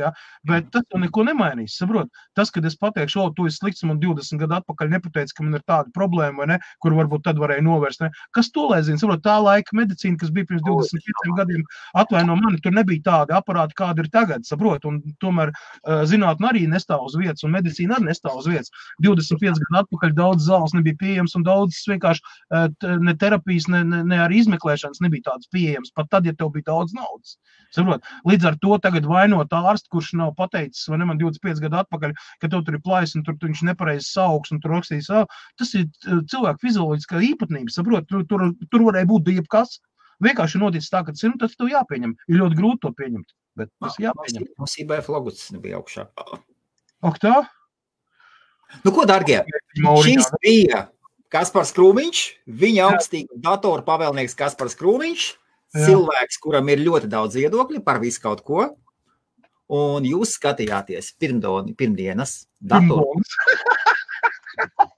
Speaker 2: bet tas jau neko nemainīs, saprot. Tas, kad es pateikšu, tu esi slikts, man 20 gadu atpakaļ nepateici, ka man ir tāda problēma, vai ne, kur varbūt tad varēja novērst, ne. Kas to lai zina, saprot, tā laika medicīna, kas bija pirms 25 gadiem, atvaino mani, tur nebija tāda aparāta, kāda ir tagad, saprot, un tomēr zinātne arī nestāv uz vietas, un medicīna arī nestāv uz vietas. 25 gadu atpakaļ daudz zāles nebija pieejams, un daudzas vienkārši ne terapijas, ne arī izmeklēšanas nebija tādas pieejamas, pat tad, ja tev bija daudz naudas. Saprot? Līdz ar to tagad vainot ārstu, kurš nav pateicis, vai ne, man 25 gadu atpakaļ, ka tev tur ir plājs, un tur viņš nepareizi sauks, un tur rakstīs, tas ir cilvēku fizioloģiskā īpatnība, saprot? Tur varēja būt jebkas. Vienkārši noticis tā, ka tas tev jāpieņem. Ir ļoti grūti to pieņemt, bet tas jāpieņem.
Speaker 1: Mums IBF logots nebija augšā.
Speaker 2: Ak tā?
Speaker 1: Nu ko, dargie, šis bija Kaspars Krūmiņš, viņa augstīga datora pavēlnieks Kaspars Krūmiņš, cilvēks, kuram ir ļoti daudz viedokļi par visu kaut ko, un jūs skatījāties pirmdienas datoru.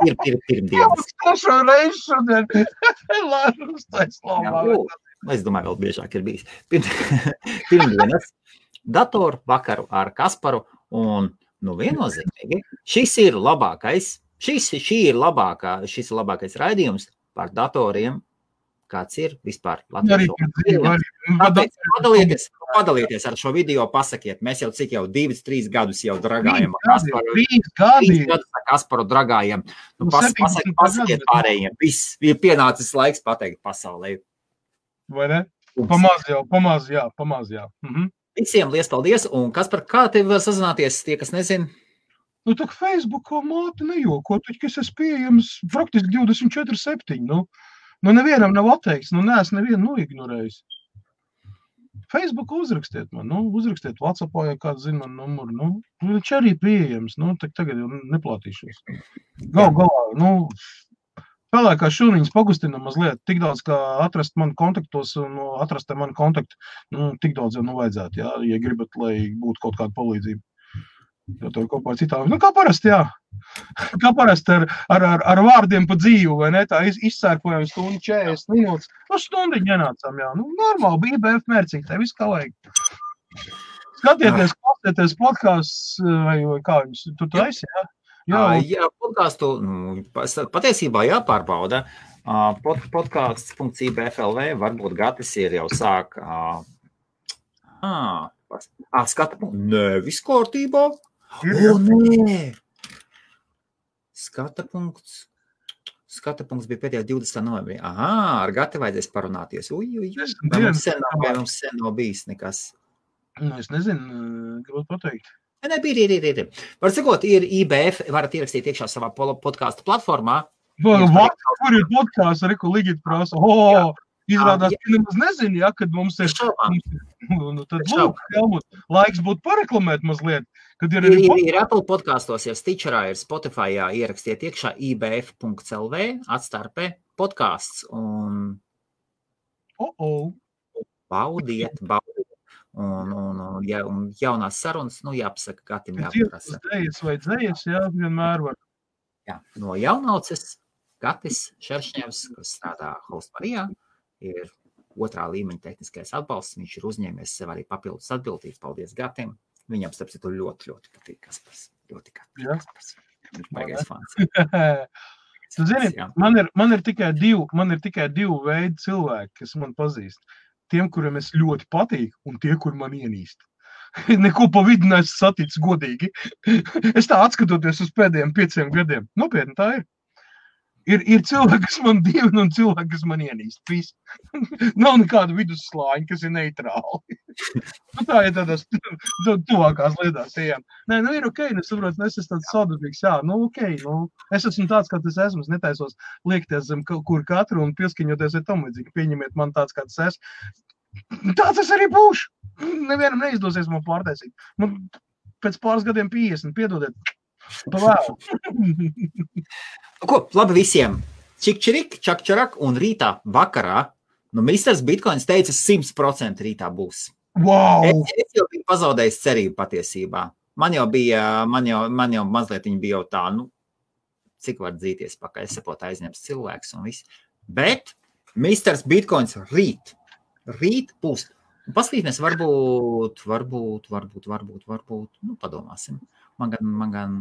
Speaker 1: Pirmdienas.
Speaker 2: Trešo reizi šodien. Lārus taislomā.
Speaker 1: Es domāju, vēl biežāk ir bijis. Pirmdienas datoru vakaru ar Kasparu, un viennozīmīgi šis ir labākais raidījums par datoriem, kāds ir vispār Latvijas. Padalieties ar šo video, pasakiet, mēs jau 2-3 gadus jau dragājam.
Speaker 2: 3 gadi.
Speaker 1: Kasparu dragājam. Pasakiet pārējiem. Viss ir pienācis laiks pateikt pasaulē.
Speaker 2: Vai ne? Pamaz, jā. Mhm.
Speaker 1: Visiem liels paldies. Un Kaspar, kā tev var sazināties, tie, kas nezin?
Speaker 2: Nu, tā Facebookā māte nejoko, taču, es esmu pieejams praktiski 24/7, Nu, nevienam nav atteikts, neesmu nevienu noignorējis. Facebook uzrakstiet man, uzrakstiet WhatsAppā, ja kāds zina man numuru, viņš arī pieejams, tagad jau neplātīšos. Galā, spēlē kā šūniņas pagustinam mazliet, tik daudz, kā atrast mani kontaktos un atrast mani kontaktu, tik daudz jau vajadzētu, ja gribat, lai būtu kaut kāda palīdzība. Jo tur kopā ar citām. Kā parasti, jā. Kā parasti ar vārdiem pa dzīvu, vai ne? Tā izsērpojam stundu 40 minūtes. Stundiņu ienācām, jā. Normāli, bija IBF mērcīgi, tā viss kā vajag. Skatieties, klausieties podcasts, vai kā jums tu taisi, jā?
Speaker 1: Jā, podcastu patiesībā jāpārbauda. Podcasts.ibf.lv varbūt Gatis ir jau sāk. Skata punkts. Nē, viss kārtībā. Nē. Skata punkts bija pēdējā 20. novembrī. Ar Gati vajadzēs parunāties. Mums sen nav bijis nekas.
Speaker 2: Es nezinu, gribētu pateikt.
Speaker 1: Nē, ir. Var sakot, ir IBF, varat ierakstīt iekšā savā podcastu platformā.
Speaker 2: Kur ir podcasts, ko Ligita prasa? Izrādās, ka nemaz nezinu, kad mums ir tad lūk, Helmut, laiks būtu pareklamēt mazliet.
Speaker 1: Ir Apple podkastos, ir Stitcherā, ir Spotifyā, ierakstiet iekšā ibf.lv, atstarpē podcasts un baudiet. Un jaunās sarunas, jāpasaka, Gatim jāpaprasa.
Speaker 2: Dzējas, vienmēr var.
Speaker 1: Jā, no jaunauces Gatis Šeršņevs, kas strādā Host Marijā, ir 2. līmeņa tehniskais atbalsts. Viņš ir uzņēmies sev arī papildus atbildību. Paldies Gatim. Viņam, starp citu, ļoti, ļoti patīk Kaspars. Ļoti Kaspars. Viņš baigais fans.
Speaker 2: Tu zini, man ir tikai divi veidi cilvēki, kas man pazīst. Tiem, kuriem es ļoti patīk, un tie, kur man ienīst. Neko pa vidu neesmu saticis godīgi. Es tā atskatoties uz pēdējiem 5 gadiem. Nopietni tā ir. Ir cilvēki, kas man dievina, un cilvēki, kas man ienīst. Viss. Nav nekāda vidusslāņa, kas ir neitrāli. Tā ir tādās tuvākās lietās ejam. Nē, ir ok, nesaprotu, es esmu tāds sadarbīgs, es esmu tāds, kā tas esmu, es netaisos liekties zem kur katru un pieskaņoties ar tam līdzīgi. Pieņemiet man tāds, kāds es. Tāds es arī būšu. Nevienam neizdosies man pārtaisīt. Man pēc pāris gadiem 50, piedodiet. Pavēl.
Speaker 1: Ko, labi visiem. Čik-čirik, čak-čarak un rītā vakarā. Misters Bitcoins teica 100% rītā būs.
Speaker 2: Wow!
Speaker 1: Es jau biju pazaudējis cerību patiesībā. Man jau mazliet viņa bija jau tā, cik var dzīties pakaļ, es saprotu aizņems cilvēks un viss. Bet Misters Bitcoins rīt būs. Paskatīsimies, varbūt, padomāsim. Man gan,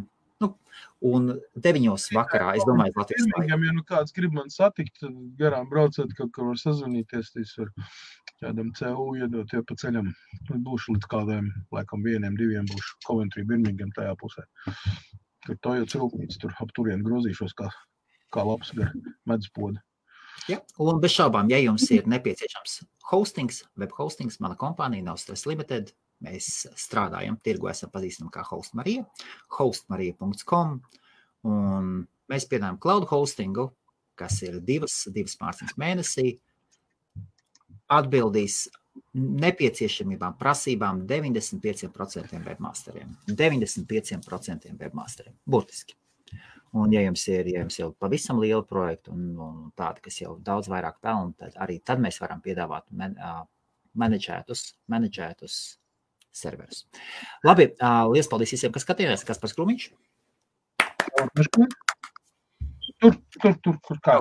Speaker 1: un 9 vakarā, es domāju, Latvijas
Speaker 2: laikā. Ja kāds grib man satikt, garām braucot, kaut kur var sazvanīties, tas var kādam CU iedot, pa ceļam. Būšu līdz kādiem, laikam 1-2 būšu Coventry, Birmingham tajā pusē. Tur to jau cilpnīts, tur ap turien grozīšos kā kā labs gar meduspodu.
Speaker 1: Ja, un bez šaubām, ja jums ir nepieciešams hostings, web hostings, mana kompānija nav Stress Limited, mēs strādājam, tirgu esam pazīstami kā Hostmarija, hostmarija.com, un mēs piedāvājam cloud hostingu, kas ir divas mārciņas mēnesī, atbildīs nepieciešamībām, prasībām 95% webmasteriem. 95% webmasteriem, burtiski. Un ja jums ir jau pavisam liela projekta un tāda, kas jau daudz vairāk pelna, tad mēs varam piedāvāt menedžētus serverus. Labi, liels paldies visiem, kas skatījās, Kaspars Krūmiņš.
Speaker 2: Tur kā.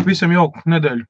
Speaker 2: Visam jauku nedēļu.